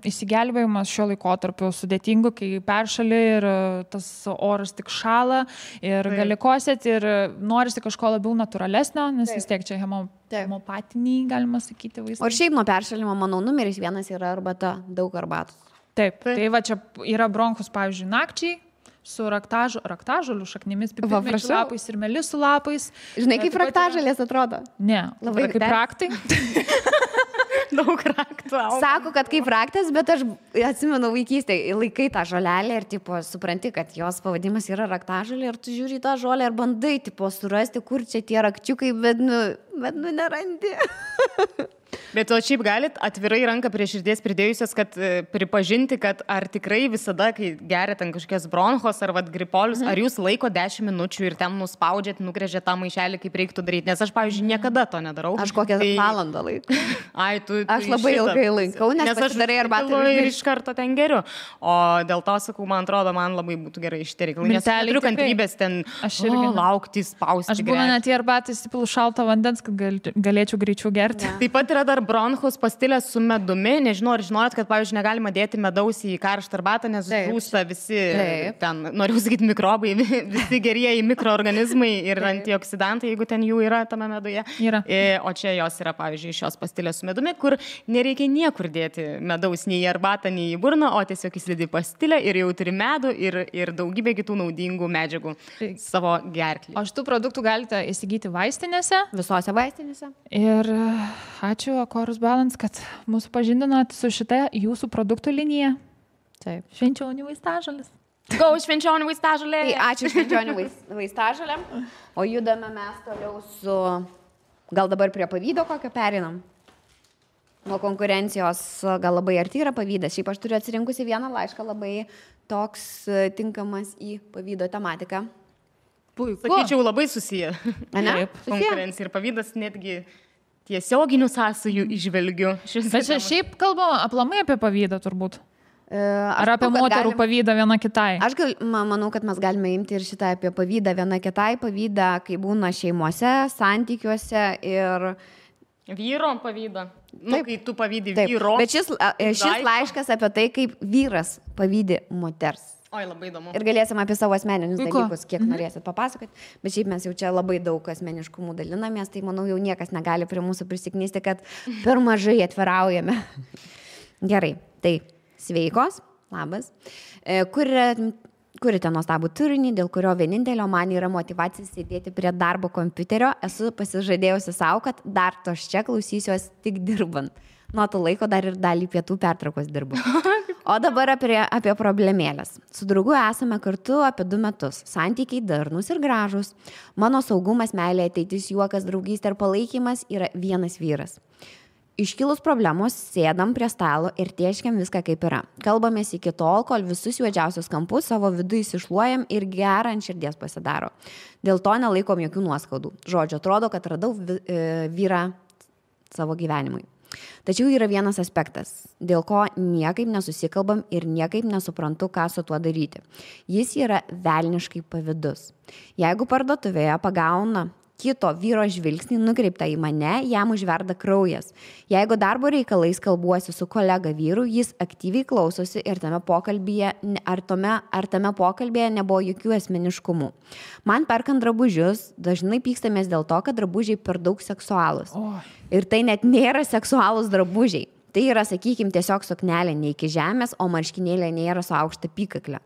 įsigelbėjimas šio laikotarpio sudėtingu, kai peršali ir tas oras tik šala ir gali kosėti ir norisi kažko labiau natūralesnio, nes vis tiek čia hemopatiniai, galima sakyti, vaistai. O šiaip nuo peršalimo, manau, numeris 1 yra arbata, daug arbatos. Taip, tai va čia yra bronchus, pavyzdžiui, nakčiai, su raktažolių šaknimis, pipirmėčių lapais ir melisų lapais. Žinai, kaip raktažolės atrodo? Ne, labai kaip raktai. Daug raktų. Sako, kad kaip raktas, bet aš atsimenu vaikystėje, laikai tą žolelę ir tipo, supranti, kad jos pavadimas yra raktažolė ir tu žiūri tą žolę ir bandai tipo, surasti, kur čia tie rakčiukai, bet nerandi. Bet o šiaip galit atvirai ranką prie širdies pridėjusios, kad pripažinti, kad ar tikrai visada, kai geriat ant kažkokias bronchos ar gripolius, ar jūs laiko 10 minučių ir ten nuspaudžiat, nugrėžiat tą maišelį, kaip reiktų daryti, nes aš, pavyzdžiui, niekada to nedarau. Aš kokią valandą laikau. Tu aš labai ilgai laikau, nes aš darai arbatą ir iš karto ten geriu. O dėl to, sakau, man atrodo, man labai būtų gerai šitie reikalai, nes neturiu kantrybės ten laukti, spausti. Aš būna net į arbatą įsipilu šalto vandens, kad galėčiau greičiau gerti. Taip pat yra dar bronchus pastilės su medumi. Nežinau, ar žinojot, kad, pavyzdžiui, negalima dėti medaus į karštą arbatą, nes žūsta visi ten, noriu sakyti, mikrobai, visi gerieji mikroorganizmai ir antioksidantai, jeigu ten jų yra tame meduje. O čia jos yra, pavyzdžiui, šios pastilės su medumi, kur nereikia niekur dėti medaus nei į arbatą, nei į burną, o tiesiog įsidedi pastilę ir jau turi medų ir daugybę kitų naudingų medžiagų savo gerklį. O šitų produktų galite įsigyti vaistinėse? Visose vaistinėse. Ir ačiū Akorus Balance, kad mūsų pažindinot su šitą jūsų produktų liniją. Taip. Švenčionių vaistažolės. Go Švenčionių vaistažolė. Tai ačiū Švenčionių vaistažolėm. O judame mes toliau su... Gal dabar prie pavydo kokio perinam? Nuo konkurencijos gal labai arti yra pavydas. Šiaip aš turiu atsirinkusi vieną laišką labai toks tinkamas į pavydo tematiką. Puiku. Sakyčiau, labai susiję. Taip, konkurencija ir pavydas netgi tiesioginių sąsajų išvelgiu. Bet čia šiaip kalbama aplamai apie pavydą turbūt. Ar apie moterų pavydą viena kitai? Aš manau, kad mes galime imti ir šitą apie pavydą viena kitai, pavydą, kai būna šeimose, santykiuose ir... Vyro pavydą. Kai tu pavydi vyro. Bet šis laiškas apie tai, kaip vyras pavydi moters. Oi, labai įdomu. Ir galėsim apie savo asmeninius dalykus, kiek norėsit papasakoti. Bet šiaip mes jau čia labai daug asmeniškumų dalinamės, tai manau jau niekas negali prie mūsų prisiknisti, kad per mažai atviraujame. Gerai, tai sveikos, labas. Kurite nuostabų turinį, dėl kurio vienintelio man yra motyvacija sėdėti prie darbo kompiuterio. Esu pasižadėjusi savo, kad dar tos čia klausysiuos tik dirbant. Nuo to laiko dar ir dalį pietų pertraukos dirbu. O dabar apie problemėlės. Su draugu esame kartu apie 2 metus. Santykiai darnus ir gražus. Mano saugumas, meilė, ateitis, juokas, draugystė ir palaikymas yra vienas vyras. Iškilus problemos sėdam prie stalo ir tieškiam viską kaip yra. Kalbamės iki tol, kol visus juodžiausius kampus savo vidų įsišluojam ir gerą ant širdies pasidaro. Dėl to nelaikom jokių nuoskaudų. Žodžiu, atrodo, kad radau vyrą savo gyvenimui. Tačiau yra vienas aspektas, dėl ko niekaip nesusikalbam ir niekaip nesuprantu, ką su tuo daryti. Jis yra velniškai pavydus. Jeigu parduotuvėje pagauna kito vyro žvilgsnį nukreiptą į mane, jam užverda kraujas. Jeigu darbo reikalais kalbuosi su kolega vyru, jis aktyviai klausosi ir tame pokalbėje nebuvo jokių asmeniškumų. Man perkant drabužius, dažnai pykstamės dėl to, kad drabužiai per daug seksualūs. Ir tai net nėra seksualūs drabužiai. Tai yra, sakykime, tiesiog suknelė ne iki žemės, o marškinėlė nėra su aukšta apykakle.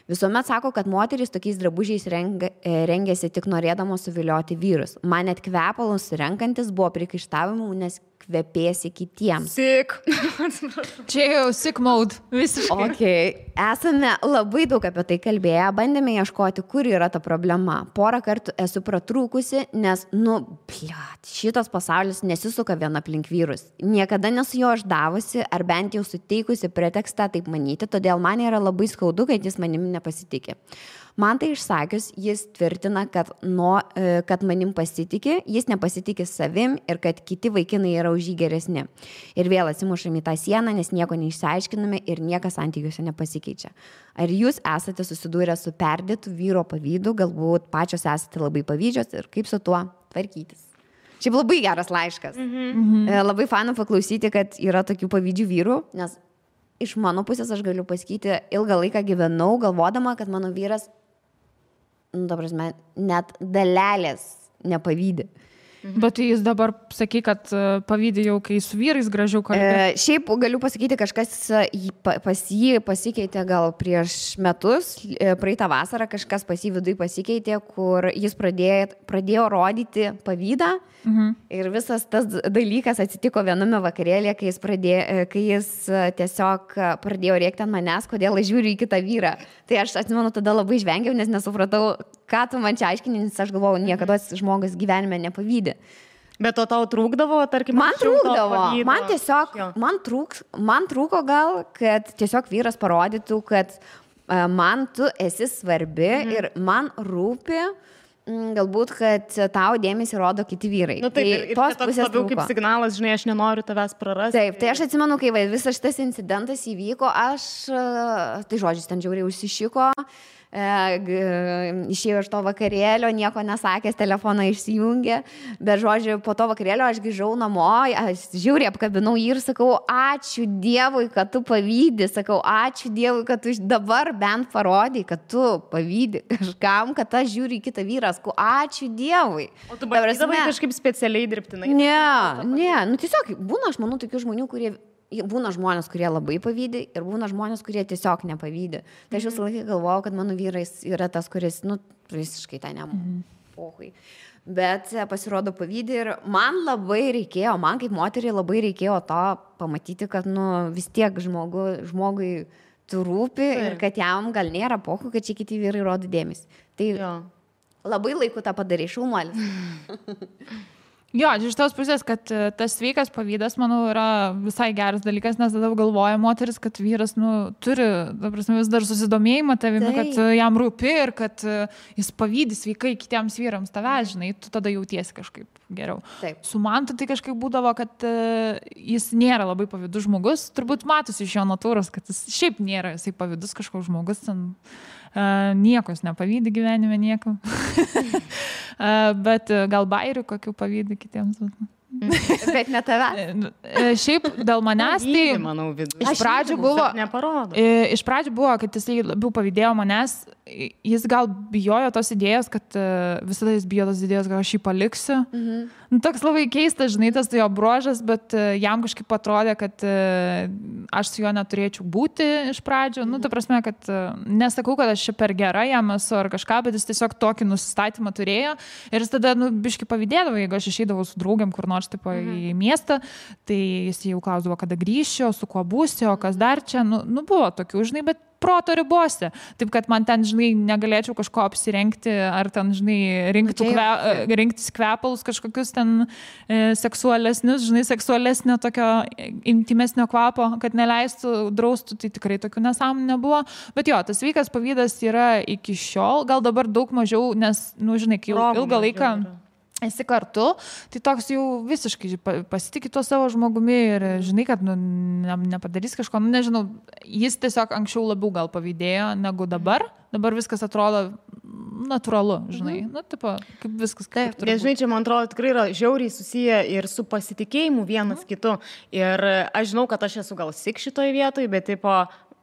Visuomet sako, kad moterys tokiais drabužiais rengiasi tik norėdamos suvilioti vyrus. Man net kvepalus renkantis buvo priekaištavimų, nes kvepėsi kitiems. Sick. Čia jau sick mode. Visiškai. Okay. Esame labai daug apie tai kalbėję, bandėme ieškoti, kur yra ta problema. Porą kartų esu pratrūkusi, nes, šitas pasaulis nesisuka vien aplink vyrus. Niekada nesu jo išdavusi, ar bent jau suteikusi pretekstą taip manyti, todėl man yra labai skaudu, kad jis manimi nepasitikė. Man tai išsakius, jis tvirtina, kad manim pasitikė, jis nepasitikė savim ir kad kiti vaikinai yra už jį geresni. Ir vėl atsimušam į tą sieną, nes nieko neišsiaiškiname ir niekas santykiuose nepasikeičia. Ar jūs esate susidūrę su perdėtu vyro pavydu, galbūt pačios esate labai pavydžios ir kaip su tuo tvarkytis? Šiaip labai geras laiškas. Labai faina paklausyti, kad yra tokių pavydžių vyrų, nes iš mano pusės aš galiu pasakyti, ilgą laiką gyvenau galvodama, kad mano vyras net dalelės nepavydė. Bet jis dabar sakai, kad pavydė jau, kai su vyrais gražiau kalbė. Šiaip galiu pasakyti, kažkas pas jį pasikeitė gal prieš metus, praeitą vasarą kažkas pas jį viduje pasikeitė, kur jis pradėjo rodyti pavydą. Ir visas tas dalykas atsitiko viename vakarėlėje, kai jis tiesiog pradėjo rėkti ant manęs, kodėl aš žiūriu į kitą vyrą. Tai aš atsimenu, tada labai žvengiau, nes nesupratau, ką tu man čia aiškini, nes aš galvojau, niekada žmogus gyvenime nepavydė. Bet to tau trūkdavo, tarkim, man trūkdavo. Man tiesiog, man trūko gal, kad tiesiog vyras parodytų, kad man tu esi svarbi ir man rūpi, galbūt, kad tau dėmesį rodo kiti vyrai. Tai tos pusės labiau kaip signalas, žinai, aš nenoriu tavęs prarasti. Taip, tai aš atsimenu, kai visas šitas incidentas įvyko, tai žodžiais ten žiauriai užsišiko, išėjau iš to vakarėlio, nieko nesakęs, telefoną išsijungė, bet žodžiu, po to vakarėlio aš grįžau namo, aš žiauriai apkabinau jį ir sakau, ačiū Dievui, kad tu pavydi, sakau, ačiū Dievui, kad tu dabar bent parodai, kad tu pavydi kažkam, kad aš žiūriu į kitą vyrą, sakau, ačiū Dievui. O tu bandydavai kažkaip specialiai dirbtinai? Ne, tiesiog būna, aš manau, tokių žmonių, būna žmonės, kurie labai pavydė ir būna žmonės, kurie tiesiog nepavydė. Tai aš visą laiką galvojau, kad mano vyras yra tas, kuris, visiškai tai pohui. Bet pasirodo pavydė ir man labai reikėjo, man kaip moteriai labai reikėjo to pamatyti, kad vis tiek žmogui tu rūpi ir kad jam gal nėra pohui, kad čia kiti vyrai rodo dėmesį. Tai labai laiku tą padarė, šaunuolis. Jo, iš tos pusės, kad tas sveikas pavydas, manau, yra visai geras dalykas, nes tada galvoja moteris, kad vyras, turi, vis dar susidomėjimą tavimi, kad jam rūpi ir kad jis pavydi sveikai kitiems vyrams tavęs, žinai, tu tada jautiesi kažkaip geriau. Taip. Su Mantu tai kažkaip būdavo, kad jis nėra labai pavydus žmogus, turbūt matosi iš jo natūros, kad jis šiaip nėra, jisai pavydus kažkoks žmogus, nieko jis nepavydi gyvenime, nieko. Bet gal bairių kokių pavydi kitiems. Bet ne tave. Šiaip dėl manęs tai manau, iš pradžių buvo, kad jis labiau pavydėjo manęs, jis gal bijojo tos idėjos, kad visada jis bijo tos idėjos, kad aš jį paliksiu. Toks labai keistas, žinai, tas jo bruožas, bet jam kažkaip atrodė, kad aš su juo neturėčiau būti iš pradžių. Ta prasme, kad nesakau, kad aš čia per gera jam esu ar kažką, bet jis tiesiog tokį nusistatymą turėjo ir jis tada, biškai pavydėdavo, jeigu aš išeidavau su draugiam kur nors tipo į miestą, tai jis jau klausdavo, kada grįšiu, su kuo būsiu, o kas dar čia, buvo tokių, žinai, bet proto ribose. Taip, kad man ten, žinai, negalėčiau kažko apsirengti, ar ten, žinai, rinktis kvepalus kažkokius ten seksualesnius, žinai, seksualesnio tokio intimesnio kvapo, kad neleistų, draustų, tai tikrai tokių nesąmonių nebuvo. Bet jo, tas sveikas pavydas yra iki šiol, gal dabar daug mažiau, nes, žinai, kai ilgą laiką... esi kartu, tai toks jau visiškai pasitikė tuo savo žmogumi ir žinai, kad nepadarys kažko, nežinau, jis tiesiog anksčiau labiau gal pavydėjo negu dabar viskas atrodo natūralu, žinai, tipo, kaip viskas kaip turbūt. Žinai, čia man atrodo tikrai yra žiauriai susiję ir su pasitikėjimu vienas kitu ir aš žinau, kad aš esu gal sik šitoje vietoje, bet tipo,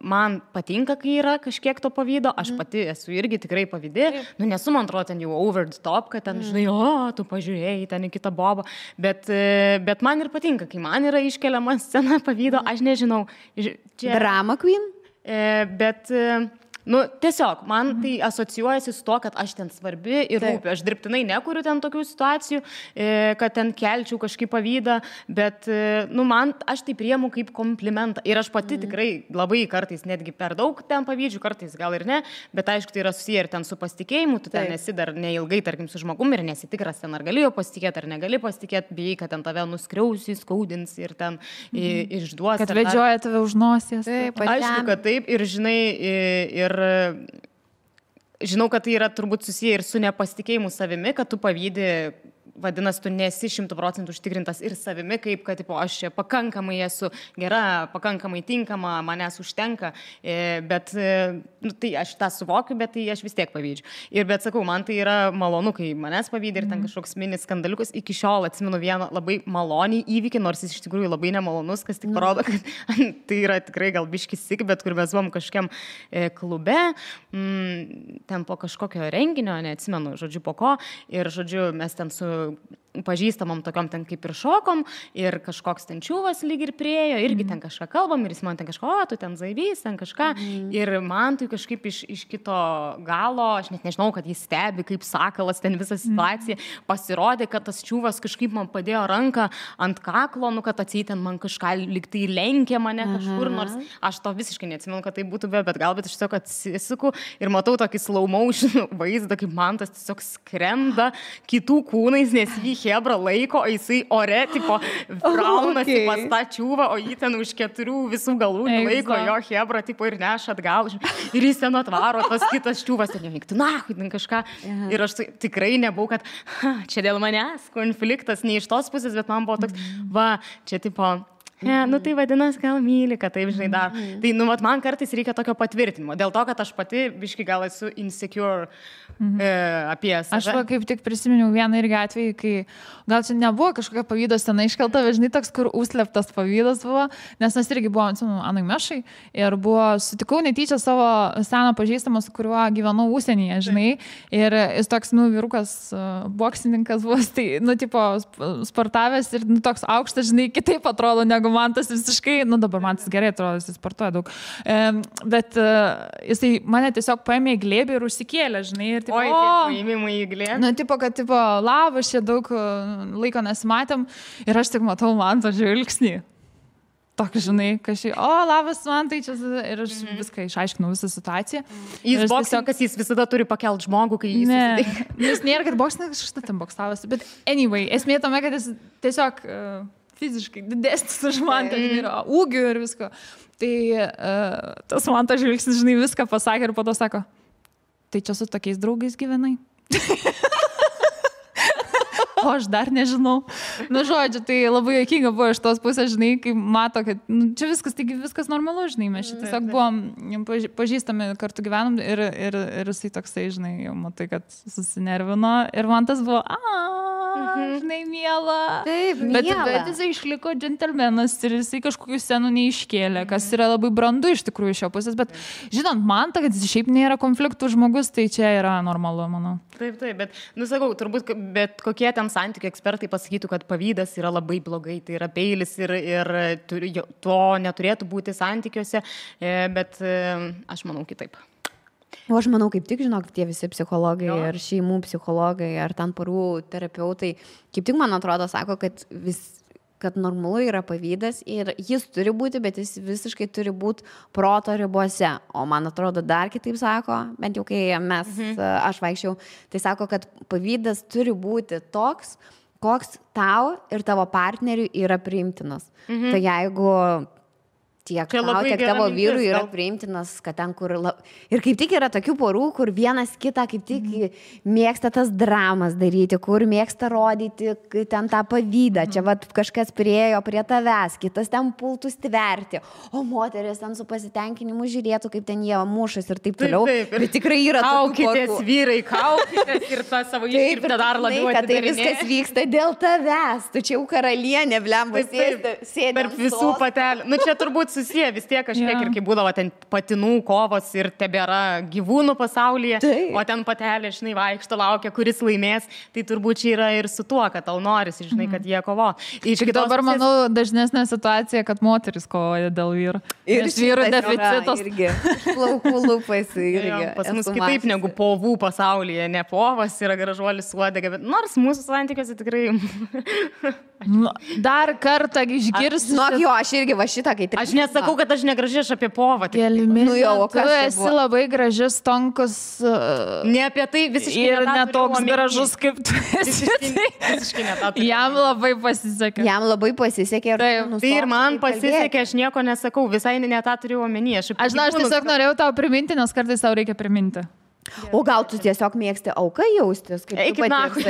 man patinka, kai yra kažkiek to pavydo, aš pati esu irgi tikrai pavydė, nesu, man atrodo, ten jau over the top, kad ten, žinai, tu pažiūrėjai ten į kitą bobą, bet man ir patinka, kai man yra iškeliama scena pavydo, aš nežinau. Drama queen? Bet... tiesiog, man tai asocijuojasi su to, kad aš ten svarbi ir rūpi. Aš dirbtinai nekuriu ten tokių situacijų, kad ten kelčiau kažkaip pavydą, bet, aš tai priemu kaip komplimentą. Ir aš pati tikrai labai kartais netgi per daug ten pavydžiu, kartais gal ir ne, bet aišku, tai yra susiję ir ten su pasitikėjimu, tu ten esi dar neilgai, tarkim, su žmogum ir nesitikras ten, ar gali jo pasitikėti, ar negali pasitikėti, bijai, kad ten tave nuskriausi, skaudins ir ten išduos. Kad vedžioja tave už nosies. Aišku, kad taip ir žinai, ir žinau, kad tai yra turbūt susiję ir su nepasitikėjimu savimi, kad tu pavydi, vadinasi, tu nesi 100% užtikrintas ir savimi, kaip, kad aš čia pakankamai esu gera, pakankamai tinkama, manęs užtenka, bet tai aš tą suvokiu, bet tai aš vis tiek pavydžiu. Ir bet sakau, man tai yra malonu, kai manęs pavydė ir ten kažkoks mini skandaliukas. Iki šiol atsimenu vieną labai malonį įvykį, nors jis iš tikrųjų labai nemalonus, kas tik parodo, kad tai yra tikrai gal biškis sik, bet kur mes buvom kažkiam klube, ten po kažkokio renginio, neatsimenu, žodžiu, po ko, ir žodžiu, mes ten su pažįstamom tokiom ten kaip ir šokom ir kažkoks ten čiūvas lyg ir priejo, irgi ten kažką kalbam ir jis man ten kažko, tu ten zaibys, ten kažką ir man tai kažkaip iš kito galo, aš net nežinau, kad jis stebi kaip sakalas ten visą situaciją, pasirodė, kad tas čiūvas kažkaip man padėjo ranką ant kaklo, kad atseit ten man kažką lyg tai lenkė mane kažkur, nors aš to visiškai neatsimenu, kad tai būtų bet galbūt aš tiesiog atsisuku ir matau tokį slow motion vaizdą, kaip man tas tiesiog skrenda kitų kūnais, nes jį hebra laiko, o jisai ore, tipo, braunasi pas tą čiūvą, o jį ten už 4 visų galų laiko, jo hebra, tipo, ir neša atgal. Ir jis ten atvaro, tas kitas čiūvas, ten nevyktų, ten kažką. Ir aš tikrai nebuvau, kad čia dėl manęs konfliktas, ne iš tos pusės, bet man buvo toks, čia, tipo, tai vadinasi, gal myli, kad taip, žinai, dar. Tai, man kartais reikia tokio patvirtinimo. Dėl to, kad aš pati biškai gal esu insecure apie save. Aš kaip tik prisiminiau vieną irgi atvejį, kai gal čia nebuvo kažkokia pavydo scena iškelta, bet žinai, toks, kur užslėptas pavydas buvo, nes mes irgi buvom, Anui Mešai, ir sutikau netyčia savo seną pažįstamą, su kuriuo gyvenau užsienyje, žinai, ir jis toks, vyrukas, boksininkas buvo, tai, tipo, sportavęs ir, toks aukštas, žinai, kitaip atrodo, negu man tas visiškai, dabar man tas gerai atrodo, jis sportuoja daug, bet jisai mane tiesiog paėmė į glėbį ir užsikėlė, žinai, ir tipo, paėmimai į glėbį. Tipo, kad, tipo, labas, čia daug laiko nesimatėm ir aš tik matau man tą žvilgsnį. Tokį, žinai, kažkai, labas, man tai čia, ir aš viską išaiškinau, visą situaciją. Jis boksininkas, jis visada turi pakelt žmogų, kai jis susitinka. Jis nėra, kad boksininkas kažkas ten boksavosi, bet anyway, esmė tame, kad jis tiesiog fiziškai didesnis už man, yra ūgių ir visko. Tai tas man tas žvilgsnis, žinai, viską pasakė ir po to sako, tai čia su tokiais draugais gyvenai. O aš dar nežinau. Žodžiu, tai labai juokinga buvo iš tos pusės, žinai, kai mato, kad čia viskas normalu, žinai, mes čia tiesiog buvom pažįstami, kartu gyvenom ir jisai toksai, žinai, jau matai, kad susinervino ir man tas buvo, žinai, miela. Taip, miela. Bet jisai išliko džentelmenas ir jisai kažkokių scenų neiškėlė, kas yra labai brandu iš tikrųjų iš šio pusės, bet žinant man, kad jis šiaip nėra konfliktų žmogus, tai čia yra normalu, manau. Taip, bet, sakau, turbūt, bet kokie ten santykių ekspertai pasakytų, kad pavydas yra labai blogai, tai yra peilis ir to neturėtų būti santykiuose, bet aš manau kitaip. O aš manau, kaip tik, žinok, tie visi psichologai ir šeimų psichologai ar ten porų terapeutai, kaip tik, man atrodo, sako, kad normalu yra pavydas ir jis turi būti, bet jis visiškai turi būti proto ribose. O man atrodo, dar kitaip sako, bent jau kai aš vaikščiau, tai sako, kad pavydas turi būti toks, koks tau ir tavo partneriui yra priimtinas. Tai jeigu tiek tau, tiek tavo vyrui yra priimtinas, kad ten, kur... Ir kaip tik yra tokių porų, kur vienas kitą kaip tik mėgsta tas dramas daryti, kur mėgsta rodyti ten tą pavydą. Čia vat kažkas priejo prie tavęs, kitas ten pultų stverti, o moteris ten su pasitenkinimu žiūrėtų, kaip ten jie mušas ir taip toliau. Bet tikrai yra tokių porų. Kaukitės, vyrai, kaukitės ir tą savo iškirptą dar labiau atidarinėti. Tai viskas vyksta dėl tavęs. Tu čia jau karalienė, blemba, sėdi tarp visų patelių. Nu, čia turbūt susiję vis tiek kažkiek ir kai būdavo ten patinų kovos ir tebėra gyvūnų pasaulyje, o ten patelė, žinai, vaikšto, laukia, kuris laimės, tai turbūt čia yra ir su tuo, kad tau norisi, žinai, kad jie kovo. Dabar, manau, dažnesnė situacija, kad moteris kovoja dėl vyrų. Ir vyrų deficitas. Plaukų lūpas irgi. Pas mus kitaip negu povų pasaulyje, ne povas yra gražuolis uodega, bet nors mūsų santykiuose tikrai... Dar kartą išgirsti. Jo, aš irgi va šitą, kai... Aš nesakau, kad aš negraži, aš apie povą. Tu esi labai gražus, tonkus. Ne apie tai visiškai. Ir netoks gražus, kaip tu esi. Visiškai netatu. Jam labai pasisekė. Jam labai pasisekė. Tai ir man pasisekė, aš nieko nesakau, visai netą turiu omeny. Aš tiesiog norėjau tau priminti, nes kartais tau reikia priminti. O gal tu tiesiog mėgsti auką jaustis? Eikit nachui.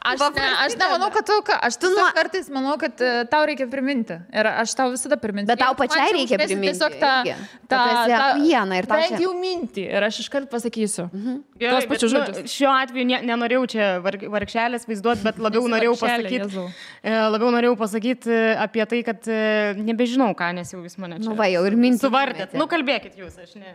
Aš nemanau, kad aš kartais manau, kad tau reikia priminti. Ir aš tau visada priminti. Bet tau pačiai reikia priminti. Tiesiog bent jau mintį. Ir aš iškart pasakysiu. Tuos pačius žodžius. Šiuo atveju nenorėjau čia vargšelės vaizduoti, bet labiau norėjau pasakyti apie tai, kad nebežinau ką, nes jau vis mane čia. Nu va, jau ir mintį. Suvardėt. Nu kalbėkit jūs, aš ne.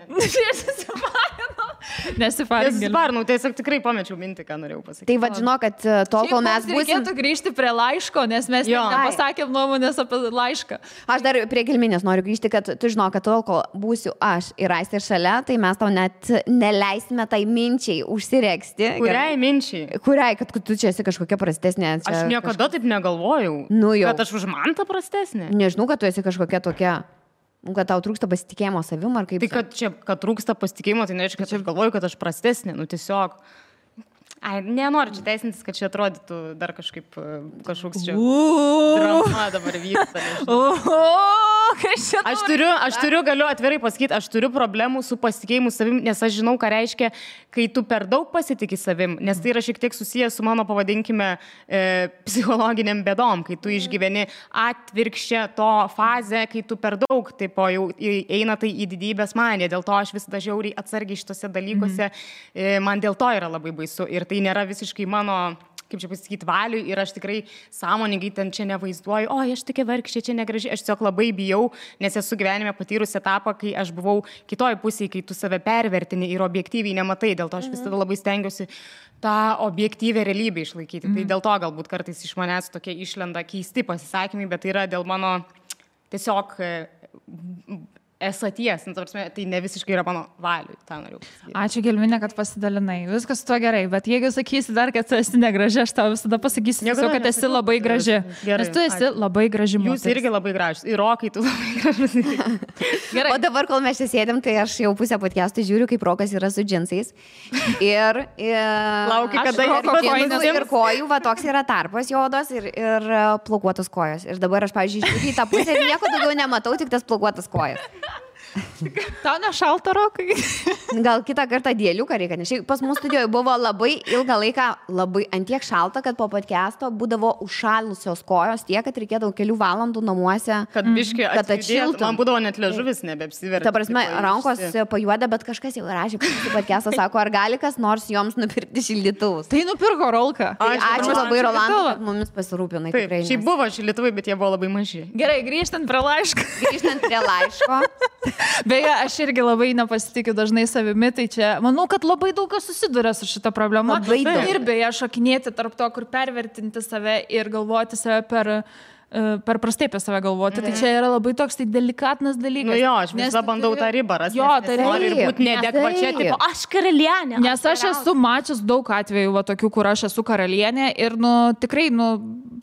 Nesifarinu, tiesiog tikrai pamečiau mintį, ką norėjau pasakyti. Tai vad žinau, kad tol, kol mes būsim... Reikėtų grįžti prie laiško, nes mes nepasakėm nuomonės apie laišką. Aš dar prie Gelminės noriu grįžti, kad tu žinau, kad tol, kol būsiu aš ir Aistė šalia, tai mes tau net neleisime tai minčiai užsiregsti. Kuriai minčiai? Kuriai, kad tu čia esi kažkokia prastesnė. Aš niekada taip negalvojau. Kad aš už mantą prastesnė. Nežinau, kad tu esi kažkokia tokia... Kad tau trūksta pasitikėjimo savim ar kaip... Tai kad trūksta pasitikėjimo, tai nereiškia, kad aš galvoju, kad aš prastesnė. Nu tiesiog... Nenoriu čia teisintis, kad čia atrodytų dar kažkaip kažkoks čia drama dabar vyksta. Aš turiu, galiu atvirai pasakyti, aš turiu problemų su pasitikėjimu savim, nes aš žinau, ką reiškia, kai tu per daug pasitiki savim, nes tai yra šiek tiek susijęs su mano, pavadinkime, psichologiniam bėdom, kai tu išgyveni atvirkščią to fazę, kai tu per daug, taip jau eina tai į didybės maniją, dėl to aš vis dažiauriai atsargiai šitose dalykuose, man dėl to yra labai baisu ir tai nėra visiškai mano, kaip čia pasakyti, valiui ir aš tikrai sąmoningai ten čia nevaizduoju, o aš tokia vargšė, čia negraži, aš tiesiog labai bijau, nes esu gyvenime patyrusi etapą, kai aš buvau kitoj pusėje, kai tu save pervertini ir objektyviai nematai, dėl to aš visada labai stengiuosi tą objektyvę realybę išlaikyti. Tai dėl to galbūt kartais iš manęs tokie išlenda keisti pasisakymai, bet tai yra dėl mano tiesiog esaties, tai ne visiškai yra mano valiui, tą noriu pasakyti. Ačiū Gelminė, kad pasidalinai. Viskas su tuo gerai, bet jeigu sakysi dar, kad tu esi negraži, aš tau visada pasakysiu, kad esi labai graži. Nes tu esi labai graži moteris. Jūs irgi labai gražus. Ir Rokai, tu labai gražus. Gerai. O dabar, kol mes čia sėdėm, tai aš jau pusę podcastų žiūriu, kaip Rokas yra su džinsais. Ir laukiu, kada ir kojų, va toks yra tarpas jodos ir plaukuotos kojos. Ir dabar aš, pavyzdžiui, žiūriu į tą pusę ir nieko daugiau nematau, tik tas plaukuotas kojas. Tau nešalta, Rokai? Gal kitą kartą dėliuką reikia, nes pas mūsų studijoje buvo labai ilgą laiką labai antiek šalta, kad po podcast'o būdavo užšalusios kojos tiek, kad reikėdavo kelių valandų namuose, kad biškį atšiltų. Man būdavo net liežuvis nebeapsiverti. Ta prasme, rankos pajuoda, bet kažkas jau rašė, kad podcast'ą sako, ar gali kas nors joms nupirkti šildytuvus. Tai nupirko Rolka. Ačiū labai, Rolandai, kad mumis pasirūpinai. Šiaip buvo šildytuvai, bet jie buvo labai maži. Gerai, grįžtant prie laiško. Beje, aš irgi labai nepasitikiu dažnai savimi, tai čia manau, kad labai daug kas susiduria su šita problema. Ir beje, šokinėti tarp to, kur pervertinti save ir galvoti save per prastai apie save galvoti. Tai čia yra labai toks tai delikatnas dalykas. Nu jo, aš visą bandau tą ribą rasti. Jo, tai noriu ir būti neadekvačia, tipo, aš karalienė. Nes aš esu mačius daug atvejų, va, tokių, kur aš esu karalienė ir, tikrai,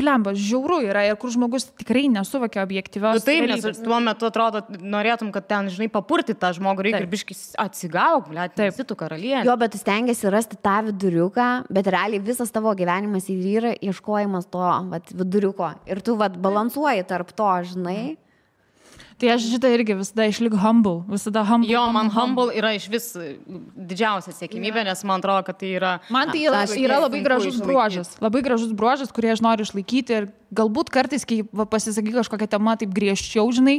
blemba, žiauru yra ir kur žmogus tikrai nesuvokia objektyvios. Taip, nes tuo metu atrodo, norėtum, kad ten, žinai, papurti tą žmogų, reikia ir biškis atsigauk, blėt, esi tu karalienė. Jo, bet tu stengiasi rasti tą viduriuką, bet realiai visas tavo gyvenimas ir yra ieškojimas to viduriuko. Ir tu balansuoji tarp to, žinai. Tai aš šitą irgi visada išlik humble. Visada humble. Jo, man humble yra iš vis didžiausia siekimybė, nes man atrodo, kad tai yra... Man tai yra labai gražus bruožas. Labai gražus bruožas, kurį aš noriu išlaikyti ir galbūt kartais, kai pasisakai kažkokią temą taip griežčiau, žinai,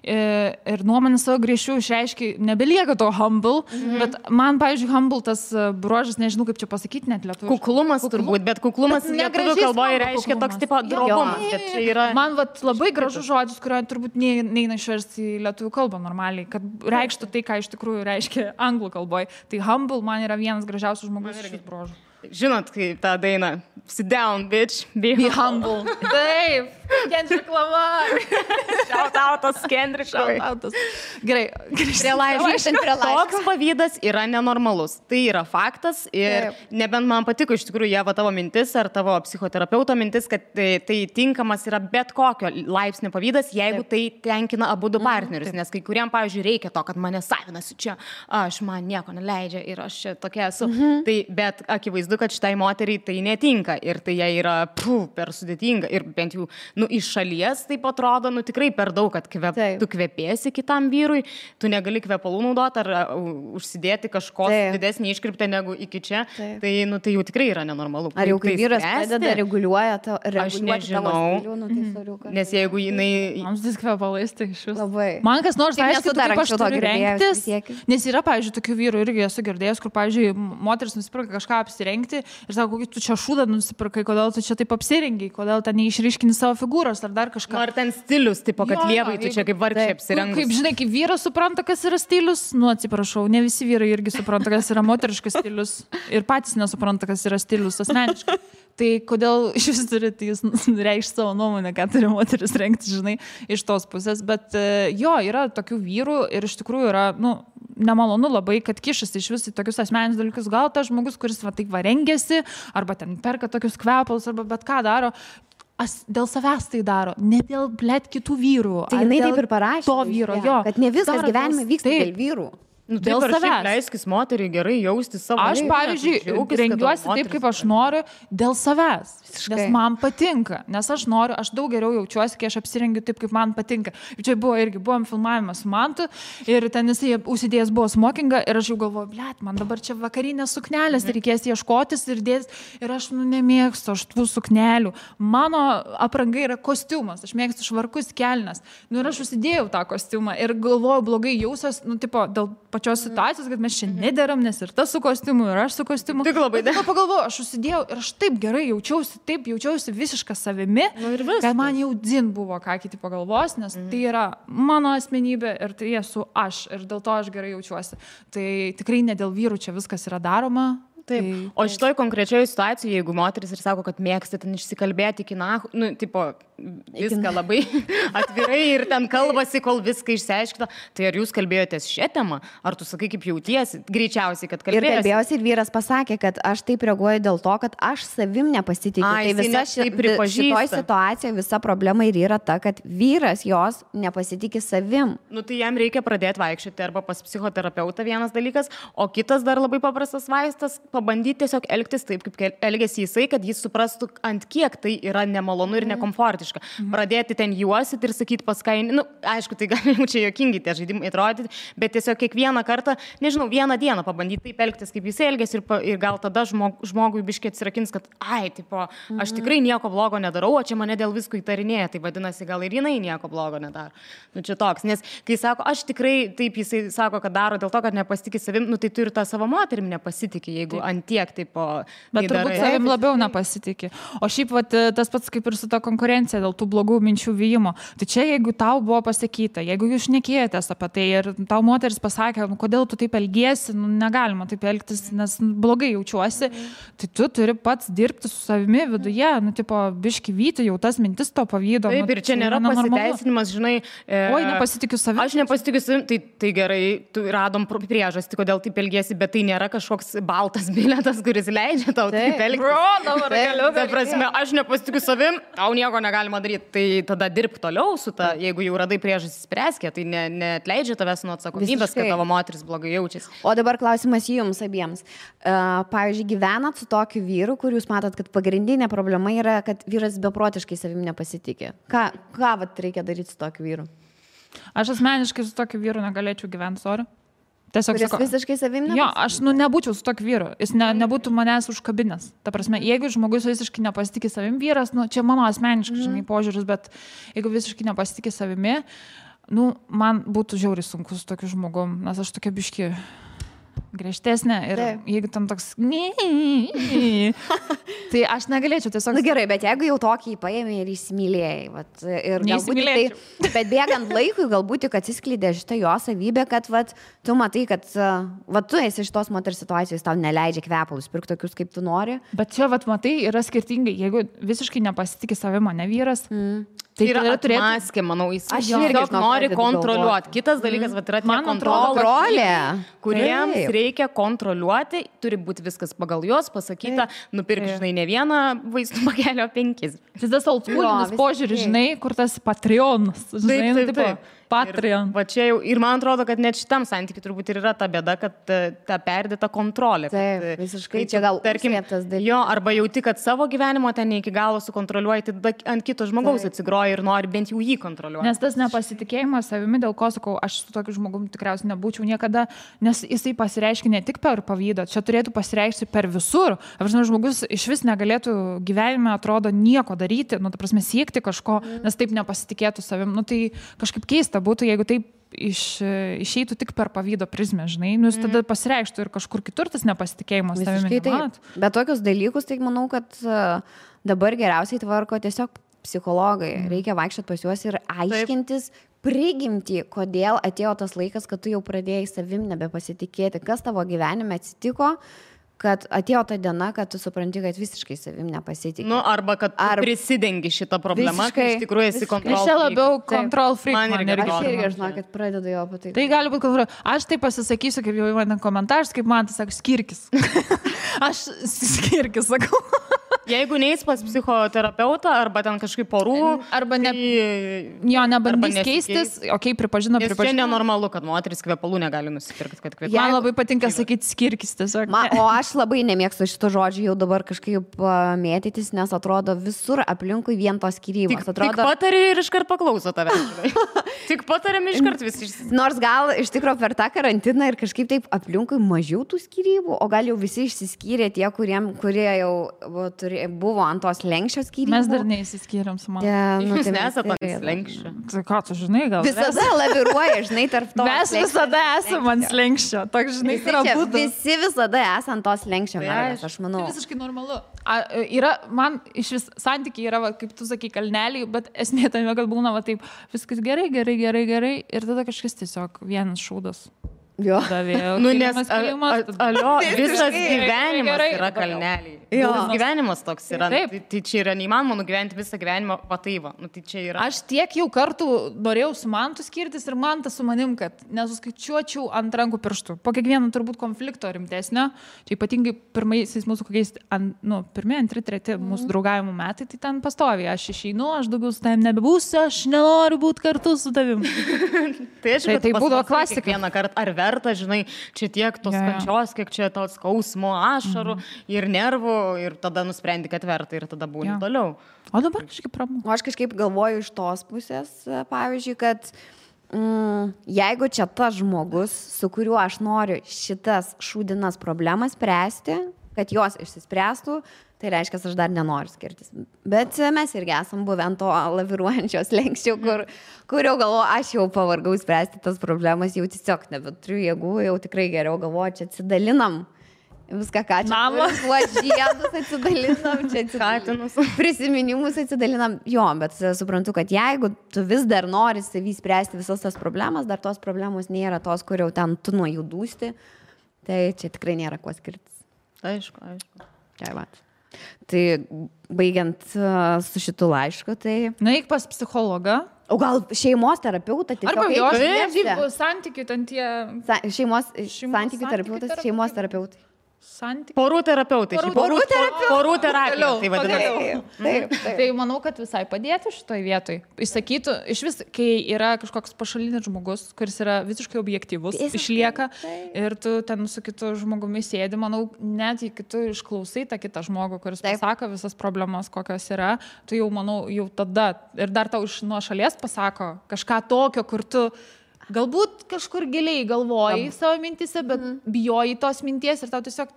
ir nuomonę savo griežčiau išreiškia, nebelieka to humble, bet man, pavyzdžiui, humble tas bruožas, nežinau kaip čia pasakyti net lietuviškai. Kuklumas turbūt, bet kuklumas lietuvių kalboje reiškia toks tipo drobumas. Man labai gražus žodis, kurio turbūt neina išversti į lietuvių kalbą normaliai, kad reikštų tai, ką iš tikrųjų reiškia anglų kalboje. Tai humble man yra vienas gražiausių žmogus šis bruožų. Žinot, kaip tą dainą, sit down, bitch, be humble. Taip, Kendrick Lamar. Shoutoutas Kendrick. Gerai, grįžtant prie laiško. Toks pavydas yra nenormalus. Tai yra faktas ir nebent man patiko iš tikrųjų Ieva tavo mintis ar tavo psichoterapeuto mintis, kad tai tinkamas yra bet kokio laipsnio pavydas, jeigu tai tenkina abu du partnerius. Nes kai kuriam, pavyzdžiui, reikia to, kad mane savinasi čia, man nieko neleidžia ir aš čia tokia esu. Tai, bet akivaizdu, kad šitai moteriai tai netinka ir tai jai yra per sudėtinga ir bent jau iš šalies taip atrodo, tikrai per daug, kad tu kvepėsi kitam vyrui, tu negali kvepalų naudoti ar užsidėti kažkos didesnį iškirptę negu iki čia, tai jau tikrai yra nenormalu. Ar jau kai vyras pradeda reguliuoja aš nežinau, nes jeigu jinai... Mums vis kvepalais, tai iš vis. Labai. Man kas nors aišku, kaip aš turiu rengtis, nes yra, pavyzdžiui, tokių vyrų irgi esu girdėjęs, kur, pavyzdžiui, moteris nusipirka kažką apsirengti ir sako, kokį tu čia šūdą nusipirkai, kodėl tu čia taip apsirengiai, kodėl ten neišryškini savo figūros ar dar kažką. Ar ten stilius, tipo, kad lievai tu čia kaip vargšė apsirengus. Kaip žinai, kaip vyras supranta, kas yra stilius, atsiprašau, ne visi vyrai irgi supranta, kas yra moteriškas stilius ir patys nesupranta, kas yra stilius asmeniškai. Tai kodėl iš vis turite jūs reikšti savo nuomonę, ką turi moteris rengti, žinai, iš tos pusės. Bet jo, yra tokių vyrų ir iš tikrųjų yra, nemalonu labai, kad kišasi iš vis į tokius asmeninius dalykus. Gal tas žmogus, kuris taip rengiasi, arba ten perka tokius kvepalus, arba bet ką daro, dėl savęs tai daro, ne dėl kitų vyrų. Tai jinai taip ir parašė. To vyro, jo. Kad ne viskas gyvenime vyksta dėl vyrų. Dėl savęs. Leiskis moteriai gerai jausti savo. Aš, pavyzdžiui, rengiuosi taip, kaip aš noriu, dėl savęs. Nes man patinka. Nes aš noriu, aš daug geriau jaučiuosi, kai aš apsirengiu taip, kaip man patinka. Ir čia buvom filmavimas su Mantu ir ten jisai užsidėjęs buvo smokingą ir aš jau galvoju, blet, man dabar čia vakarinės suknelės, reikės ieškotis ir dėtis. Ir aš nemėgstu aš tų suknelių. Mano apranga yra kostiumas. Aš mėgstu švarkus kelnes. Ir aš užsidėjau tą kostiumą ir galvoju, blogai jausiuos, dėl pačios situacijos, kad mes čia nederam, nes ir tas su kostiumu, ir aš su kostiumu. Tik labai dar. Pagalvoju, aš užsidėjau ir aš taip gerai jaučiausi visišką savimi, kad man jau dzin buvo, ką kiti pagalvos, nes tai yra mano asmenybė ir tai esu aš ir dėl to aš gerai jaučiuosi. Tai tikrai ne dėl vyrų čia viskas yra daroma. Taip. O šitoj konkrečioje situacijoje, jeigu moteris ir sako, kad mėgsta ten išsikalbėti iki viską labai atvirai ir ten kalbasi, kol viską išsiaiškina, tai ar jūs kalbėjotės šią temą? Ar tu sakai, kaip jautiesi? Greičiausiai, kad kalbėjosi. Ir kalbėjausi ir vyras pasakė, kad aš taip reaguoju dėl to, kad aš savim nepasitikiu. Tai visa šitoj situacijoje visa problema ir yra ta, kad vyras jos nepasitikė savim. Tai jam reikia pradėti vaikščioti arba pas psichoterapeutą vienas dalykas, o kitas dar labai paprastas vaistas pabandyti tiesiog elgtis taip, kaip elgėsi jisai, kad jis suprastų, ant kiek tai yra nemalonu ir nekomfortiška. Pradėti ten juosit ir sakyti paskainį, aišku, tai gali jau čia juokingi tie žaidimai atrodyti, bet tiesiog kiekvieną kartą, nežinau, vieną dieną pabandyti taip elgtis, kaip jisai elgėsi ir gal tada žmogui biškiai atsirakins, kad aš tikrai nieko blogo nedarau, o čia mane dėl visko įtarinėja, tai vadinasi, gal ir jinai nieko blogo nedaro. Čia toks, nes kai sako, aš tikrai taip jisai sako, kad daro dėl to, kad nepasitikė savim, tai tu ir tą savo moterim nepasitikė, jeigu antiek taip bet turbūt savim labiau nepasitikė. O šiaip tas pats kaip ir su ta konkurencija dėl tų blogų minčių vyjimo. Tai čia jeigu tau buvo pasakyta, jeigu jūs šnekėjotės apie tai ir tau moteris pasakė, kodėl tu taip elgiesi, negalima taip elgtis, nes blogai jaučiuosi, tai tu turi pats dirbti su savimi viduje, biški vyti jau tas mintis to pavydo. Taip, ir čia nėra pasiteisinimas, žinai. Oi, nepasitikiu savim. Aš nepasitikiu savim, tai gerai, tu radom priežastį, kodėl taip elgiesi, bet tai nėra kažkoks baltas bilietas, kuris leidžia tau taip elgtis. Dabar galiu. Ta prasme, aš nepasitikiu savim, tau nieko negalima daryti, tai tada dirbk toliau su ta, jeigu jau radai priežastį spręskė, tai neatleidžia tavęs nuo atsakomybės, kad tavo moteris blogai jaučiasi. O dabar klausimas jums abiems. Pavyzdžiui, gyvenat su tokiu vyru, kur jūs matot, kad pagrindinė problema yra, kad vyras beprotiškai savim nepasitikė. Ką vat reikia daryti su tokiu vyru? Aš asmeniškai su tokiu vyru negalėčiau gyventi, sorry. Tiesiog Kuris visiškai savim nepasitikė? Jo, aš nebūčiau su tokiu vyru. Jis nebūtų manęs užkabinęs. Ta prasme, jeigu žmogus visiškai nepasitikė savim vyras, čia mano asmeniškai, žinai, požiūris, bet jeigu visiškai nepasitikė savimi, man būtų žiauriai sunku su tokiu žmogum, nes aš tokia biški griežtesnė ir jeigu tam toks tai aš negalėčiau tiesiog... Gerai, bet jeigu jau tokį paėmė ir įsimylėjai, vat, ir galbūt tai, bet bėgant laikui galbūt tik atsiskleidė šitą jo savybę, kad vat, tu matai, kad vat, tu esi šitos moters situacijos, tau neleidžia kvepalus pirkti tokius, kaip tu nori. Bet čia, vat, matai, yra skirtingai. Jeigu visiškai nepasitikė savimo, ne vyras, tai yra atmaskė, manau, jis nori kontroliuoti. Kitas dalykas, vat, yra kontrolė, kuriems reikia kontroliuoti, turi būti viskas pagal juos pasakyta, nupirk, žinai, ne vieną vaistų pakelio 5. Tai tas oldschoolinis požiūris, žinai, kur tas Patreonas, žinai, taip. Patreon. Va čia jau, ir man atrodo, kad net šitam santykiui turbūt ir yra ta bėda, kad ta perdėta kontrolė. Taip, visiškai čia gal užslėptas dalykas. Jo, arba jauti, kad savo gyvenimo ten ne iki galo sukontroliuoji, tai ant kito žmogaus atsigroji ir nori bent jau jį kontroliuoti. Nes tas nepasitikėjimas savimi, dėl ko sakau, aš su tokiu žmogum tikriausiai nebūčiau niekada, nes jisai pasireiškia ne tik per pavydą, čia turėtų pasireikšti per visur. Apžinau, žmogus iš vis negalėtų gyvenime, atrodo, nieko daryti, ta prasme, siekti kažko, nes taip nepasitikėtų savim. Tai kažkaip keista būtų, jeigu taip išeitų tik per pavydo prizmę, žinai, jis tada pasireikštų ir kažkur kitur tas nepasitikėjimas savimi. Bet tokius dalykus, tai manau, kad dabar geriausiai tvarko tiesiog psichologai. Reikia vaikščioti pas juos ir aiškintis prigimtį, kodėl atėjo tas laikas, kad tu jau pradėjai savim nebepasitikėti, kas tavo gyvenime atsitiko, kad atėjo ta diena, kad tu supranti, kad visiškai savim nepasitikė. Arba kad prisidengi šitą problemą, kai iš tikrųjų esi control freak. Aš čia labiau control freak. Aš irgi žinau, kad pradedu jo patai. Tai gali būti control. Aš tai pasisakysiu, kaip jau man komentaras, kaip man tai sako, skirkis. Aš skirkis sakau. Jeigu neis pas psichoterapeutą, arba ten kažkaip porų, arba nebandys keistis, pripažino. Čia nenormalu, kad moteris kvepalų negali nusipirkti. Man labai patinka sakyti skirkis tiesiog. O aš labai nemėgstu šito žodžio jau dabar kažkaip mėtytis, nes atrodo visur aplinkui vien tos skyrybos. Tik patari ir iškart paklauso tave. Tik patariam iškart visi. Nors gal iš tikrųjų per tą karantiną ir kažkaip taip aplinkui mažiau tų skyrybų, o gal jau visi išsiskyrė tie, kurie jau buvo ant tos lenkščio skyrybų. Mes dar neįsiskyrėm su mama. Jūs nesate ant lenkščio. Tai ką tu žinai, gal? Visada laviruoja, žinai, tarp to. Mes visada esame ant lenkščio. Toks, žinai, visi visada esame ant tos lenkščio, aš manau. Tai visiškai normalu. Man iš vis santykiai yra, kaip tu sakai, kalneliai, bet esmė tame, kad būna taip, viskas gerai ir tada kažkas tiesiog vienas šūdas. Nes visas gyvenimas yra kalneliai. Gyvenimas toks yra. Tai čia yra neįmanoma nugyventi visą gyvenimą pataiva. Tai čia yra. Aš tiek jau kartų norėjau su Mantu skirtis ir Mantas su manim, kad nesuskaičiuočiau ant rankų pirštų. Po kiekvieno turbūt konflikto rimtesnio, čia ypatingai pirmaisiais mūsų kokiais, pirmi, antri, treti mūsų draugavimo metai, tai ten pastoviai. Aš išeinu, aš daugiau su tavim nebebūsiu, aš nenoriu būti kartu su tavim. Tai būdavo klasika. Vieną kartą ar verta, žinai, čia tiek tos kančios, kiek čia tos skausmo, ašarų ir nervų ir tada nusprendi, kad verta ir tada būni toliau. O dabar kažkaip pramu. O aš kažkaip galvoju iš tos pusės, pavyzdžiui, kad jeigu čia tas žmogus, su kuriuo aš noriu šitas šūdinas problemas spręsti, kad jos išsispręstų, tai reiškia, aš dar nenoriu skirtis. Bet mes irgi esam buvę ant to laviruojančios lenkščio, kur jau galvoju, aš jau pavargau spręsti tas problemas, jau tiesiog nebeturiu jėgų, jau tikrai geriau galvoju, čia atsidalinam. Viską, ką čia žiedus atsidalinam, čia prisiminimus atsidalinam. Jo, bet suprantu, kad jeigu tu vis dar nori savį spręsti visas tas problemas, dar tos problemos nėra tos, kur jau ten tu nuo jų dūsti, tai čia tikrai nėra kuo skirtis. Aišku. Tai baigiant su šitu laišku, tai... Nueik pas psichologą. O gal šeimos terapeutą tiesiog... Arba jos santykių ten tie... Šeimos santykių terapeutas, šeimos terapeutai. santykių. Porų terapeutai. Porų terapija. Tai vadinasi. Taip. Tai manau, kad visai padėtų šitoj vietoj. Įsakytų, iš vis, kai yra kažkoks pašalinis žmogus, kuris yra visiškai objektyvus, išlieka ir tu ten su kitu žmogumi sėdi, manau, net jei tu išklausai tą kitą žmogų, kuris pasako visas problemas, kokios yra, tu jau, manau, jau tada ir dar tau iš nuo šalies pasako kažką tokio, kur tu galbūt kažkur giliai galvoji savo mintise, bet bijoji tos minties ir tau tiesiog...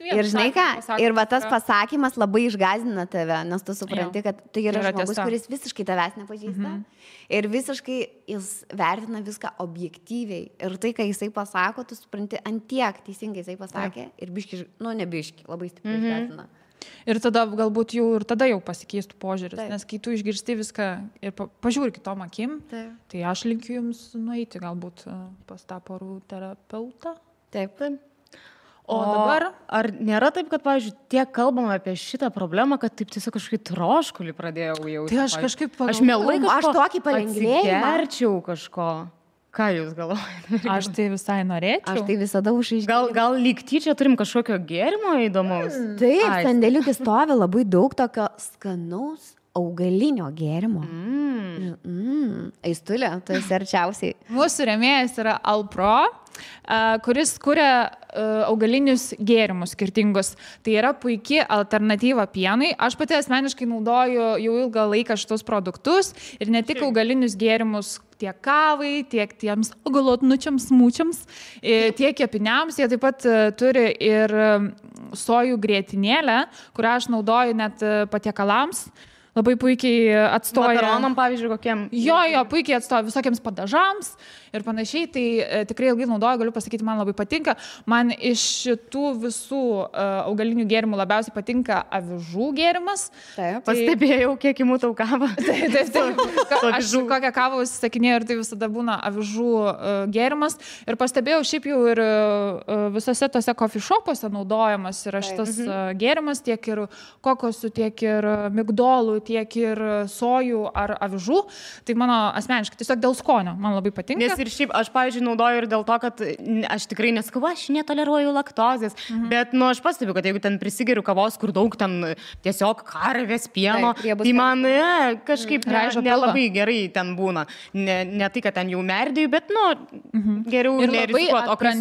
Ir žinai ką, ir va tas pasakymas labai išgąsdina tave, nes tu supranti, kad tai yra žmogus, kuris visiškai tavęs nepažįsta ir visiškai jis vertina viską objektyviai. Ir tai, kai jisai pasako, tu supranti, ant tiek teisingai jisai pasakė ir biški, ne biški, labai stipriai išgąsdina. Ir tada galbūt jau pasikeistų požiūris, nes kai tu išgirsti viską ir pažiūri kitom akim, tai aš linkiu jums nueiti galbūt pas tą porų terapeutą. Taip. O dabar... Ar nėra taip, kad, pavyzdžiui, tiek kalbama apie šitą problemą, kad taip tiesiog kažkaip troškulį pradėjau jausti? Tai aš kažkaip Aš mielai aš tokį palengvėjimą. Atsigerčiau kažko. Ką jūs galvojate? Aš tai visai norėčiau. Aš tai visada užaiškinau. Gal lyg tyčia turim kažkokio gėrimo įdomaus? Taip, sandėliukį stovi labai daug tokio skanaus augalinio gėrimo. Aistulė, tu esi arčiausiai. Mūsų rėmėjas yra Alpro, kuris kuria augalinius gėrimus skirtingus. Tai yra puikia alternatyva pienui. Aš pati asmeniškai naudoju jau ilgą laiką šitus produktus ir ne tik augalinius gėrimus tiek kavai, tiek tiems augalotnučiams, smūčiams, tiek kepiniams. Jie taip pat turi ir sojų grietinėlę, kurią aš naudoju net patiekalams. Labai puikiai atstoja. Makaronam, pavyzdžiui, kokiem? Jo, puikiai atstoja visokiams padažams ir panašiai. Tai tikrai ilgai naudoju, galiu pasakyti, man labai patinka. Man iš šitų visų augalinių gėrimų labiausiai patinka avižų gėrimas. Taip. Pastebėjau, kiek įmu tau kavą. Taip. Aš kokią kavą užsisakinėjau ir tai visada būna avižų gėrimas. Ir pastebėjau, šiaip jau ir visose tose coffee shopuose naudojamas yra šitas gėrimas, tiek ir kokosų, tiek ir migdolų, tiek ir sojų ar avižų. Tai mano asmeniškai tiesiog dėl skonio man labai patinka. Nes ir šiaip aš, pavyzdžiui, naudoju ir dėl to, kad aš tikrai neskau, aš netoleruoju laktozės, bet, aš pastebiu, kad jeigu ten prisigeriu kavos, kur daug ten tiesiog karvės pieno, tai man kažkaip nelabai gerai ten būna. Ne tai, kad ten jau merdėjau, bet, geriau nerizikuot, o kai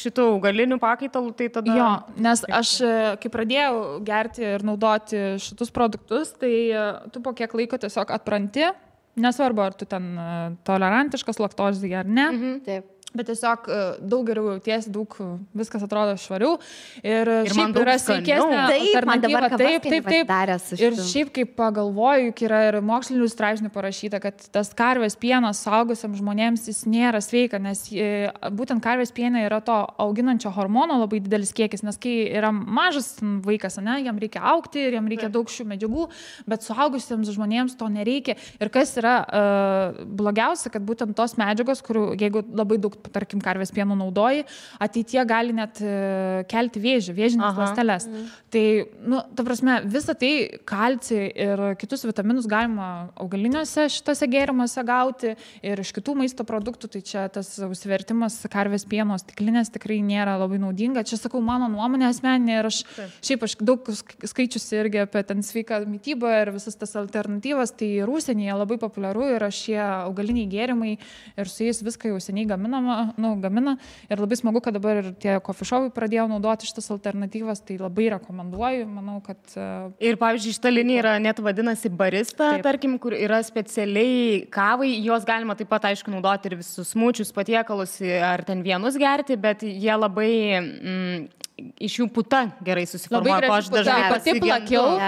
šitų augalinių pakaitalų, tai tada... Jo, nes aš, kai pradėjau gerti ir naudoti šitus produktus, tai tu po kiek laiko tiesiog atpranti, nesvarbu, ar tu ten tolerantiškas laktozei ar ne. Taip. Bet tiesiog daug geriau jautiesi, daug viskas atrodo švariau ir šiaip yra sveikesnė alternatyva. Taip. Ir šiaip kaip pagalvoju, yra ir mokslinių straipsnių parašyta, kad tas karvės pienas suaugusiam žmonėms jis nėra sveika, nes būtent karvės piene yra to auginančio hormono labai didelis kiekis, nes kai yra mažas vaikas, jam reikia augti ir jam reikia daug šių medžiagų, bet suaugusiems žmonėms to nereikia. Ir kas yra blogiausia, kad būtent tos medžiagos, kurių jeigu labai daug tarkim, karvės pieno naudoji, ateitie gali net kelti vėžines ląsteles. Tai, ta prasme, visą tai kalcį ir kitus vitaminus galima augaliniuose šitose gėrimuose gauti ir iš kitų maisto produktų, tai čia tas užsivertimas karvės pieno stiklinės tikrai nėra labai naudinga. Čia sakau, mano nuomonė asmeninė ir aš daug skaičiusi irgi apie ten sveiką mitybą ir visas tas alternatyvas, tai ir užsienyje labai populiaru yra šie augaliniai gėrimai ir su jais viską jau seniai gamina ir labai smagu, kad dabar ir tie coffee shopai pradėjo naudoti šitas alternatyvas, tai labai rekomenduoju, manau, kad... Ir, pavyzdžiui, šita linija yra net vadinasi barista, tarkim, kur yra specialiai kavai, jos galima taip pat, aišku, naudoti ir visus smūčius, patiekalus, ar ten vienus gerti, bet jie labai... iš jų puta gerai susiformuoja, ko aš dažnai pati plakiau,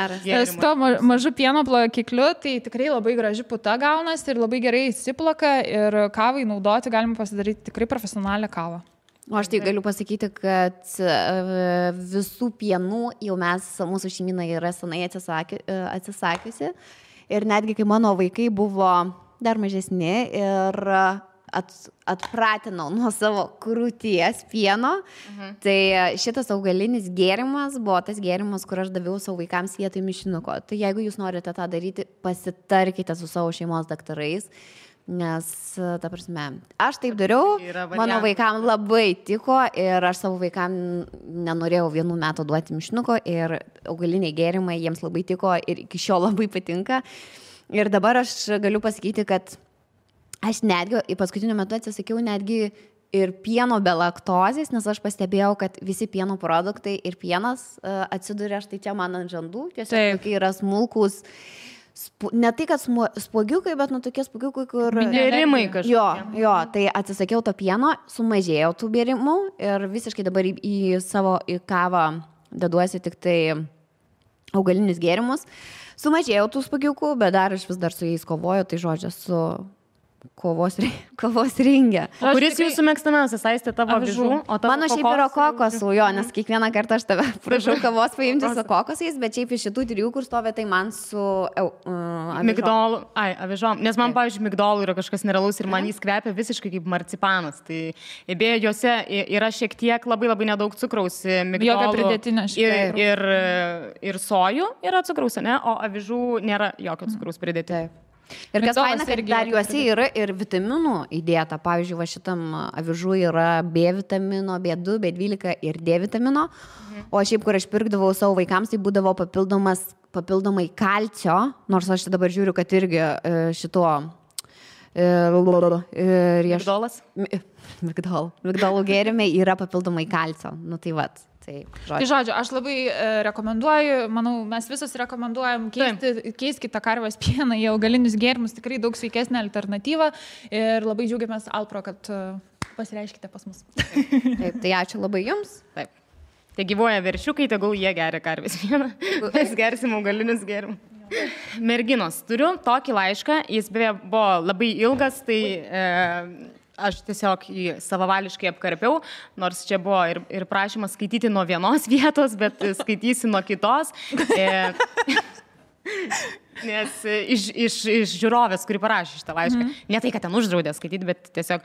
su to mažu pieno plakikliu, tai tikrai labai graži puta gaunasi ir labai gerai įsiplaka ir kavai naudoti galima pasidaryti tikrai profesionalią kavą. O aš tai galiu pasakyti, kad visų pienų jau mūsų šeimyna yra senai atsisakiusi ir netgi kai mano vaikai buvo dar mažesni ir atpratinau nuo savo krūties pieno, tai šitas augalinis gėrimas buvo tas gėrimas, kur aš daviau savo vaikams vietoj mišinuko. Tai jeigu jūs norite tą daryti, pasitarkite su savo šeimos daktarais. Nes, ta prasme, aš taip dariau, Yra mano variantas. vaikam labai tiko ir aš savo vaikam nenorėjau 1 metų duoti mišinuko ir augaliniai gėrimai jiems labai tiko ir iki šiol labai patinka. Ir dabar aš galiu pasakyti, kad aš netgi į paskutiniu metu atsisakiau netgi ir pieno be laktozės, nes aš pastebėjau, kad visi pieno produktai ir pienas atsiduria štai čia man ant žandų, tiesiog tokie yra smulkus. Ne tai, kad spuogiukai, bet tokie spuogiukai, kur... Bėrimai kažkokie. Jo, tai atsisakiau to pieno, sumažėjau tų bėrimų ir visiškai dabar į kavą deduosi tik tai augalinius gėrimus. Sumažėjau tų spuogiukų, bet dar aš vis dar su jais kovoju, tai žodžiu, su kovos ringe. Kuris jūsų mėgstamiausias, Aistė, tavo avižų? Mano šiaip yra kokosų, jo, nes kiekvieną kartą aš tave prašau kavos paimti su kokosais, bet šiaip iš šitų 3, kur stovi, tai man su migdolų. Avižom. Nes man, pavyzdžiui, migdolų yra kažkas nerealaus ir man jis kvepia visiškai kaip marcipanas. Tai beje, juose yra šiek tiek labai nedaug cukraus. Jokio pridėtinio šiek tiek. Ir sojų yra cukraus, ne? O avižų nėra jokio cukraus pridėtinio. Ir kas faina, kad dar juose yra ir vitaminų įdėta. Pavyzdžiui, va šitam avižų yra B vitamino, B2, B12 ir D vitamino. O šiaip, kur aš pirkdavau savo vaikams, tai būdavo papildomai kalcio, nors aš dabar žiūriu, kad irgi šituo... Migdolų gėrimai yra papildomai kalcio. Nu tai vat. Tai žodžiu, aš labai rekomenduoju, manau, mes visus rekomenduojam keiskite karvės pieną į augalinius gėrimus, tikrai daug sveikesnė alternatyva ir labai džiaugiamės Alpro, kad pasireiškite pas mus. Taip, tai ačiū labai jums. Taip. Tai gyvoja veršiukai, tegul jie geria karvės pieną, mes gersim augalinius gėrimus. Merginos, turiu tokį laišką, jis beje buvo labai ilgas, tai... Aš tiesiog jį savavališkai apkarpiau, nors čia buvo ir prašymas skaityti nuo vienos vietos, bet skaitysi nuo kitos. Nes iš žiūrovės, kuri parašė šitą laišką, ne tai, kad ten uždraudė skaityti, bet tiesiog,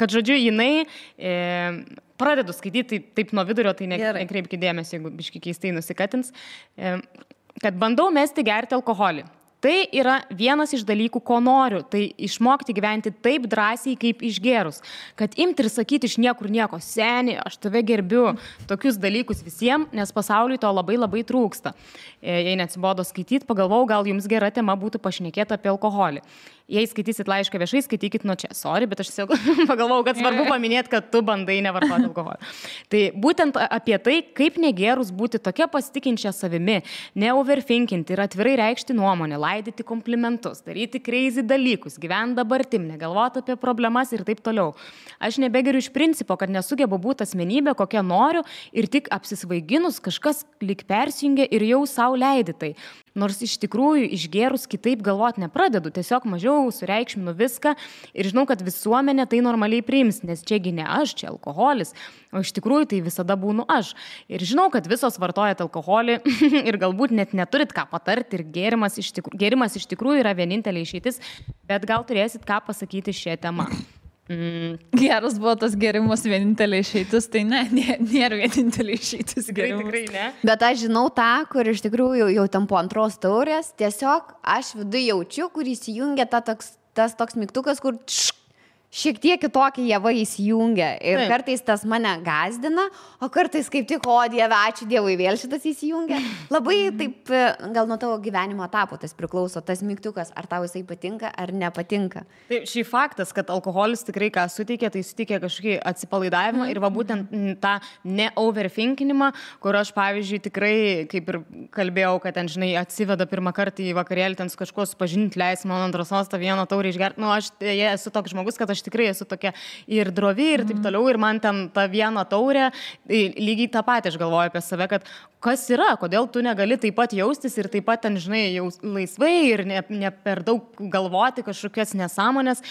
kad žodžiu, jinai pradedu skaityti taip nuo vidurio, tai nekreipkite dėmesio, jeigu biški keistai nusikatins, kad bandau mesti gerti alkoholį. Tai yra vienas iš dalykų, ko noriu, tai išmokti gyventi taip drąsiai, kaip išgerus. Kad imti ir sakyti iš niekur nieko, seni, aš tave gerbiu, tokius dalykus visiems, nes pasauliui to labai trūksta. Jei neatsibodo skaityti, pagalvojau, gal jums gera tema būtų pašnekėti apie alkoholį. Jei skaitysit laišką viešai, skaitykit nuo čia. Sorry, bet aš tiesiog pagalvojau, kad svarbu paminėti, kad tu bandai nevartoti alkoholį. Tai būtent apie tai, kaip negerus būti tokia pasitikinčia savimi, neoverthinkinti ir atvirai reikšti nuomonę, laidyti komplimentus, daryti crazy dalykus, gyventi dabartim, negalvoti apie problemas ir taip toliau. Aš nebegeriu iš principo, kad nesugebu būti asmenybė, kokią noriu ir tik apsisvaiginus kažkas lyg persijungia ir jau savo leidi tai. Nors iš tikrųjų išgerus kitaip galvoti nepradedu, tiesiog mažiau sureikšminu viską ir žinau, kad visuomenė tai normaliai priims, nes čiagi ne aš, čia alkoholis, o iš tikrųjų tai visada būnu aš. Ir žinau, kad visos vartojat alkoholį ir galbūt net neturit ką patarti ir gėrimas iš tikrųjų yra vienintelė išeitis, bet gal turėsit ką pasakyti šią temą. Geras buvo tas gėrimas vienintelė išeitis, tai nėra vienintelė išeitis gėrimas. Tikrai ne. Bet aš žinau tą, kur iš tikrųjų jau tam po antros taurės, tiesiog aš viduje jaučiu, kur įsijungia tas toks mygtukas, kur šiek tiek kitokie javai įsijungia. Ir kartais tas mane gazdina, o kartais kaip tik, o Dieve, ačiū Dievui, vėl šitas įsijungia. Labai taip, gal nuo tavo gyvenimo etapo tas priklauso, tas mygtukas, ar tau jisai patinka, ar nepatinka. Taip, šį faktas, kad alkoholis tikrai ką suteikia, tai suteikia kažkokį atsipalaidavimą ir va būtent tą ne-overthinkinimą, kur aš, pavyzdžiui, tikrai, kaip ir kalbėjau, kad ten, žinai, atsiveda pirmą kartą į vakarėlį, ten su kažkuo supažinti, leis man antros tą vieną taurę išgerti. Nu, aš esu toks žmogus, kad aš tikrai esu tokia ir drovi ir taip toliau, ir man ten tą vieną taurę, lygiai tą patį aš galvoju apie save, kad kas yra, kodėl tu negali taip pat jaustis ir taip pat ten, žinai, jau laisvai ir ne per daug galvoti kažkokias nesąmonės,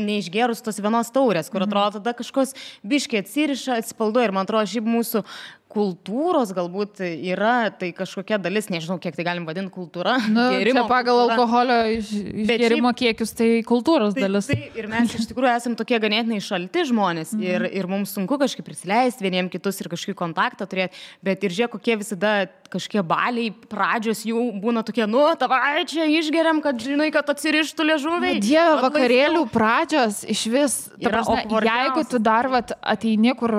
neišgerus tos vienos taurės, kur atrodo tada kažkos biškiai atsiriša, atsipalduoja ir man atrodo, šiaip mūsų kultūros galbūt yra tai kažkokia dalis, nežinau, kiek tai galim vadinti kultūra. Čia pagal alkoholio išgerimo kiekius tai kultūros dalis. Ir mes iš tikrųjų esame tokie ganėtinai šalti žmonės ir mums sunku kažkaip prisileisti vieniem kitus ir kažkokį kontaktą turėti, bet ir žiūrėk, kokie visada kažkiek baliai pradžios jų būna tokie, nu, tavai čia išgeriam, kad žinai, kad atsirištų liežuviai. Dieve, vakarėlių pradžios iš vis, jeigu tu dar ateini, kur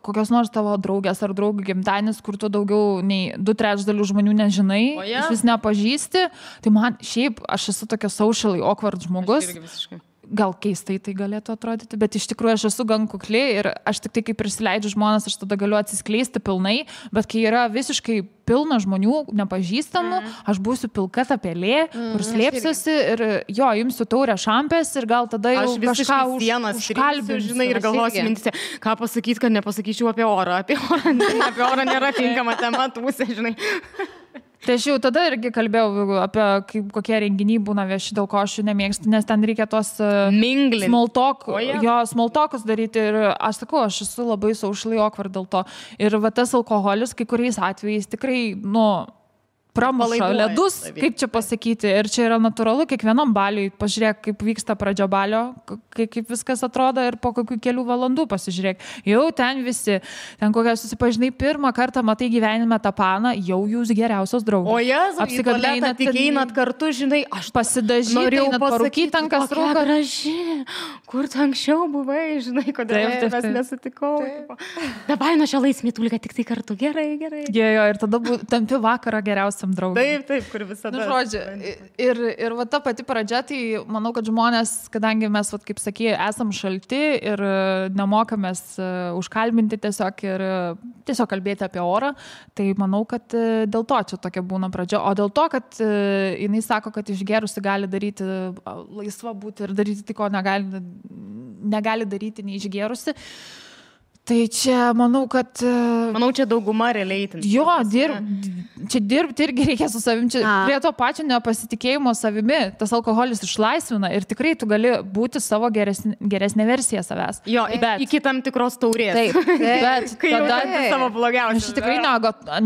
kokios nors tavo draugės ar draugų gimtadienis, kur tu daugiau nei 2/3 žmonių nežinai, iš vis nepažįsti, tai man šiaip, aš esu tokia socially awkward žmogus. Gal keistai tai galėtų atrodyti, bet iš tikrųjų aš esu gan kukli ir aš tik tai, kai prisileidžiu žmonės, aš tada galiu atsiskleisti pilnai, bet kai yra visiškai pilna žmonių, nepažįstamų, aš būsiu pilka ta pelė, kur slėpsiuosi ir jo, imsiu taurę šampės ir gal tada jau kažką užkalbinsiu, žinai, ir galvosiu mintise, ką pasakyti, kad nepasakyčiau apie orą. Apie orą nėra tinkama tema, tūsė, žinai. Tai aš jau tada irgi kalbėjau apie kokie renginiai būna vieši, dėl ko aš jų nemėgstu, nes ten reikia tos small talkus daryti ir aš sakau, aš esu labai socially awkward dėl to. Ir va tas alkoholis kai kuriais atvejais tikrai, pramuša ledus, kaip čia pasakyti. Ir čia yra natūralu, kiekvienam baliui pažiūrėk, kaip vyksta pradžia balio, kaip viskas atrodo ir po kokių kelių valandų pasižiūrėk. Jau ten visi, ten kokią susipažinai pirmą kartą, matai gyvenime tą paną, jau jūs geriausios draugės. O jas, apsikabinat, tik einat kartu, žinai, aš pasidažyti, einat parūkyti ant kas rūka. Graži, kur tu anksčiau buvai, žinai, kodėl mes nesutikau. Dabar nuo šią laismėtulį, tik tai kartu, gerai. Jo, ir tada tampi vakarą geriausia. Taip, kur visada. Žodžiu, ir va ta pati pradžia, tai manau, kad žmonės, kadangi mes, kaip sakė, esam šalti ir nemokamės užkalbinti tiesiog ir tiesiog kalbėti apie orą, tai manau, kad dėl to čia tokia būna pradžia. O dėl to, kad jinai sako, kad išgerusi gali daryti, laisva būti ir daryti tai, ko negali daryti neišgerusi. Tai čia, manau, kad... Manau, čia dauguma realiai. Jo, čia dirbti irgi reikia su savim. Čia prie to pačio nepasitikėjimo savimi tas alkoholis išlaisvina ir tikrai tu gali būti savo geresnė versija savęs. Jo, iki tam tikros taurės. Taip, bet tada savo blogiausias. Aš tikrai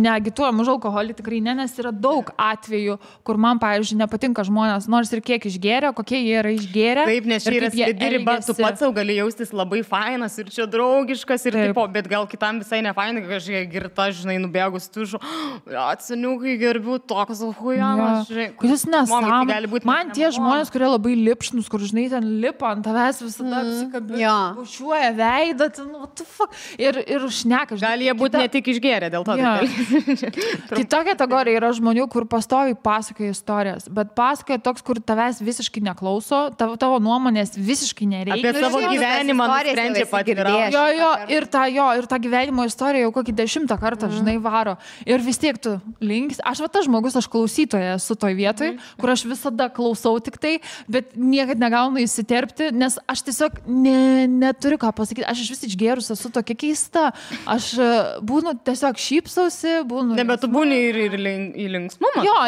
neagituoju už alkoholį, tikrai nes yra daug atvejų, kur man, pavyzdžiui, nepatinka žmonės, nors ir kiek išgėrė, kokie jie yra išgėrę. Taip, nes čia yra slidi riba, tu pats sau gali jaustis labai fainas ir čia draugiškas. Ir tipo, bet gal kitam visai nefainai, kažkiek girta, žinai, nubėgus tužu, atsiniukai gerbiu, toks hujamas, žinai. Kuris nesąmonė. Man tie žmonės, kurie labai lipšnus, kur, žinai, ten lipa ant tavęs visada apsikabina, bušiuoja veidą, what the fuck, ir šneka. Gal jie būtų ne tik išgėrę dėl to. Kita kategorija yra žmonių, kur pastoviai pasakoja istorijas, bet pasakoja toks, kur tavęs visiškai neklauso, tavo nuomonės visiškai nereikia. Apie savo gyvenimą nusprendžia patvirtinti. Ir tą gyvenimo istoriją jau kokį 10 kartą, žinai, varo. Ir vis tiek tu links. Aš tas žmogus, aš klausytoja esu toj vietoj, kur aš visada klausau tik tai, bet niekad negaunu įsiterpti, nes aš tiesiog neturiu ką pasakyti. Aš iš vis išgėrus esu tokia keista. Aš būnu tiesiog šypsausi, būnu... Ne, bet tu būni ir į linksmumą. Jo,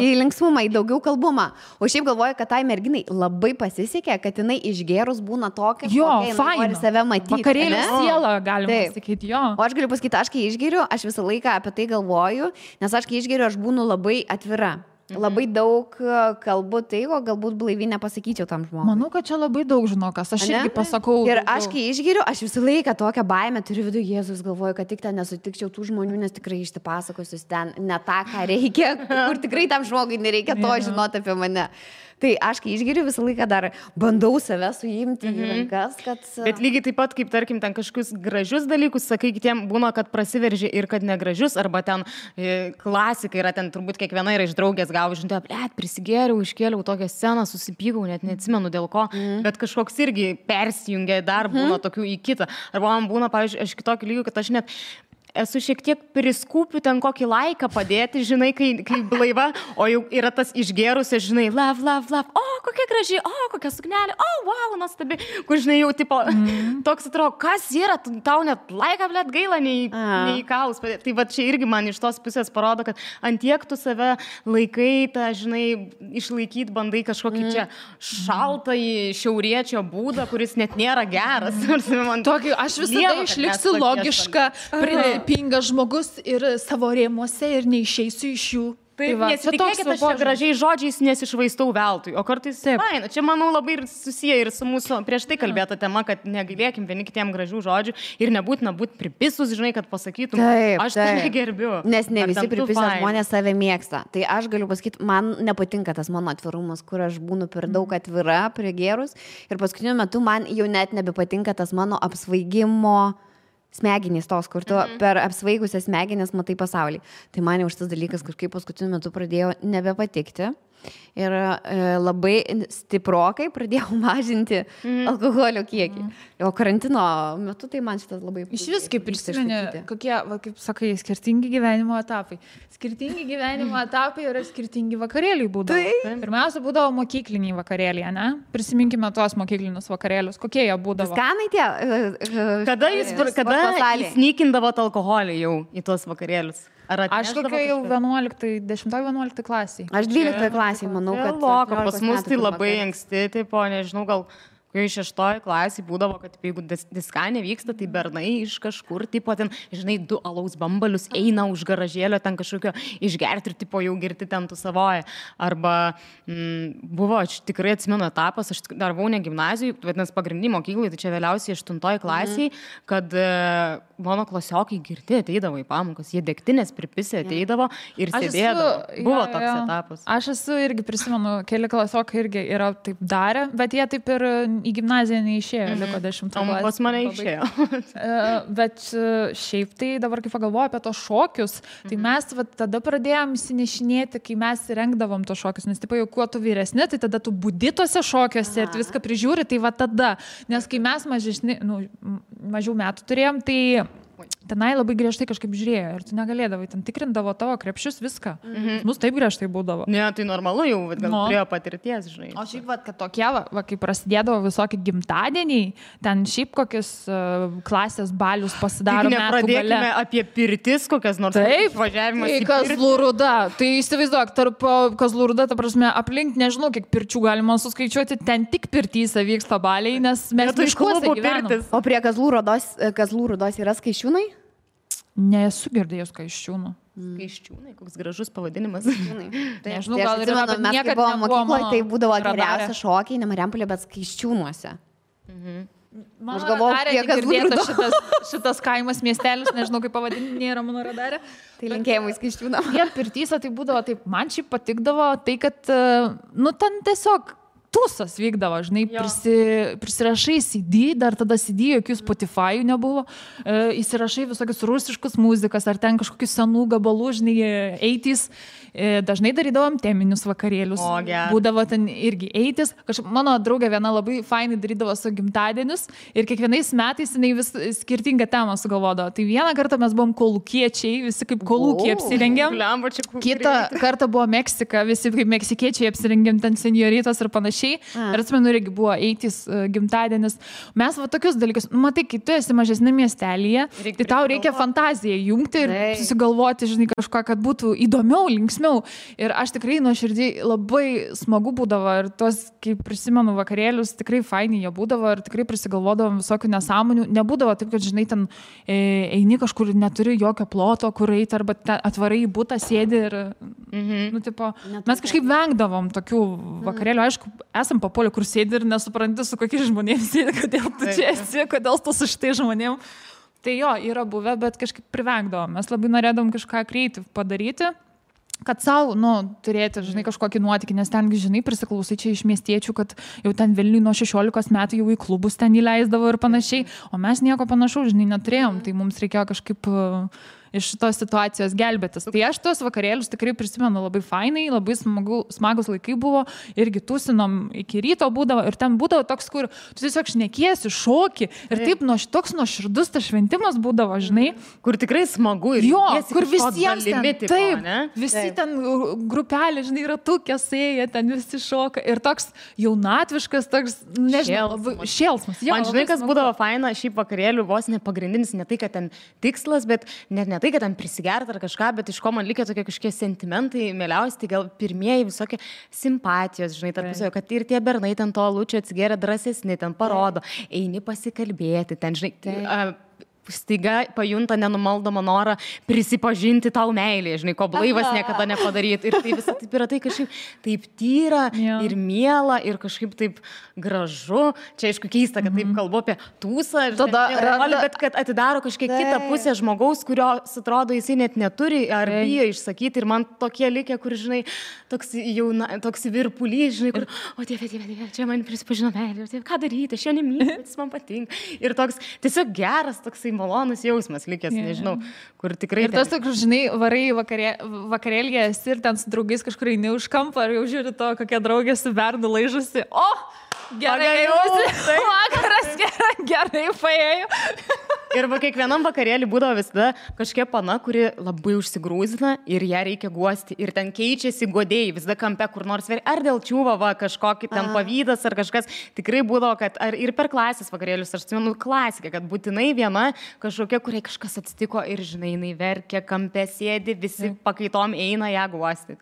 į linksmumą, į daugiau kalbumą. O šiaip galvoju, kad tai merginai labai pasisekė, kad jinai išgėrus būna tokia, kokia nori save matyti. Vakarėlio siela, galima sakyti, jo. O aš galiu pasakyti, aš kai išgeriu, aš visą laiką apie tai galvoju, nes aš kai išgeriu, aš būnu labai atvira. Labai daug kalbu tai, o galbūt blaiviai nepasakyčiau tam žmogui. Manau, kad čia labai daug žinokas, aš irgi pasakau. Ir aš kai išgeriu, aš visą laiką tokią baimę turiu viduje, Jėzus, galvoju, kad tik ten nesutikčiau tų žmonių, nes tikrai išsipasakosiu ten ne tą, ką reikia, kur tikrai tam žmogui nereikia to žinoti apie mane. Tai aš, kai išgeriu, visą laiką dar bandau save suimti į rankas, kad... Bet lygiai taip pat, kaip tarkim, ten kažkokius gražius dalykus, sakai, kitiem būna, kad prasiveržia ir kad negražius, arba ten klasika yra, ten turbūt kiekviena yra iš draugės gavo, žinai, prisigėriau, iškėliau tokią sceną, susipykau, net neatsimenu dėl ko, bet kažkoks irgi persijungia dar būna tokių į kitą. Arba man būna, pavyzdžiui, aš kitokį lygį, kad aš net... Esu šiek tiek priskūpiu ten kokį laiką padėti, žinai, kai blaiva, o jau yra tas išgėrusias, žinai, love, o, kokia graži, o, kokia suknelė, o, wow, nuostabi, kur, žinai, jau, tipo, toks atrodo, kas yra, tau net laiką, blėt, gaila, nei kaus padėti. Tai va čia irgi man iš tos pusės parodo, kad antiek tu save laikai, tą, žinai, išlaikyti bandai kažkokį čia šaltąjį šiauriečio būdą, kuris net nėra geras. Tokį, aš visada išliksiu logiška, pingas žmogus ir savo rėmuose ir neišeisiu iš jų. Tai nesitikėkit, aš čia gražiai žodžiais nesišvaistau veltui, o kartais, čia manau labai ir susiję ir su mūsų prieš tai kalbėta tema, kad negailėkim vieni kitiem gražių žodžių ir nebūtina būti pripisus, žinai, kad pasakytum, aš tai gerbiu. Nes ne visi pripisę žmonės save mėgsta. Tai aš galiu pasakyti, man nepatinka tas mano atvirumas, kur aš būnu per daug atvira, prigėrus ir paskutiniu metu man jau net nebepatinka tas mano apsvaigimo smegenys tos, kur tu per apsvaigusias smegenis matai pasaulį. Tai man jau šitas dalykas kažkaip paskutiniu metu pradėjo nebepatikti. Ir labai stiprokai pradėjau mažinti alkoholio kiekį. O karantino metu tai man šitas labai... Iš vis kaip prisimeni, kokie, kaip sakai, skirtingi gyvenimo etapai. Skirtingi gyvenimo etapai yra skirtingi vakarėliai būdavo. Pirmiausia, būdavo mokykliniai vakarėliai, ne? Prisiminkime tuos mokyklinius vakarėlius. Kokie jie būdavo? Skanai tie? Kada įsnykindavot alkoholį jau į tuos vakarėlius? Aš kokia jau 10-11 klasiai. Aš 12 klasiai, manau, kad... Pas mus tai labai anksti, tipo, nežinau, gal kai 6 klasėje būdavo, kad jeigu diskanė vyksta, tai bernai iš kažkur, tipo, ten, žinai, 2 alaus bambalius eina už garažėlio, ten kažkokio išgerti ir, tipo, jau girti ten tu savoje. Arba buvo, aš tikrai atsimenu etapas, aš dar buvau ne gimnazijai, vadinasi, pagrindinį mokyklai, tai čia vėliausiai 8 klasiai, kad mano klasiokai girti ateidavo į pamokas, jie degtinės pripisė ateidavo ir sėdėdavo. Buvo toks etapas. Aš esu irgi prisimenu, keli klasiokai irgi yra taip darę, bet jie taip ir į gimnaziją neišėjo, liko 10 klasės. O pas mane išėjo. Bet šiaip tai dabar, kai pagalvoju apie tos šokius, tai mes tada pradėjom įsinešinėti, kai mes rengdavom tos šokius, nes tipo jau kuo tu vyresni, tai tada tu budi tose šokiuose ir viską prižiūri, tai va tada. Nes kai mes mažiau metų turėjom, tai tenai labai griežtai kažkaip žiūrėjo ir tu negalėdavai, ten tikrindavo tavo krepšius viską. Mus taip griežtai būdavo. Ne, tai normalu jau, gal turėjo patirties, žinai. O šiaip, kad tokie, kai prasidėdavo visokie gimtadieniai, ten šiaip kokius klasės balius pasidaro metų gale. Nepradėkime apie pirtis, kokias nors važiavimas į Kazlų Rūda. Tai įsivaizduok, tarp Kazlų Rūda, ta prasme, aplink nežinau, kiek pirčių galima suskaičiuoti, ten tik pirtyse vyksta baliai, nes mes miškuose gyvenam. O prie Kazlų Rūdos yra Skaičiūnai? Nesu girdėjus Skaičiūnų. Skaičiūnai, koks gražus pavadinimas. Nežinau, gal ir mes niekad buvo mokykloje, tai būdavo geriausia šokiai, ne Marijampolė, bet Skaičiūnuose. Aš galvoju, kiek girdėta šitas kaimas miestelis, nežinau, kaip pavadinti, nėra mano radarė. Tai linkėjimai Skaičiūnam. Jie pirtyse tai būdavo taip, man šiaip patikdavo tai, kad, ten tiesiog tūsas vykdavo, žinai, prisirašai CD, dar tada CD, jokių Spotify nebuvo, įsirašai visokius rusiškus muzikas, ar ten kažkokius senų gabalų, žinai, 80s, dažnai darydavom teminius vakarėlius, būdavo ten irgi 80s, mano draugė viena labai fainai darydavo su gimtadienius ir kiekvienais metais jinai vis skirtingą temą sugalvodavo. Tai vieną kartą mes buvom kolūkiečiai, visi kaip kolūkiai apsirengėm, kitą kartą buvo Meksika, visi kaip meksikiečiai apsirengėm, ten senioritos ir panašiai. Ir atsimenu, irgi buvo 80s gimtadienis. Mes tokius dalykus, matai, kai tu esi mažesnė miestelėje, tai tau reikia fantaziją jungti ir susigalvoti, žinai, kažką, kad būtų įdomiau, linksmiau. Ir aš tikrai nuoširdžiai labai smagu būdavo ir tos, kai prisimenu vakarėlius, tikrai fainiai jie būdavo ir tikrai prisigalvodavom visokių nesąmonių. Nebūdavo taip, kad, žinai, ten eini kažkur, neturi jokio ploto, kur eiti, arba atvarai į butą, sėdi ir, mes kažkaip vengdavom tokių vakarėlių. Aišku, esam papuolę, kur sėdi ir nesupranti, su kokiais žmonėms sėdi, kodėl tu čia esi, kodėl tu su šitai žmonėm. Tai jo, yra buvę, bet kažkaip privengdavom. Mes labai norėdavom kažką creative padaryti, kad savo, turėti, žinai, kažkokį nuotykį, nes ten, žinai, prisiklausai čia iš miestiečių, kad jau ten Vilniui nuo 16 metų jau į klubus ten įleisdavo ir panašiai, o mes nieko panašaus, žinai, neturėjom, tai mums reikėjo kažkaip iš šitos situacijos gelbėtis. Tai aš tos vakarėlius tikrai prisimenu labai fainai, labai smagus laikai buvo, irgi tūsinom iki ryto būdavo ir ten būdavo toks, kur tu tiesiog šnekiesi, šoki ir taip toks nuoširdus tas šventimas būdavo, žinai. Kur tikrai smagu ir kur visiems ten, taip, visi ten grupelė, žinai, ratukė sėja, ten visi šoka ir toks jaunatviškas, toks, nežinau, šėlsmas. Man žinai, kas būdavo faina šiaip vakarėlių, vos ne pagrindinis, ne tai, kad ten tikslas, bet net ne tai, kad ten prisigert ar kažką, bet iš ko man likia tokie kažkokie sentimentai, mieliausi, tai gal pirmieji visokie simpatijos, žinai, tarpusavio, kad ir tie bernai ten to alučio atsigeria drąsesni, ten parodo, eini pasikalbėti, ten, žinai, staiga pajunta nenumaldomą norą prisipažinti tau meilį, žinai, ko blaivas niekada nepadaryti. Ir tai visą taip yra tai kažkaip taip tyra ir miela ir kažkaip taip gražu. Čia aišku keista, kad taip kalbu apie tūsą, bet kad atidaro kažkiek kitą pusę žmogaus, kurio atrodo jisai net neturi ar bijo išsakyti. Ir man tokie likę, kur, žinai, toks virpulys, žinai, kur, o dieve, čia man prisipažino meilė, ką daryti, aš jo nemyliu, bet jis man patinka. Ir toks tiesiog geras, toksai malonus jausmas likęs, nežinau, kur tikrai... Ir tas toks, žinai, varai vakarėlėje esi ir ten su draugais kažkur eini už kampą, ar jau žiūri to, kokia draugė su bernu laižusi. O, gerai jausi, vakaras gerai paėjo. Ir kiekvienam vakarėlį būdavo visada kažkokia pana, kuri labai užsigrūzina ir ją reikia guosti. Ir ten keičiasi godėjai, visada kampe kur nors veri. Ar dėl čiūvo, kažkokį ten pavydas ar kažkas. Tikrai būdavo, kad ir per klasės vakarėlius, aš atsimenu klasiką, kad būtinai viena kažkokia, kuriai kažkas atsitiko ir, žinai, jinai verkia, kampe sėdi, visi pakaitom eina ją guosti.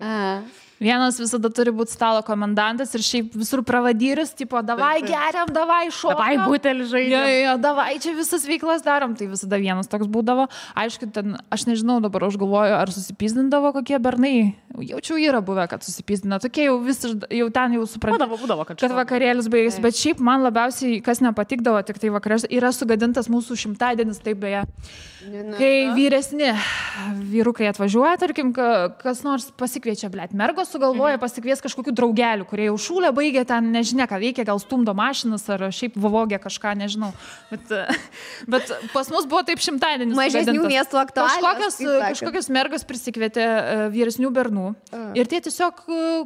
Vienas visada turi būti stalo komendantas ir šiaip visur pravadyris, tipo, davai geriam, davai šokam. Davai butelį žaidžiam. Davai čia visas veiklas darom, tai visada vienas toks būdavo. Aišku, ten, aš nežinau, dabar aš galvoju, ar susipizdindavo kokie bernai. Jaučiau yra buvę, kad susipizdina. Tokie jau ten jau suprantavo, kad vakarėlis baigėsi. Bet šiaip man labiausiai, kas nepatikdavo, tik tai vakarėlis, yra sugadintas mūsų šimtadienis, taip beje. Kai vyresni vyrukai atvažiuoja, tarkim, kas nors pasikviečia, blėt, mergos sugalvoja pasikvies kažkokių draugelių, kurie jau šūlę baigė, ten nežinia, ką veikia, gal stumdo mašinas ar šiaip vovogė kažką, nežinau. Bet pas mus buvo taip šimtadienis. Mažesnių miestų aktualios. Kažkokios mergos prisikvietė vyresnių bernų ir tie tiesiog,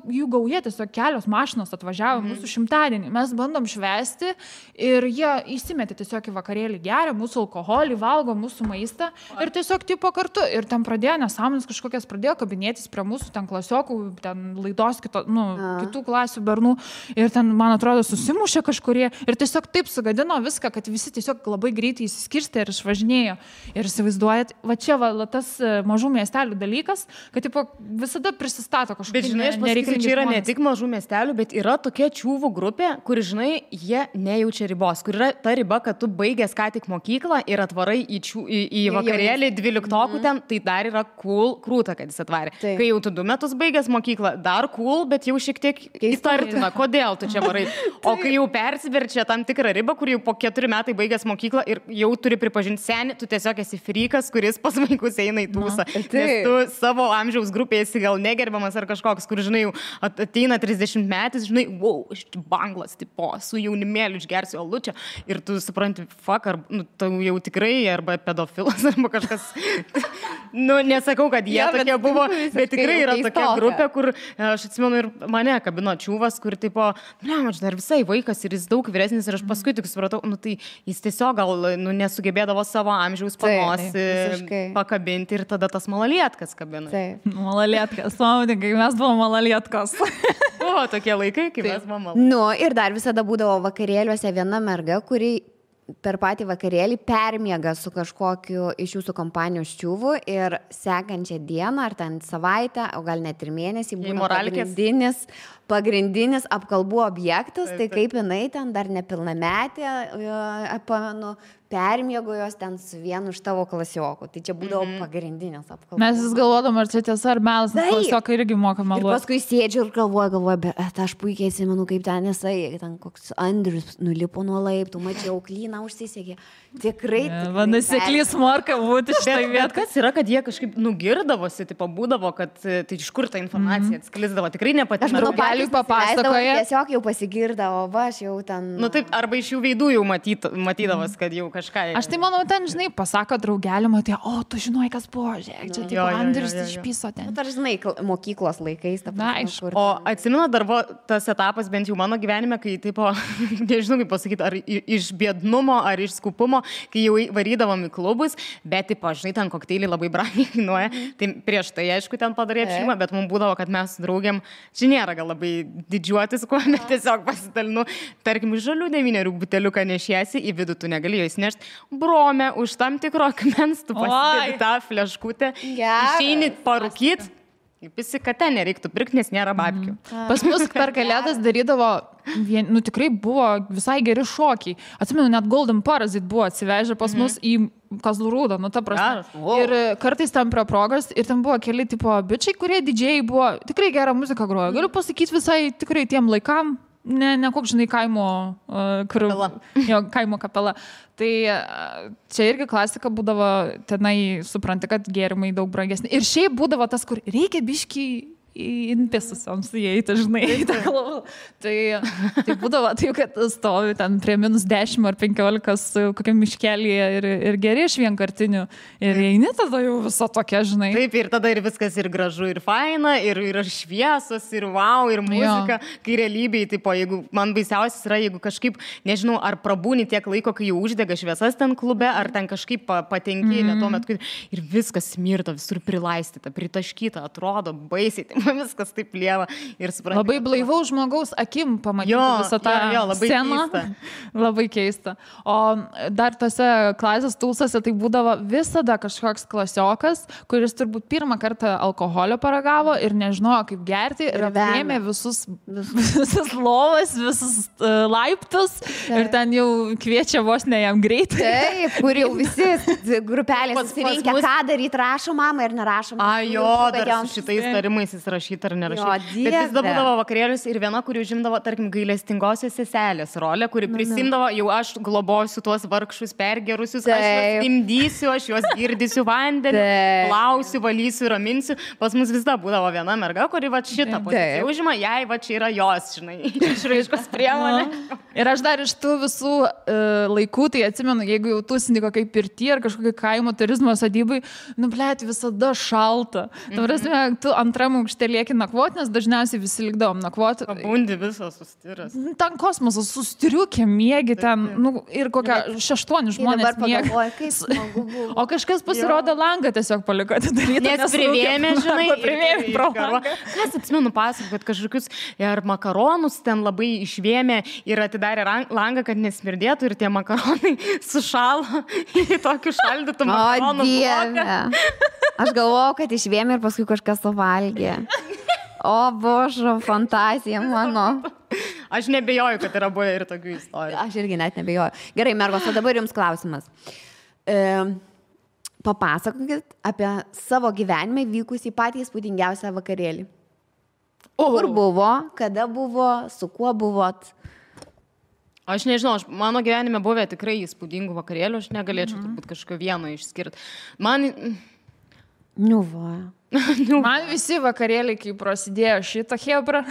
jų gauja, tiesiog kelios mašinos atvažiavo mūsų šimtadienį. Mes bandom švęsti ir jie įsimetė tiesiog į vakarėlį, geria mūsų alkoholį, valgo mūsų maistą ir tiesiog tipo kartu. Ir ten pradėjo nesąmonės kažkokias, pradėjo kabinėtis prie mūsų ten klasiokų, ten laidos kitų klasių bernų ir ten, man atrodo, susimušė kažkurie ir tiesiog taip sugadino viską, kad visi tiesiog labai greitai įsiskirstė ir išvažinėjo. Ir įsivaizduojat, va čia tas mažų miestelių dalykas, kad tipo, visada prisistato kažkokie. Bet žinai, aš pasakysiu, čia yra ne tik mažų miestelių, bet yra tokia čiūvų grupė, kur, žinai, jie nejaučia ribos, kur yra ta riba, kad tu baigęs ką tik mokyklą ir atvarai į vakarėlį 12 ten, tai dar yra cool, krūta, kad jis atvarė. Kai jau tu 2 metus baigęs mokyklą, dar cool, bet jau šiek tiek įtartina, kodėl tu čia varai. O kai jau persiverčia tam tikrą ribą, kur jau po 4 metai baigęs mokyklą ir jau turi pripažinti senį, tu tiesiog esi frikas, kuris pas vaikus eina į tūsą. Nes tu savo amžiaus grupėje esi gal negerbiamas ar kažkoks, kur, žinai, jau ateina 30 metais, žinai, wow, aš banglas, tipo, su jaunimėliu išgersiu alučią ir tu supranti, fuck, ar, tu jau tikrai, arba pedofilas, arba kažkas, nesakau, kad jie tokie buvo, bet tikrai yra tokia grupė, kur aš atsimenu ir mane kabino čiūvas, kur tipo, aš dar visai vaikas ir jis daug vyresnis ir aš paskui tik supratau, tai jis tiesiog gal nesugebėdavo savo amžiaus panos pakabinti ir tada tas malalietkas kabina. Malalietkas, kai mes buvome malalietkos. Buvo tokie laikai, kai mes buvome malalietkos. Ir dar visada būdavo vakarėliuose viena merga, kuri per patį vakarėlį permiega su kažkokiu iš jūsų kompanijos čiūvu ir sekančią dieną ar ten savaitę, o gal net ir mėnesį būna pagrindinis apkalbų objektas, tai kaip jinai ten dar nepilnametė, permiego jos ten su vienu iš tavo klasiokų. Tai čia būdavo pagrindinės apkalbos. Mes vis galvodom, ar čia tiesa, ar melas, nes klasiokai irgi moka meluoti. Ir paskui sėdžiu ir galvoju, bet aš puikiai atsimenu, kaip ten jisai, ten koks Andrius nulipo nuo laiptų, mačiau, klyną užsisegė. Tikrai. Vanasiklys morka būti štai viet. Kas yra, kad jie kažkaip nugirdavosi, tipo būdavo, kad tai iš kur ta informacija atsklisdavo. Tikrai nepatinka. Draugeliui papasakoja. Tiesiog jau pasigirdavo, aš jau ten. Taip, arba iš jų veidų jau matydavas, kad jau kažką. Aš tai manau, ten, žinai, pasako draugelį, matai, o, tu žinai, kas buvo, žiūrėk, čia tipo Andrius išpiso ten. Ar žinai, mokyklos laikais. O atsimenu, dar buvo tas etapas, bent jau mano gyvenime, kai, tipo, nežinau, kaip pasakyti, ar iš biednumo, ar iš skupumo, kai jau varydavom į klubus, bet, tipo, žinai, ten kokteiliai labai brangiai kainuoja. Tai prieš tai, aišku, ten padarė apšimą, bet mums būdavo, kad mes su draugiam, čia nėra gal labai didžiuotis, kuo, bet tiesiog pasidalinu, tarkim, žalių 9 buteliuką nešiesi, į vidų tu negali jo įsinešti, brome, už tam tikro akmens tu pasidedi tą fleškutę, išeini parūkyt. Visi, kad ten nereiktų pirkti, nes nėra babkių. Pas mus per kalėdas darydavo tikrai buvo visai geri šokiai. Atsimenu, net Golden Parasite buvo atsivežę pas mus į Kazlų Rūdą, nu ta prasme. Ir kartais ten prie progos, ir ten buvo keli tipo bičiai, kurie didžiai buvo, tikrai gerą muziką grojo. Galiu pasakyti visai tikrai tiem laikam, ne koks, žinai, kaimo kapela. Tai čia irgi klasika būdavo, tenai supranti, kad gėrimai daug brangesni. Ir šiaip būdavo tas, kur reikia biškį inpisusiams įeiti, žinai. Tai būdavo taip, kad stovi ten prie -10 ar 15 kokiam miškelyje ir geri iš vienkartinių. Ir eini tada jau visą tokia, žinai. Taip, ir tada ir viskas ir gražu, ir faina, ir šviesos, ir wow, ir muzika. Kai realybėje, tipo, jeigu man baisiausias yra, jeigu kažkaip, nežinau, ar prabūni tiek laiko, kai jau uždega šviesas ten klube, ar ten kažkaip patenki, ne tuo metu, ir viskas smirta, visur prilaistyta, pritaškyta, atrodo baisiai. Viskas taip lieva ir suprantu. Labai blaivaus žmogaus akim pamatyti visą tą sceną. Labai keista. O dar tose klasės tūsose tai būdavo visada kažkoks klasiokas, kuris turbūt pirmą kartą alkoholio paragavo ir nežinojo, kaip gerti ir apėmė visus lovas, visus laiptus ir ten jau kviečia vos ne jam greitai. Taip, kur jau visi grupelės susirinkę, ką daryti, rašo mama ir nerašo. Dar su šitais tarimais jis rašyti ar nerašyti. Bet vis būdavo vakarėlius ir viena, kuri užimdavo, tarkim, gailestingosios seselės rolę, kuri prisimdavo, jau aš globosiu tuos vargšus pergerusius, aš juos imdysiu, aš juos girdysiu vandenį, plausiu, valysiu, raminsiu. Pas mus vis dar būdavo viena merga, kuri va šitą poziciją užima, jai va čia yra jos, žinai, išraiškos priemonė. Ir aš dar iš tų visų laikų, tai atsimenu, jeigu jau tūsini kokiai pirty ar kažkokiai kaimo turizmo sodybai, blėt, visada šalta. Ta prasme, tu antram aukšte lieki nakvoti, nes dažniausiai visi likdavom nakvoti. Pabundi visas sustiras. Ten kosmosas sustiriukė, miegi ten, ir kokia 6 žmonės miegi. O kažkas pasirodo langą tiesiog paliko atidaryti. Nes privėmė, žinai, privėmė pro langą. Kas atsimenu pasakot, kad kažkokius ir makaronus ten labai išvėmė ir atidarė langą, kad nesmirdėtų ir tie makaronai sušalo į tokių šaldytų makaronų. O Dieve. Aš galvojau, kad išvėmė ir paskui kažkas suvalgė. O božo, fantazija mano. Aš nebejoju, kad yra buvę ir tokių istorijų. Aš irgi net nebejoju. Gerai, mergos, o dabar jums klausimas. Papasakokit apie savo gyvenime vykusį patį įspūdingiausią vakarėlį. Kur buvo, kada buvo, su kuo buvot? Aš nežinau, mano gyvenime buvę tikrai įspūdingų vakarėlių, aš negalėčiau turbūt kažkokio vieno išskirti. Man visi vakarėliai, kai prasidėjo šitą hebrą,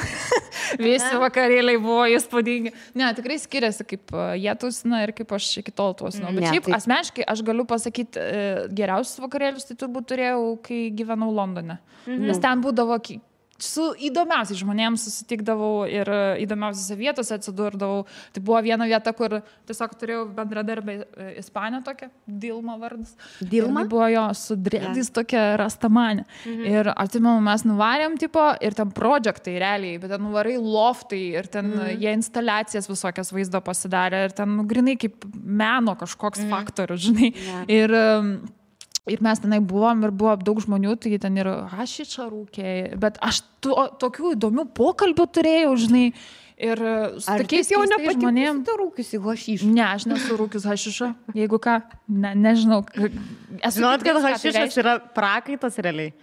visi vakarėliai buvo įspūdingi. Ne, tikrai skiriasi, kaip jie tusina ir kaip aš iki tol tusinu. Bet šiaip asmeniškai aš galiu pasakyti, geriausius vakarėlius tai turbūt turėjau, kai gyvenau Londone. Nes ten būdavo su įdomiausiais žmonėms susitikdavau ir įdomiausiose vietose atsidurdavau. Tai buvo viena vieta, kur tiesiog turėjau bendradarbę Ispanę tokią, Dilma vardas. Dilma? Ir buvo jo su dredais tokia rastamanė. Ir atsimenu, mes nuvarėm tipo ir ten projektai realiai, bet ten nuvarai loftai ir ten jie instaliacijas visokias vaizdo pasidarė ir ten grinai kaip meno kažkoks faktorius, žinai. Ir mes tenai buvom ir buvo daug žmonių, tai ten ir hašičą rūkė, bet aš tokių įdomių pokalbių turėjau, žinai, ir su tokiais jau žmonėm. Tu rūkiusi hašišą? Ne, aš nesu rūkius hašišą, jeigu ką, nežinau. Žinot, kad hašišas yra prakaitas realiai.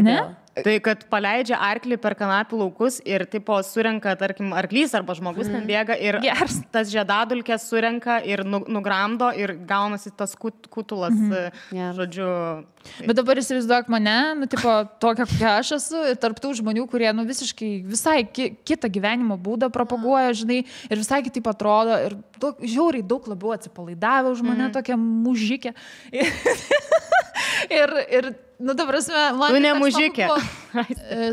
Ne? Tai, kad paleidžia arklį per kanapių laukus ir tipo surenka, tarkim, arklys arba žmogus ten bėga ir tas žiedadulkės surenka ir nugramdo ir gaunasi tas kutulas, žodžiu. Bet dabar įsivaizduok mane, tipo, tokia, kokia aš esu, ir tarptų žmonių, kurie, visiškai visai kitą gyvenimo būdą propaguoja, žinai, ir visai kitaip atrodo, ir žiauriai daug labiau atsipalaidavę už mane, tokia mužikė. Ir ta prasme, man... Tu ne mužikė.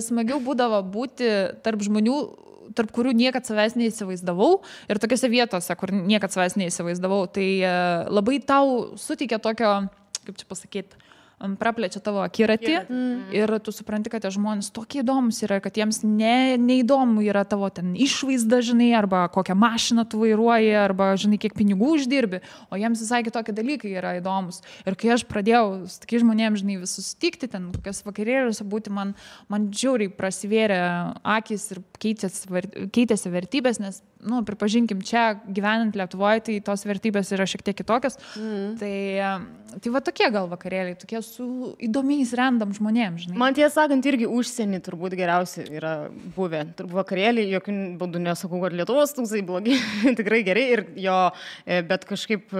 Smagiau būdavo būti tarp žmonių, tarp kurių niekad savęs neįsivaizdavau ir tokiose vietose, kur niekad savęs neįsivaizdavau, tai labai tau suteikia tokio, kaip čia pasakyti, praplečia tavo akiratį ir tu supranti, kad tie žmonės tokie įdomus yra, kad jiems neįdomu yra tavo ten išvaizda, žinai, arba kokią mašiną tu vairuoji, arba, žinai, kiek pinigų uždirbi, o jiems visai kitokie dalykai yra įdomus. Ir kai aš pradėjau su tokiais žmonėms, žinai, vis susitikti, ten kokias vakarėliuose būti, man žiauriai prasivėrė akis ir keitėsi vertybės, nes, pripažinkim, čia gyvenant Lietuvoje, tai tos vertybės yra šiek tiek kitokios. Tai va tokie gal vakarėliai, tokie su įdomiais random žmonėms, žinai. Man tiesą sakant, irgi užsienį turbūt geriausiai yra buvę. Turbūt vakarėliai, jokių būdų nesakau, kad Lietuvos tūksai blogi, tikrai gerai, bet kažkaip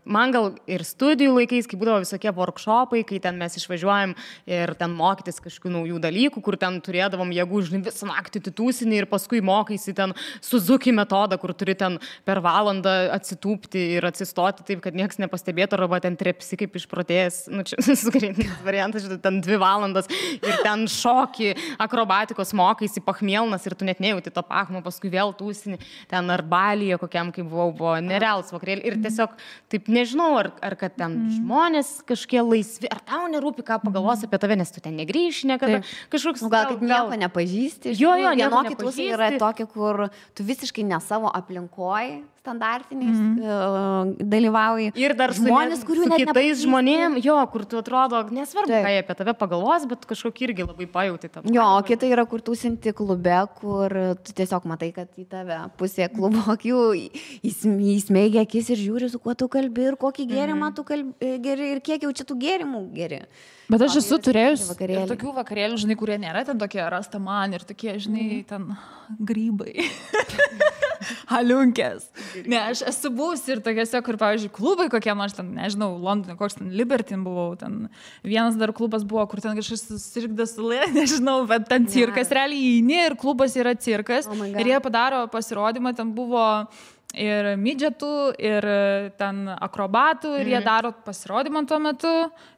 man gal ir studijų laikais, kai būdavo visokie workshopai, kai ten mes išvažiuojam ir ten mokytis kažkokių naujų dalykų, kur ten turėdavom jėgų, žinai, visą naktį titūsinį ir paskui mokaisi ten Suzuki metodą, kur turi ten per valandą atsitūpti ir atsistoti taip, kad niekas nepastebėtų, arba ten trepsi kaip išprotėjęs, čia sukreitinis variantas, ten 2 valandas ir ten šoki, akrobatikos mokaisi, pachmielnas ir tu net nejauti to pachmo, paskui vėl tūsini, ten ar Balyje kokiam, kaip buvo nerealus vakarėlį ir tiesiog taip nežinau, ar kad ten žmonės kažkie laisvi, ar tau nerūpi, ką pagalvos apie tave, nes tu ten negrįši niekada. Kažkoks gal kaip nieko nepažįsti. Vienokie tūsai yra tokie, kur tu visiškai ne savo aplinkoj standartiniais dalyvauji. Ir dar žmonės, kurių net kitais žmonėm, kur tu atrodo, nesvarbu, ką jie apie tave pagalvos, bet kažkokį irgi labai pajauti tą. O kita yra, kur tūsinti klube, kur tu tiesiog matai, kad į tave pusė klubo akių įsmeigia akis ir žiūri, su kuo tu kalbi ir kokį gėrimą tu geri ir kiek jau čia tų gėrimų geri. Bet aš esu turėjus ir tokių vakarėlių, žinai, kurie nėra ten tokie rastaman ir tokie, žinai, ten grybai. Haliunkės. Ne, aš esu buvusi ir tokiuose, kur, pavyzdžiui, klubai kokie, aš ten, nežinau, Londone, koks ten Libertin buvau, ten vienas dar klubas buvo, kur ten kažkas susirgdas sulė, nežinau, bet ten cirkas, realiai įeini ir klubas yra cirkas ir jie padaro pasirodymą, ten buvo ir midžetų, ir ten akrobatų, ir jie daro pasirodymą tuo metu,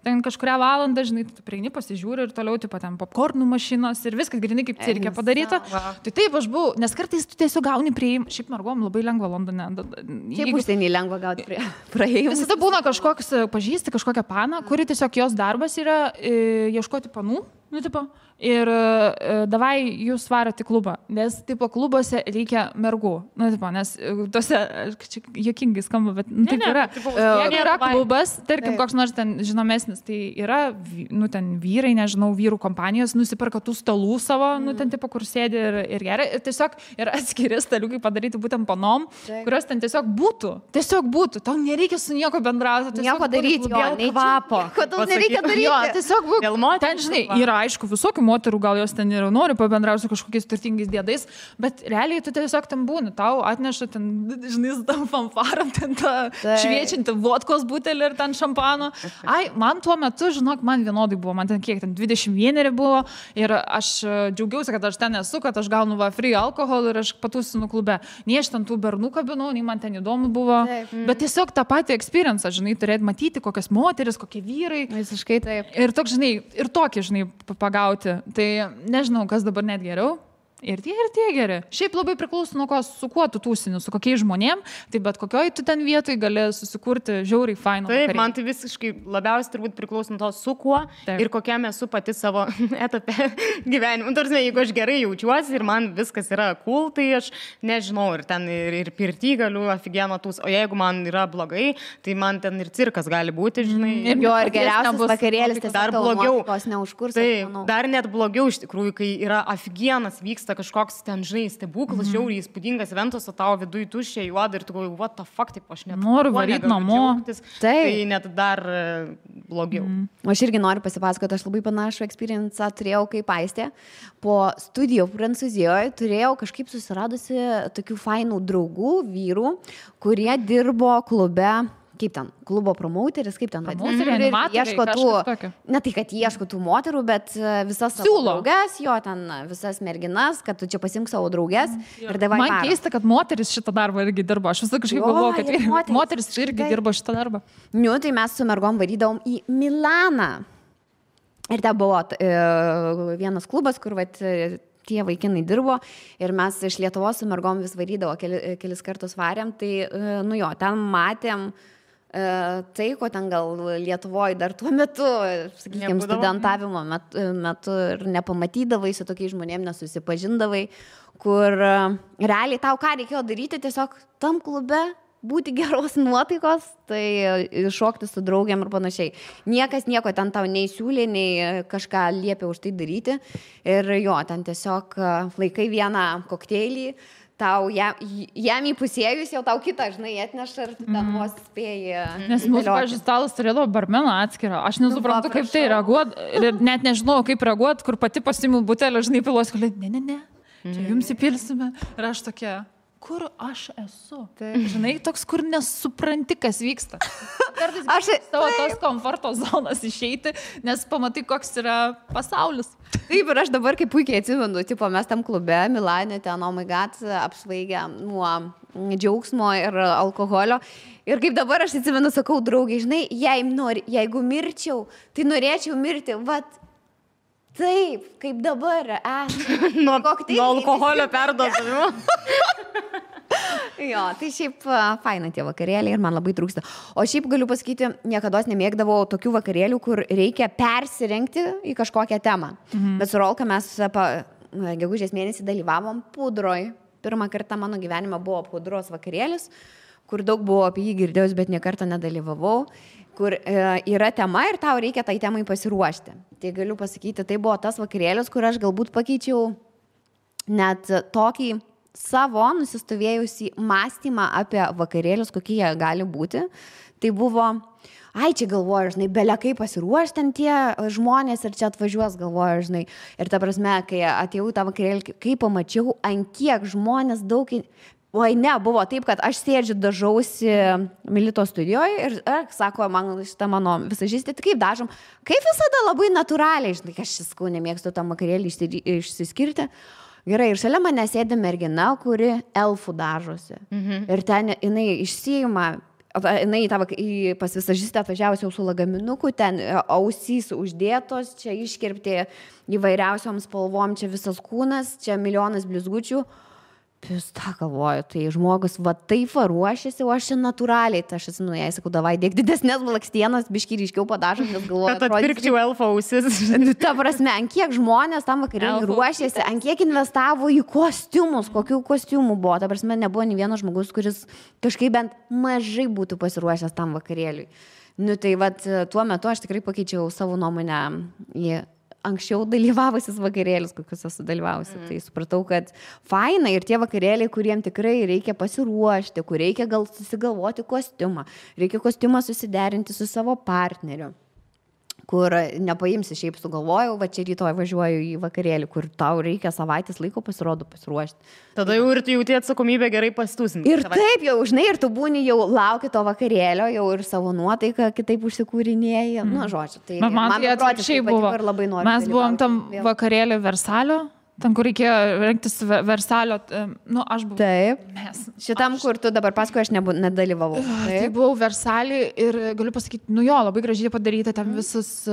ten kažkurią valandą, žinai, tu prieini, pasižiūri ir toliau, tipo, ten popkornų mašinos ir viskas grinai kaip cirke padaryta. Tai taip aš buvau, nes kartais tu tiesiog gauni prieimą, šiaip mergom labai lengva Londone. Šiaip užsienį lengva gauti praėjimą. Visada būna kažkoks, pažįsti kažkokią paną, kuri tiesiog jos darbas yra ieškoti panų, tipo, ir davai jūs varat į klubą, nes tipo klubuose reikia mergų, tipo, nes tose, čia juokingai skamba, bet taip yra. Jeigu yra klubas, tarkim, koks nors ten žinomesnis, tai yra, ten vyrai, nežinau, vyrų kompanijos nusiperka tų stalų savo, ten tipo, kur sėdi ir gerai, ir tiesiog yra atskiri staliukai padaryti būtent panom, kurios ten tiesiog būtų, tau nereikia su nieko bendrauti, nieko daryti, dėl kvapo. Kodėl nereikia daryti? Tiesiog būk, ten, žinai, yra aišku visokių moterų, gal jos ten ir nori pabendrauti su kažkokiais turtingais dėdais, bet realiai tu tiesiog ten būni, tau atneša ten, žinai, su tam fanfaram, ten tą šviečiantį vodkos butelį ir ten šampano. Man tuo metu, žinok, man vienodai buvo, man ten kiek, ten 21 buvo ir aš džiaugiausi, kad aš ten esu, kad aš gaunu free alkoholį ir aš patūsinu klube. Nei aš ten tų bernų kabinau, nei man ten įdomu buvo, bet tiesiog tą patį experience, žinai, turėt matyti, kokias moteris, kokie vyrai. Visiškai taip. Ir toks, žinai, ir tokį, žinai, pagauti. Tai nežinau, kas dabar net geriau. Ir tie geri. Šiaip labai priklauso nuo ko, su kuo tu tūsini, su kokiais žmonėm, tai bet kokioj tu ten vietoj gali susikurti žiauriai fainą. Taip, man tai visiškai labiausiai turbūt priklauso nuo to, su kuo ir kokiam esu pati savo etape gyvenimo. Tarsi, jeigu aš gerai jaučiuosi ir man viskas yra cool, tai aš nežinau, ir ten ir pirty galiu aфигенно tūs, o jeigu man yra blogai, tai man ten ir cirkas gali būti, žinai. Ir geriausias vakarėlis, tai dar blogiau. Taip, dar net blogiau iš tikrųjų, kai yra aфигенnas vyksta kažkoks ten, žinai, stebuklas, žiauriai įspūdingas eventas, o tavo viduje tuščia juoda ir tu galvoji, what the fuck, taip aš net noriu varyti namo. Tai net dar blogiau. Aš irgi noriu pasipasakoti, aš labai panašų experience turėjau kaip Aistė. Po studijų Prancūzijoje turėjau kažkaip susiradusi tokių fainų draugų, vyrų, kurie dirbo klube. Kaip ten, klubo promouteris, kaip ten ieško tų, ne tai, kad ieško tų moterų, bet visas savo drauges, ten visas merginas, kad tu čia pasimk savo drauges ir davai man parą. Keista, kad moteris šitą darbą irgi dirbo, aš visą kažkaip galvoju, kad moteris irgi dirbo šitą darbą. Tai mes su mergom varydavom į Milaną ir ten buvo vienas klubas, kur tie vaikinai dirbo ir mes iš Lietuvos su mergom vis varydavo, kelis kartus varėm, tai ten matėm tai, ko ten gal Lietuvoje dar tuo metu, sakykime, studentavimo metu ir nepamatydavai, su tokiais žmonėmis nesusipažindavai, kur realiai tau ką reikėjo daryti, tiesiog tam klube būti geros nuotaikos, tai šokti su draugiam ir panašiai. Niekas nieko ten tau nei siūlė, nei kažką liepė už tai daryti. Ir jo, ten tiesiog laikai vieną kokteilį, tau jam įpusėjus jau tau kitą, žinai, atneša ir ten vos spėjai. Nes mūsų, pavyzdžiui, stalas turėdavo barmeną atskirą. Aš nesuprantu, kaip tai reaguot. Ir net nežinau, kaip reaguot, kur pati pasiimu butelį, žinai, pilos, kad ne. Čia jums įpilsime. Ir aš tokia, kur aš esu? Tai, žinai, toks, kur nesupranti, kas vyksta. Kartais aš savo tos komforto zonas išeiti, nes pamatai, koks yra pasaulis. Taip, ir aš dabar kaip puikiai atsimenu, tipo, mes tam klube, Milane, ten, oh my god, apsvaigę nuo džiaugsmo ir alkoholio. Ir kaip dabar aš atsimenu, sakau, draugai, žinai, jeigu mirčiau, tai norėčiau mirti, vat, taip, kaip dabar, nuo alkoholio perdozavimo. Jo, tai šiaip faina tie vakarėliai ir man labai trūksta. O šiaip galiu pasakyti, niekada nemėgdavau tokių vakarėlių, kur reikia persirengti į kažkokią temą. Bet su Rolka mes gegužės mėnesį dalyvavom pudroj. Pirmą kartą mano gyvenime buvo pudros vakarėlis, kur daug buvo apie jį girdėjus, bet niekartą nedalyvavau, kur yra tema ir tau reikia tai temai pasiruošti. Tai galiu pasakyti, tai buvo tas vakarėlis, kur aš galbūt pakeičiau net tokį savo nusistovėjusi mąstymą apie vakarėlius, kokie jie gali būti. Tai buvo, čia galvoju, žinai, belia kaip pasiruošti ten tie žmonės ir čia atvažiuos, galvoju, žinai. Ir ta prasme, kai atėjau tą vakarėlį, kai pamačiau, ant kiek žmonės daug... buvo taip, kad aš sėdžiu, dažausi Milito studijoje ir sako, man šitą mano visažistė, tai kaip dažom, kaip visada labai natūraliai, žinai, aš sakau, nemėgstu tam vakarėlį išsiskirti. Gerai, ir šalia mane sėdi mergina, kuri elfų dažosi. Ir ten jinai išsiima, jinai pas visažistę atvažiavusi jau su lagaminuku, ten ausys uždėtos, čia iškirpti įvairiausiom spalvom, čia visas kūnas, čia milijonas blizgučių. Pista, galvoju, tai žmogus va taip ruošiasi, o aš čia natūraliai, tai aš esu, jai sakau, davai, dėk didesnės blakstienas, biškį ryškiau padažom, nes galvoju, kad atpirkčiau elfo ausis. Ta prasme, ant kiek žmonės tam vakarėliui ruošėsi, ant kiek investavo į kostiumus, kokių kostiumų buvo. Ta prasme, nebuvo nei vienas žmogus, kuris kažkaip bent mažai būtų pasiruošęs tam vakarėliui. Nu tai vat, tuo metu aš tikrai pakeičiau savo nuomonę į anksčiau dalyvavusis vakarėlis, kokius esu dalyvavusi. Tai supratau, kad faina ir tie vakarėliai, kuriem tikrai reikia pasiruošti, kur reikia gal susigalvoti kostiumą, reikia kostiumą susiderinti su savo partneriu, kur nepaimsi šiaip sugalvojau, va čia rytoj važiuoju į vakarėlį, kur tau reikia savaitės laiko pasiruošti. Tada jau ir tu jauti atsakomybę gerai pasitusinti. Ir taip jau, žinai, ir tu būni jau lauki to vakarėlio, jau ir savo nuotaiką kitaip užsikūrinėjai. Nu, žodžiu, tai man tai atvirkščiai buvo. Mes buvom tam vakarėlį Versalio. Ten, kur reikėjo rengtis Versalio, aš buvau. Taip. Šitam, kur tu dabar paskui, aš nedalyvavau. Tai buvau Versalį ir galiu pasakyti, labai gražiai padaryta, ten visas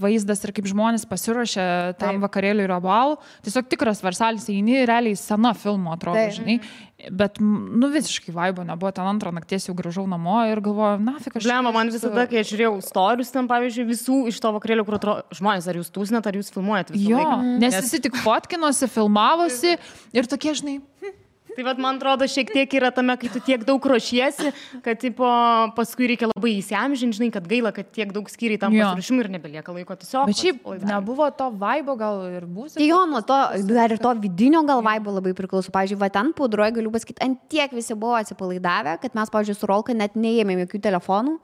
vaizdas ir kaip žmonės pasiruošė tam vakarėliui ir abalų. Tiesiog tikras Versalis, eini, realiai sena filmo atrodo, žinai. Bet, visiškai vaibo nebuvo, ten antrą nakties jau grįžau namo ir galvoju, nafik aš... Blema, man visada, kai aš žiūrėjau storius ten, pavyzdžiui, visų iš to vakarėlio, kur atrodo, žmonės, ar jūs tūsinat, ar jūs filmuojat visą laiką. Nes visi tik fotkinosi, filmavosi ir tokie, žinai... Tai vat, man atrodo, šiek tiek yra tame, kai tu tiek daug ruošiesi, kad paskui reikia labai įsiamžinti, žinai, kad gaila, kad tiek daug skyriai tam pasiruošimui ir nebelieka laiko tiesiog. Bet šiaip nebuvo to vaibo gal ir būsimo. Jo, nuo to, dar ir to vidinio gal vaibo labai priklauso. Pavyzdžiui, va ten pudroje galiu pasakyti, ant tiek visi buvo atsipalaidavę, kad mes, pavyzdžiui, su Rolka net neėmėm jokių telefonų.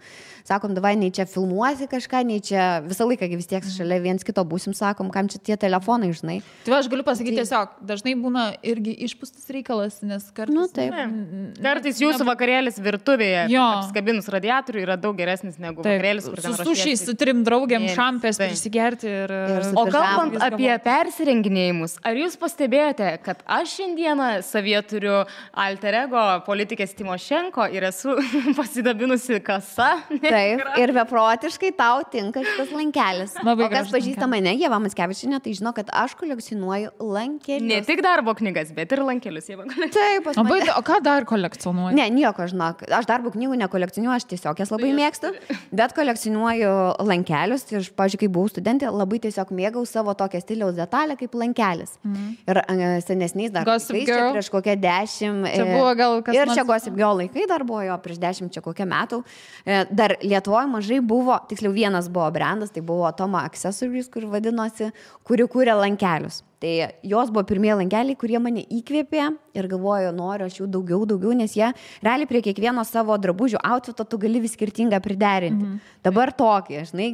Sakom, davai, nei čia filmuosi kažką, nei čia visą laiką vis tiek šalia viens kito būsim, sakom, kam čia tie telefonai, žinai. Tai aš galiu pasakyti tiesiog, dažnai būna irgi išpūstas reikalas, nes kartais... Kartais jūsų vakarėlis virtuvėje, apskabinus radiatorių, yra daug geresnis negu vakarėlis, kur ten ruošiesi. Su sušiais, su 3 draugėm, šampės prisigerti ir... O kalbant apie persirenginėjimus, ar jūs pastebėjote, kad aš šiandieną savyje turiu alter ego politikės Timošenko ir esu pasidabinusi kasa? Taip, ir beprotiškai tau tinka šitas lankelis. Labai o kas pažįsta mane, Ieva Mackevičienė, tai žino, kad aš kolekcionuoju lankelius. Ne tik darbo knygas, bet ir lankelius, Ieva. Taip, pas mane. O ką dar kolekcionuoji? Ne, nieko, žinok. Aš darbo knygų nekolekcionuoju, aš tiesiog jas labai mėgstu, bet kolekcionuoju lankelius. Ir, pavyzdžiui, kai buvau studentė, labai tiesiog mėgau savo tokią stiliaus detalę kaip lankelis. Ir senesniais dar laikais, čia prieš kokią 10. Čia buvo gal kas ir čia Gossip Girl laikai dar buvo jo prieš 10 čia kokią metų. Dar Lietuvoje mažai buvo, tiksliau vienas buvo brandas, tai buvo Toma Accessories, kur vadinosi, kuri kūrė lankelius. Tai jos buvo pirmieji lankeliai, kurie mane įkvėpė ir galvoju, noriu aš jų daugiau, nes jie realiai prie kiekvieno savo drabužių outfito tu gali vis skirtingą priderinti. Dabar tokį, žinai,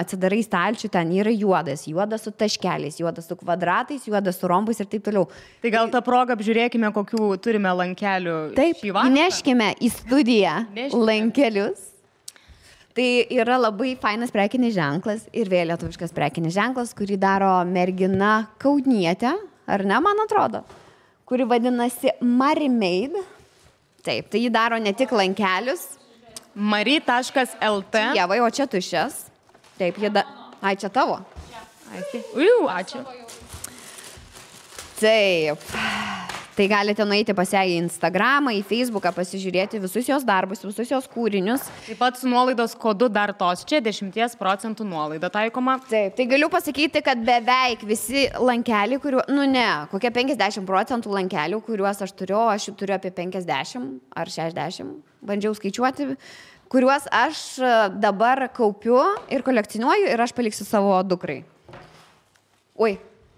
atsidarai stalčių, ten yra juodas su taškeliais, juodas su kvadratais, juodas su rombais ir taip toliau. Tai gal tą progą apžiūrėkime, kokių turime lankelių šį vakarą. Taip, neškime į studiją lankelius. Tai yra labai fainas prekinis ženklas ir vėl lietuviškas prekinis ženklas, kurį daro mergina Kaunietė, ar ne, man atrodo, kuri vadinasi Marimade. Taip, tai jį daro ne tik lankelius. Mari.lt. Jevai, o čia tuščias. Taip, Ai, čia tavo? Ačiū. Taip. Tai galite nueiti pas ją į Instagramą, į Facebooką, pasižiūrėti visus jos darbus, visus jos kūrinius. Taip pat su nuolaidos kodu dar tos čia 10% nuolaida taikoma. Taip, tai galiu pasakyti, kad beveik visi lankeliai, kokie 50% lankelių, kuriuos aš turiu apie 50 ar 60, bandžiau skaičiuoti, kuriuos aš dabar kaupiu ir kolekcionuoju ir aš paliksiu savo dukrai. Ui.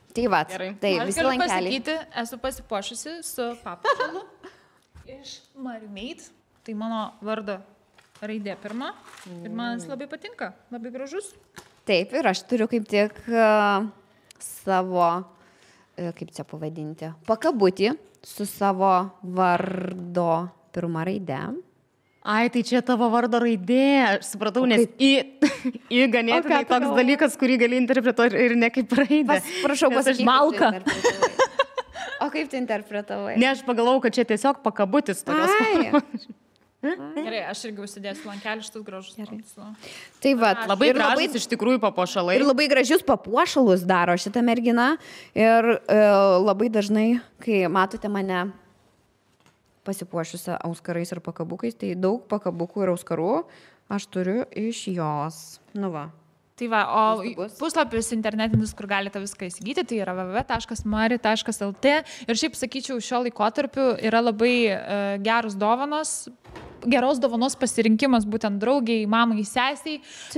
Tai va, tai visi lankeliai. Aš galiu pasakyti, esu pasipuošusi su papuošalu iš Marimade, tai mano vardo raidė pirma ir man jis labai patinka, labai gražus. Taip, ir aš turiu kaip tik savo, kaip čia pavadinti, pakabutį su savo vardo pirma raidė. Ai, tai čia tavo vardo raidė, aš supratau, nes į ganėtinai toks dalykas, kurį gali interpretuoti ir ne kaip raidė. Prašau, pasakyti. Malka. O kaip tu interpretavai? Ne, aš pagalvojau, kad čia tiesiog pakabutis tokios formos. Gerai, aš irgi užsidėsiu lankelį šitus gražus. Tai va, labai gražus iš tikrųjų papuošalai. Ir labai gražius papuošalus daro šitą merginą. Ir labai dažnai, kai matote mane pasipuošusią auskarais ir pakabukais, tai daug pakabukų ir auskarų aš turiu iš jos. Nu va. Tai va, o puslapis internetinis, kur galite viską įsigyti, tai yra www.mari.lt ir šiaip sakyčiau, šio laikotarpiu yra labai geros dovanos pasirinkimas būtent draugiai, mamai, sesiai,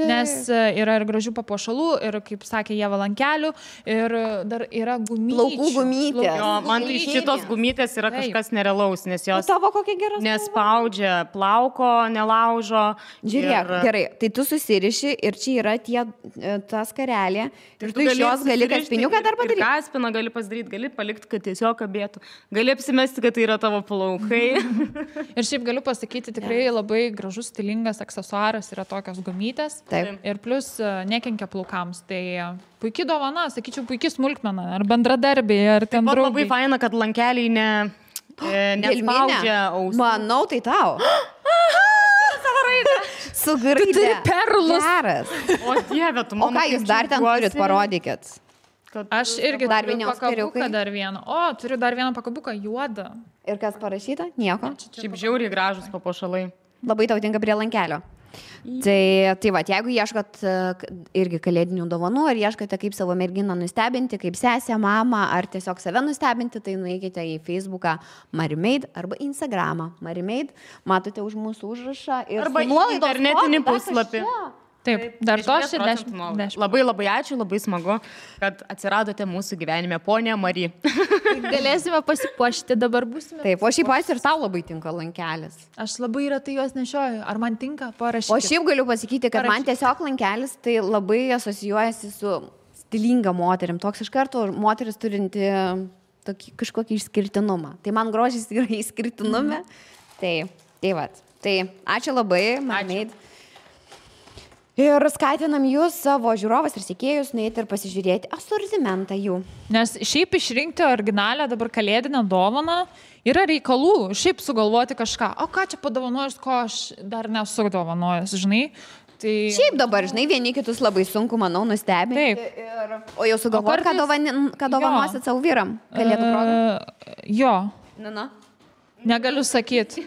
nes yra ir gražių papuošalų, ir, kaip sakė Ieva, lankelių, ir dar yra gumyčių. Plaukų gumytės. Jo, man tai šitos gumytės yra kažkas nerealaus, nes jos tavo kokia gera nespaudžia plauko, nelaužo. Žiūrėk, gerai, tai tu susiriši ir čia yra ta skarelė. Ir tu iš jos gali kaspiniuką dar padaryti. Kaspiną gali pasidaryti, gali palikti, kad tiesiog kabėtų. Gali apsimesti, kad tai yra tavo plaukai. Ir šiaip galiu pasakyti, tikrai labai gražus, stilingas aksesuaras yra tokios gumytės. Taip. Ir plus nekenkia plaukams. Tai puikiai dovana, sakyčiau, puikiai smulkmena. Ar bendradarbiai, ar ten draugai. Labai faina, kad lankeliai nespaudžia ausų. Manau, tai tau. Su graidė. Tu turi perlus. Geras. O Dieve, tu man. O ką jūs dar ten turit, parodykit. Aš irgi dar turiu pakabuką dar vieną. O, turiu dar vieną pakabuką juodą. Ir kas parašyta? Nieko. Šiaip žiauriai gražus papuošalai. Labai tau tinka prie lankelio. Tai va, jeigu ieškot irgi kalėdinių dovanų, ar ieškote kaip savo merginą nustebinti, kaip sesę, mamą, ar tiesiog save nustebinti, tai nueikite į Facebooką Marimade arba Instagramą Marimade, matote už mūsų užrašą ir arba internetinį puslapį. Taip, dar to 60. Labai labai ačiū, labai smagu, kad atsiradote mūsų gyvenime, ponia Mari. Galėsime pasipuošti, dabar būsime. Taip, o šiaip ir tau labai tinka lankelis. Aš labai retai juos nešioju. Ar man tinka? Parašykite. O šiaip galiu pasakyti, kad man tiesiog lankelis tai labai asocijuojasi su stilinga moterim. Toks iš karto moteris turinti kažkokį išskirtinumą. Tai man grožis yra išskirtinume. Tai va. Tai ačiū labai, Marimade. Ir skatinam jūs, savo žiūrovas ir sekėjus, nueiti ir pasižiūrėti asortimentą jų. Nes šiaip išrinkti originalią dabar kalėdinę dovaną yra reikalų, šiaip sugalvoti kažką. O ką čia padovanojus, ko aš dar nesu dovanojus, žinai? Tai... Šiaip dabar, žinai, vieni kitus labai sunku, manau, nustebinti. O jau sugalvoti, ką dovanosit savo vyram kalėdų progą? Jo. Na. Negaliu sakyti.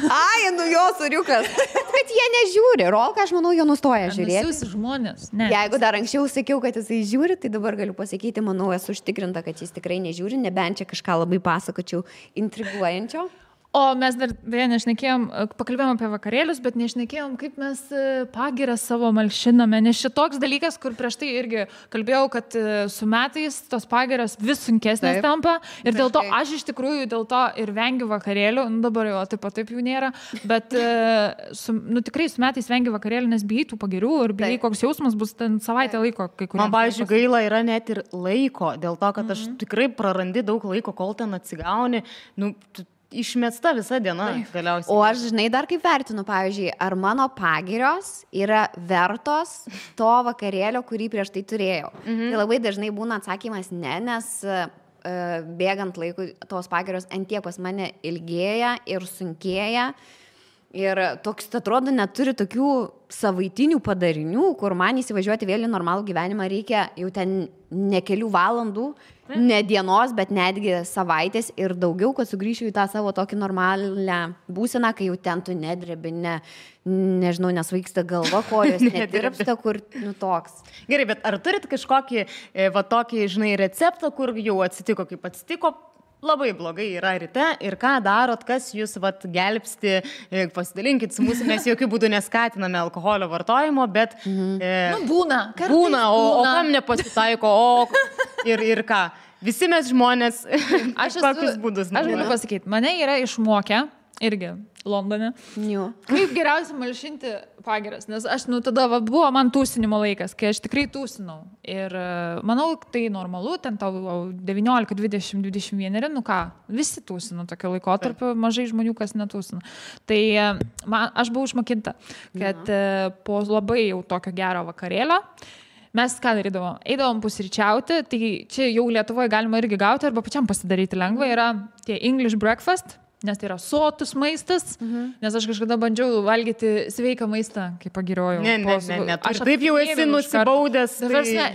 Ai, nu jo suriukas. Bet jie nežiūri. Rolka, aš manau, jo nustoja žiūrėti. Visi žmonės. Ne. Jeigu dar anksčiau sakiau, kad jisai žiūri, tai dabar galiu pasakyti, manau, esu užtikrinta, kad jis tikrai nežiūri, nebent čia kažką labai pasakočiau intriguojančio. O mes dar nešnekėjom, pakalbėjom apie vakarėlius, bet nešnekėjom, kaip mes pagirą savo malšiname. Nes šitoks dalykas, kur prieš tai irgi kalbėjau, kad su metais tos pagiros vis sunkesnės tampa. Ir dėl to aš iš tikrųjų dėl to ir vengiu vakarėlių. Nu, dabar jau taip jų nėra. Bet tikrai su metais vengiu vakarėlių, nes bijai tų pagirių ir bijai, koks jausmas bus ten savaitę laiko. Man, pavyzdžiui, gaila yra net ir laiko. Dėl to, kad aš tikrai prarandi daug laiko, kol ten atsigauni. Išmesta visa diena galiausiai. O aš, žinai, dar kaip vertinu, pavyzdžiui, ar mano pagirios yra vertos to vakarėlio, kurį prieš tai turėjau. Tai labai dažnai būna atsakymas ne, nes bėgant laikui tos pagirios antiek pas mane ilgėja ir sunkėja. Ir toks, atrodo, neturi tokių savaitinių padarinių, kur man įsivažiuoti vėl į normalų gyvenimą reikia jau ten ne kelių valandų, ne dienos, bet netgi savaitės ir daugiau, kad sugrįšiu į tą savo tokį normalią būseną, kai jau ten tu nedrebi, nežinau, nesvaiksta galva, kojos netirpsta, kur toks. Gerai, bet ar turit kažkokį tokį, žinai, receptą, kur jau atsitiko, kaip atsitiko? Labai blogai yra ryte ir ką darot, kas jūs gelbsti, pasidalinkit su mūsų, mes jokių būdų neskatiname alkoholio vartojimo, bet... Būna, o kam nepasitaiko, ir ką? Visi mes žmonės, kokius būdus. Aš galiu pasakyti, mane yra išmokę, irgi Londone, kaip geriausia malšinti pagiras, nes aš, tada buvo man tūsinimo laikas, kai aš tikrai tūsinau ir manau, tai normalu, ten tau 19, 20, 21, visi tūsino tokio laikotarpio, mažai žmonių, kas netūsino. Tai aš buvau išmokinta, kad po labai jau tokio gero vakarėlio mes ką darydavom? Eidavom pusryčiauti, tai čia jau Lietuvoje galima irgi gauti arba pačiam pasidaryti lengva, yra tie English breakfast, nes tai yra sotus maistas, nes aš kažkada bandžiau valgyti sveiką maistą, kaip pagiriojau. Ne, aš taip jau esi nusibaudęs.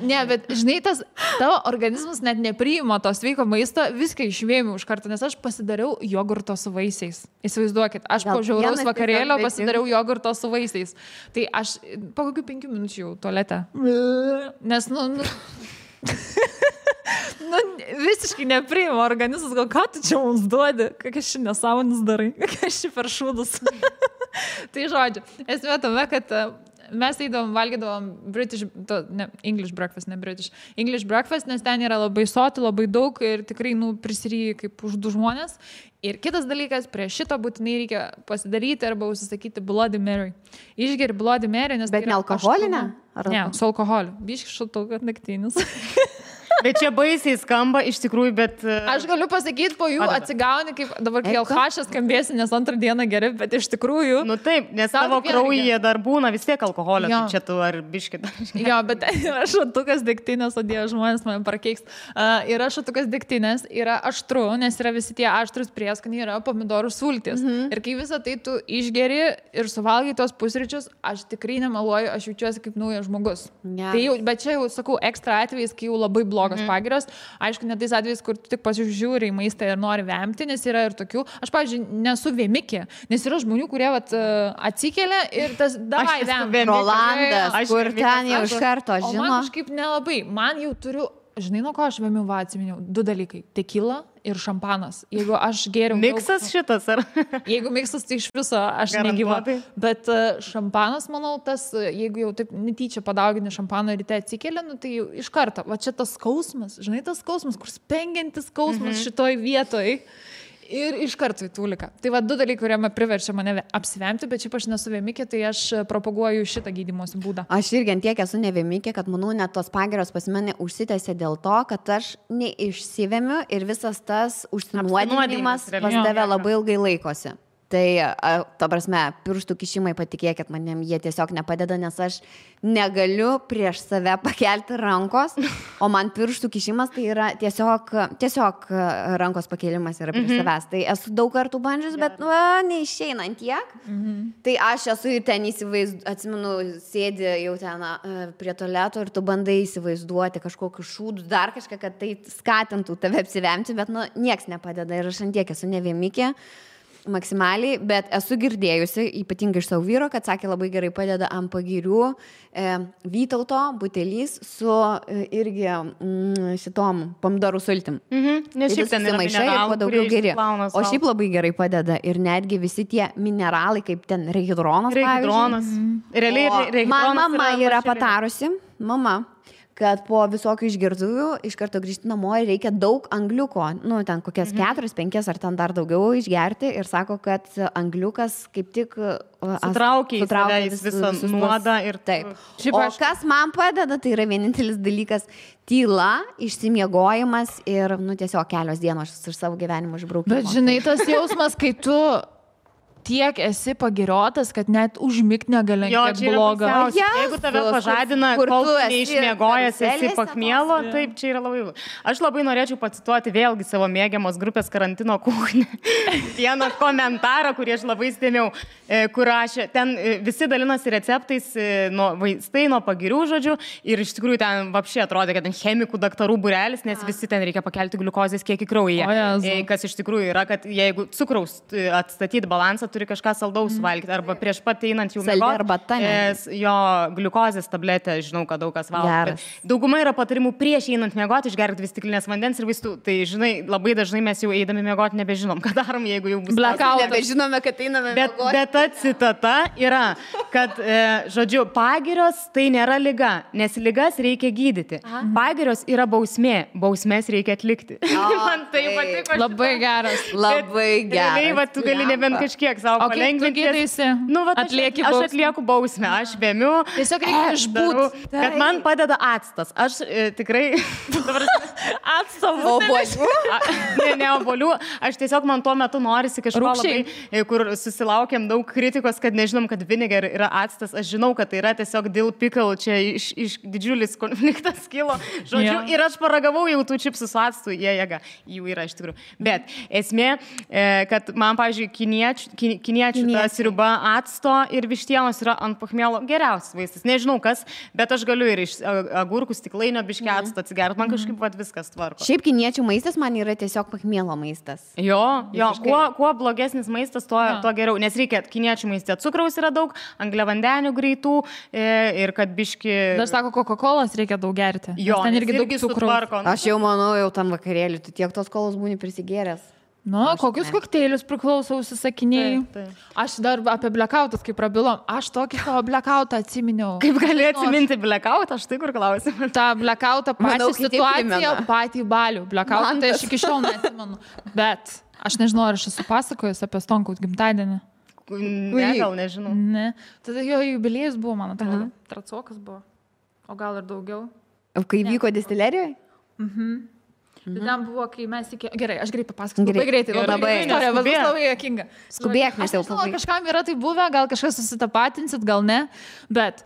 Ne, bet žinai, tavo organizmas net nepriima to sveiko maisto, viską išvėmiau iš karto, nes aš pasidariau jogurto su vaisiais. Įsivaizduokit, aš po žiauraus vakarėlio pasidariau jogurto su vaisiais. Tai aš po kokių 5 minučių jau tualete. Nes, visiškai nepriima organizmas, gal ką tu čia mums duodi, kokias ši nesąmonis darai, kokias ši per šūdus. Tai žodžiu, esmė tame, kad mes eidavom, valgydavom English breakfast, ne British, English breakfast, nes ten yra labai soti, labai daug ir tikrai, prisiryji kaip už 2 žmonės. Ir kitas dalykas, prie šito būtinai reikia pasidaryti arba užsisakyti Bloody Mary. Išgeri Bloody Mary, nes... Bet ne alkoholinę? Ne, su alkoholiu. Biški šaltukas naktinis. Bet čia baisiai skamba, iš tikrųjų, bet... Aš galiu pasakyti, po jų atsigauni, kaip dabar kai alkašas skambėsi, nes antrą dieną geri, bet iš tikrųjų... Taip, nes tavo kraujyje dar būna vis tiek alkoholio, tai čia tu ar biškit. Jo, bet yra šatukas degtinės, o Dieve, žmonės man prakeiks. Yra šatukas degtinės, yra aštru, nes yra visi tie aštrus prieskoniai, yra pomidorų sultis. Ir kai visą tai tu išgeri ir suvalgai tos pusryčius, aš tikrai nemeluoju, aš jaučiuosi kaip naujas žmogus. Tai jau, bet čia jau, sakau, ekstra atvejais, kai jau labai blogas pagiros. Aišku, ne tais atvejais, kur tu tik pasižiūri į maistą ir nori vemti, nes yra ir tokių. Aš, pavyzdžiui, nesu vėmikė, nes yra žmonių, kurie atsikelia ir tas davai vemti. Rolandas, kur ten jau iš karto žino. O man kažkaip nelabai. Man jau turiu, žinai, nuo ko aš vėmiau, atsiminiau, 2 dalykai. Tekila ir šampanas. Jeigu aš geriau... Miksas šitas, ar? Jeigu miksas, tai iš viso aš negyva. Bet šampanas, manau, jeigu jau taip netyčia padaugini šampano ryte atsikeli, tai jau iš karto. Va čia tas skausmas, žinai, tas skausmas, kur spengiantis skausmas šitoj vietoj. Ir iš karto į tūliką. Tai va 2 dalykai, kurie priverčia mane apsivemti, bet šiaip aš nesu vėmikė, tai aš propaguoju šitą gydymosi būdą. Aš irgi antiek esu nevėmikė, kad manau, net tos pagiros pas mane užsitęsė dėl to, kad aš neišsivemiu ir visas tas užsinuodinimas pas tave labai ilgai laikosi. Tai, ta prasme, pirštų kišimai, patikėkit manim, jie tiesiog nepadeda, nes aš negaliu prieš save pakelti rankos, o man pirštų kišimas tai yra tiesiog rankos pakėlimas yra prieš savęs. Tai esu daug kartų bandžius, bet neišeina ant tiek. Tai aš esu ten atsimenu, sėdi jau ten prie tualeto ir tu bandai įsivaizduoti kažkokius šūdus, dar kažką, kad tai skatintų tave apsivemti, bet nieks nepadeda ir aš ant tiek esu nevėmikė. Maksimaliai, bet esu girdėjusi, ypatingai iš savo vyro, kad sakė labai gerai padeda ant pagirių Vytauto butelys su irgi šitom pomidorų sultim. Nes šiaip ten yra mineralų, geri. O šiaip labai gerai padeda ir netgi visi tie mineralai, kaip ten rehidronas. Realiai mama yra patarusi, kad po visokių išgertuvių iš karto grįžti namo ir reikia daug angliuko, ten kokias 4-5 ar ten dar daugiau išgerti ir sako, kad angliukas kaip tik sutraukia visą nuodą ir taip. O kas man padeda, tai yra vienintelis dalykas - tyla, išsimiegojimas ir tiesiog kelios dienos iš savo gyvenimo išbraukimo. Bet žinai, tas jausmas, kai tu tiek esi pagiriotas, kad net užmigt negali, kiek bloga. Jeigu tave pažadina, kol tu neišmiegojęs esi pakmielo, taip, čia yra labai. Aš labai norėčiau pacituoti vėlgi savo mėgiamos grupės Karantino kuchnį. Vieną komentarą, kurį aš labai stėmiau, kur aš ten visi dalinosi receptais nuo vaistai, nuo pagirių žodžių ir iš tikrųjų ten vapšiai atrodė, kad ten chemikų daktarų būrelis, nes visi ten reikia pakelti gliukozės kiekį kraujyje. Kas iš tikrųjų yra, kad jeigu cukraus atstatyti balansą, turi kažką saldaus valgyti, arba prieš pat einant jau miegoti, jo gliukozės tabletę, žinau, kad daug kas valgo. Dauguma yra patarimų prieš einant miegoti, išgerti 2 stiklinės vandens ir vaistų. Tai, žinai, labai dažnai mes jau eidami miegoti nebežinom, ką darom, jeigu jau bus blackoutas. Nebežinome, kad einame miegoti. Bet ta citata yra, kad, žodžiu, pagirios tai nėra liga, nes ligas reikia gydyti. Pagirios yra bausmė, bausmės reikia atlikti. Man tai patiko. Labai geras. Labai geras. Realiai, va, tu gali nebent kažkiek savo palengvinti. Aš atlieku bausmę, aš vėmiu. Tiesiog reikia išbūti. Bet man padeda actas. Aš tikrai... Ne obuolių. Aš tiesiog man tuo metu norisi kažko labai, kur susilaukėm daug kritikos, kad nežinom, kad vinegar yra actas. Aš žinau, kad tai yra tiesiog dill pickle, čia iš didžiulis konfliktas kilo. Žodžiu, ir aš paragavau jau tų čipsų su actu, jų yra iš tikrųjų. Bet esmė, kad man, pavyzdžiui, kiniečių ta sriuba acto ir vištienos yra ant pachmielo geriausias vaistas. Nežinau kas, bet aš galiu ir iš agurkų stiklainio biškį acto atsigerti. Man kažkaip viskas tvarko. Šiaip kiniečių maistas man yra tiesiog pachmielo maistas. Jo, kuo blogesnis maistas, tuo geriau. Nes reikia kiniečių maiste cukraus yra daug, angliavandenių greitų ir kad biškį... Dar sako, Coca-Colas reikia daug gerti. Jo, ten irgi daug cukraus. Aš jau manau, jau tam vakarėlį, tu tiek tos kolos būni prisigėręs. Kokius kokteilius priklausau užsisakinėjai? Aš dar apie blackoutus, kaip prabilom, aš tokį savo blackoutą atsiminiau. Kaip gali atsiminti blackoutą, aš tai kur klausim. Ta blackoutą pačią situaciją, patį balių. Blackoutą tai aš iki šiol neatsimenu. Bet aš nežinau, ar aš esu pasakojus apie Stonkaus gimtadienį. Ne, gal nežinau. Ne. Tada jo jubiliejus buvo, man atrodo. Tracokas buvo. O gal ir daugiau. Kai vyko distilerijoje? Tai ten buvo, kai mes iki... Gerai, aš greit papasakosiu. Labai greitai. Labai juokinga. Skubėk, mes jau pabaigėme. Kažkam yra tai buvę, gal kažkas susitapatinsit, gal ne. Bet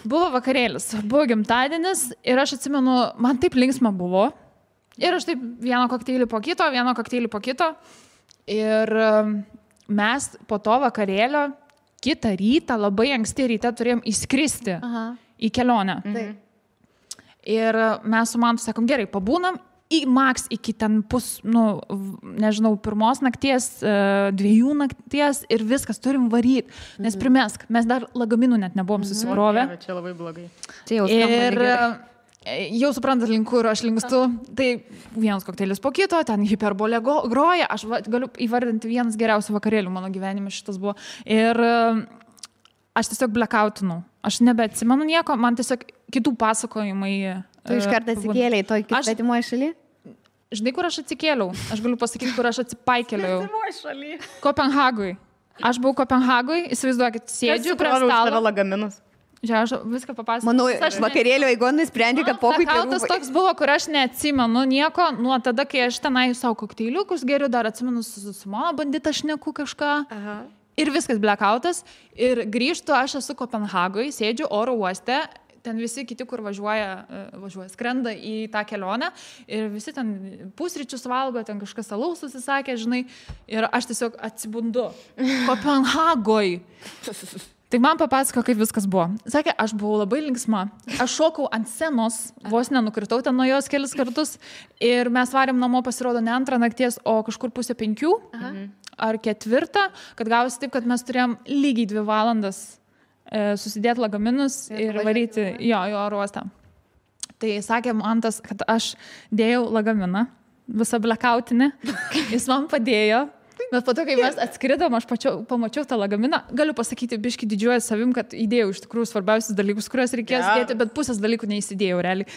buvo vakarėlis, buvo gimtadienis ir aš atsimenu, man taip linksma buvo. Ir aš taip vieną kokteilį po kito. Ir mes po to vakarėlio kitą rytą, labai anksti ryte turėjom įskristi į kelionę. Ir mes su man sakom, gerai, pabūnam. Maks iki ten nežinau, 1 nakties, 2 nakties ir viskas, turim varyti, nes primesk, mes dar lagaminų net nebuvom susivrovę. Čia labai blogai. Ir jau suprantat, link kur aš linkstu, tai vienas kokteilis po kito, ten hiperbolė groja, aš galiu įvardinti vienas geriausių vakarėlių mano gyvenime šitas buvo. Ir aš tiesiog blackoutinau, aš nebeatsimenu nieko, man tiesiog kitų pasakojimai. Tu iš karto atsikėlėjai toj svetimoje šaly? Žinai, kur aš atsikėliau? Aš galiu pasakyti, kur aš atsipaikėliau. Svetimoje šaly. Kopenhagui. Aš buvau Kopenhagui, įsivaizduokit, sėdžiu prie stalo. Lagaminus. Žiūrėjau, aš viską papasakosiu. Manau, aš vakarėlio eigon nusprendė, kad pokai Blacoutas toks buvo, kur aš neatsimenu nieko, nuo tada, kai aš tenai savo kokteiliukus geriu, dar atsimenu su mano bandita šneku kažką. Aha. Ir viskas blackoutas. Ir grįžtu, aš esu Kopenhagoje, sėdžiu oro uoste, ten visi kiti, kur važiuoja, skrenda į tą kelionę ir visi ten pusryčius valgo, ten kažkas alaus susisakė, žinai, ir aš tiesiog atsibundu. Kopenhagoje. Tai man papasako, kaip viskas buvo. Sakė, aš buvau labai linksma. Aš šokau ant scenos, vos nenukritau ten nuo jos kelis kartus ir mes varėm namo, pasirodo, ne 2 nakties, o kažkur 4:30 ar 4, kad gausi taip, kad mes turėjom lygiai 2 valandas susidėti lagaminus ir varyti į oro uostą. Tai sakė Mantas, kad aš dėjau lagaminą, visą blackoutinį, jis man padėjo. Bet po to, kai mes atskridom, aš pamačiau tą lagaminą, galiu pasakyti, biški didžiuoju savim, kad įdėjau iš tikrųjų svarbiausius dalykus, kuriuos reikės dėti, bet pusės dalykų neįsidėjau realiai.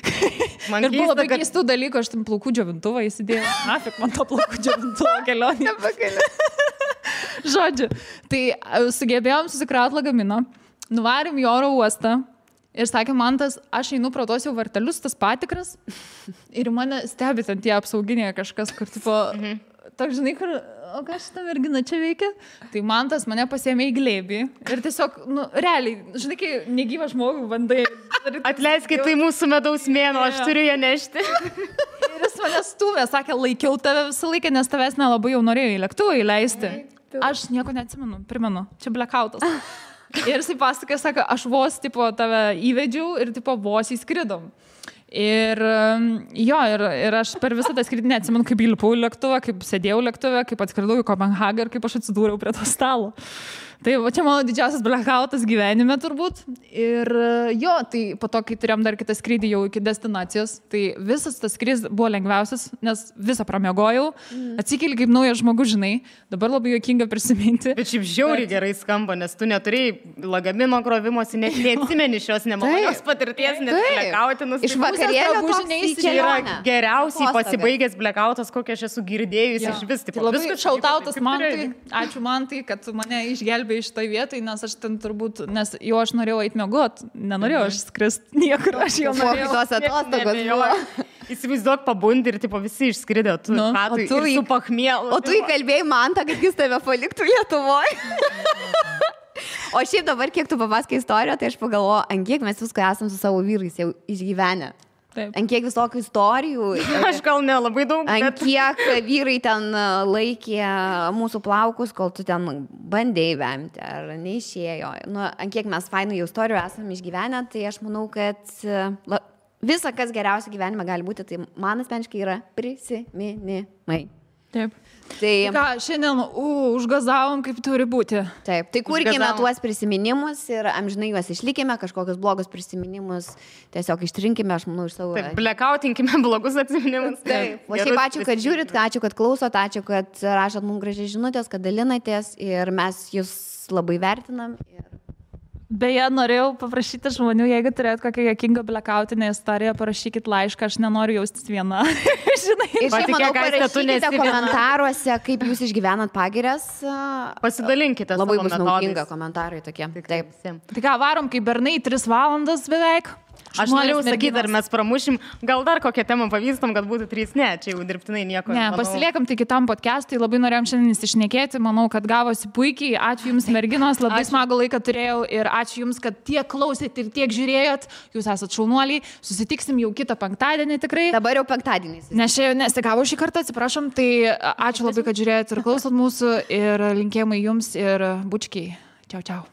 Ir buvo labai keistų dalykų, aš tam plaukų džiovintuvą įsidėjau. Nafik, man to plaukų džiovintuvo kelionė. Žodžiu, tai sugebėjom susikrauti lagaminą, nuvarėm į oro uostą ir sakė Mantas, aš einu pro tos jau vartelius, tas patikras ir mane stebi ten tie apsauginiai kažkas, kur tipo, toks žinai, kur, o ką šitą merginą čia veikia? Tai Mantas mane pasiėmė į glėbį ir tiesiog, realiai, žinai, kai negyvą žmogų bandai. Atleiskit, tai mūsų medaus mėnuo, aš turiu ją nešti. Ir jis mane stūmė, sakė, laikiau tave visą laiką, nes tavęs nelabai jau norėjau į lėktuvą įleisti. Aš nieko neatsimenu, primenu, čia blackoutas. Ir jisai pasakė, sako, aš vos tipo tave įvedžiau ir tipo vos įskridom. Ir ir aš per visą tą skrydį neatsimenu, kaip įlipau į lėktuvą, kaip sėdėjau lėktuve, kaip atskridau į Kopenhagą ir kaip aš atsidūriau prie to stalo. Tai čia mano didžiausias blackoutas gyvenime turbūt. Ir tai po to, kai turėjom dar kitą skrydį jau iki destinacijos, tai visas tas skrydis buvo lengviausias, nes visą pramiegojau, atsikeli kaip naujas žmogus, žinai, dabar labai juokinga prisiminti. Bet šiaip žiauriai gerai skamba, nes tu neturėjai lagamino krovimosi, net neatsimeni šios nemalonios patirties, nes blackoutinus. Iš vakarėlio čia yra geriausiai pasibaigęs blackoutas, kokią aš esu girdėjusi iš vis. Tai labai šautautas Mantai, ačiū Mantai, kad mane išgelbė iš tai vietai, nes aš ten turbūt, nes jau aš norėjau eiti miegot, nenorėjau aš skrist niekur, aš jau norėjau. Tos atostogos buvo. Įsivaizduok, pabundi ir tipo visi išskridė, tu su pachmielu. O tu įkalbėjai Mantą, kad jis tave paliktų Lietuvoje. O šiaip dabar, kiek tu papasakai istoriją, tai aš pagalvoju, ant kiek mes visko esam su savo vyrais jau išgyvenę. Taip. Ant kiek visokių istorijų. Aš gal nelabai daug. Ant kiek vyrai ten laikė mūsų plaukus, kol tu ten bandėjai vemti ar neišėjo. Ant kiek mes fainų jau istorijų esam išgyvenę, tai aš manau, kad visa, kas geriausia gyvenime gali būti, tai man asmeniškai yra prisiminimai. Taip. Tai ką, šiandien užgazavom, kaip turi būti. Taip, tai kurkime tuos prisiminimus ir amžinai juos išlikime, kažkokius blogus prisiminimus tiesiog ištrinkime, aš manau, iš savo... Taip, blackoutinkime blogus atsiminimus. Taip. O šiaip ačiū, kad žiūrit, ačiū, kad klausot, ačiū, kad rašot mums gražiai žinutės, kad dalinatės ir mes jūs labai vertinam. Beje, norėjau paprašyti žmonių, jeigu turėt kokią juokingą blackoutinę istoriją, parašykit laišką, aš nenoriu jaustis viena. Žinai, ir šiaip manau, parašykite komentaruose, kaip jūs išgyvenat pagirias. Pasidalinkite. Labai bus naudinga komentarai tokie. Taip. Tai ką, varom kaip bernai 3 valandas beveik. Aš norėjau sakyti, ar mes pramušim, gal dar kokią temą pavystam, kad būtų 3, ne, čia jau dirbtinai nieko. Ne, pasiliekam tai kitam podcast'ui, labai norėjom šiandien įsišnekėti, manau, kad gavosi puikiai, ačiū Jums merginos, labai smagų laiką turėjau ir ačiū Jums, kad tiek klausėt ir tiek žiūrėjot, Jūs esat šaunuoliai, susitiksim jau kitą penktadienį tikrai. Dabar jau penktadieniais. Nes čia nesigavo šį kartą, atsiprašom, tai ačiū labai, kad žiūrėjot ir klausot mūsų ir linkėjimai Jums ir bučkiai. Čiau, čiau.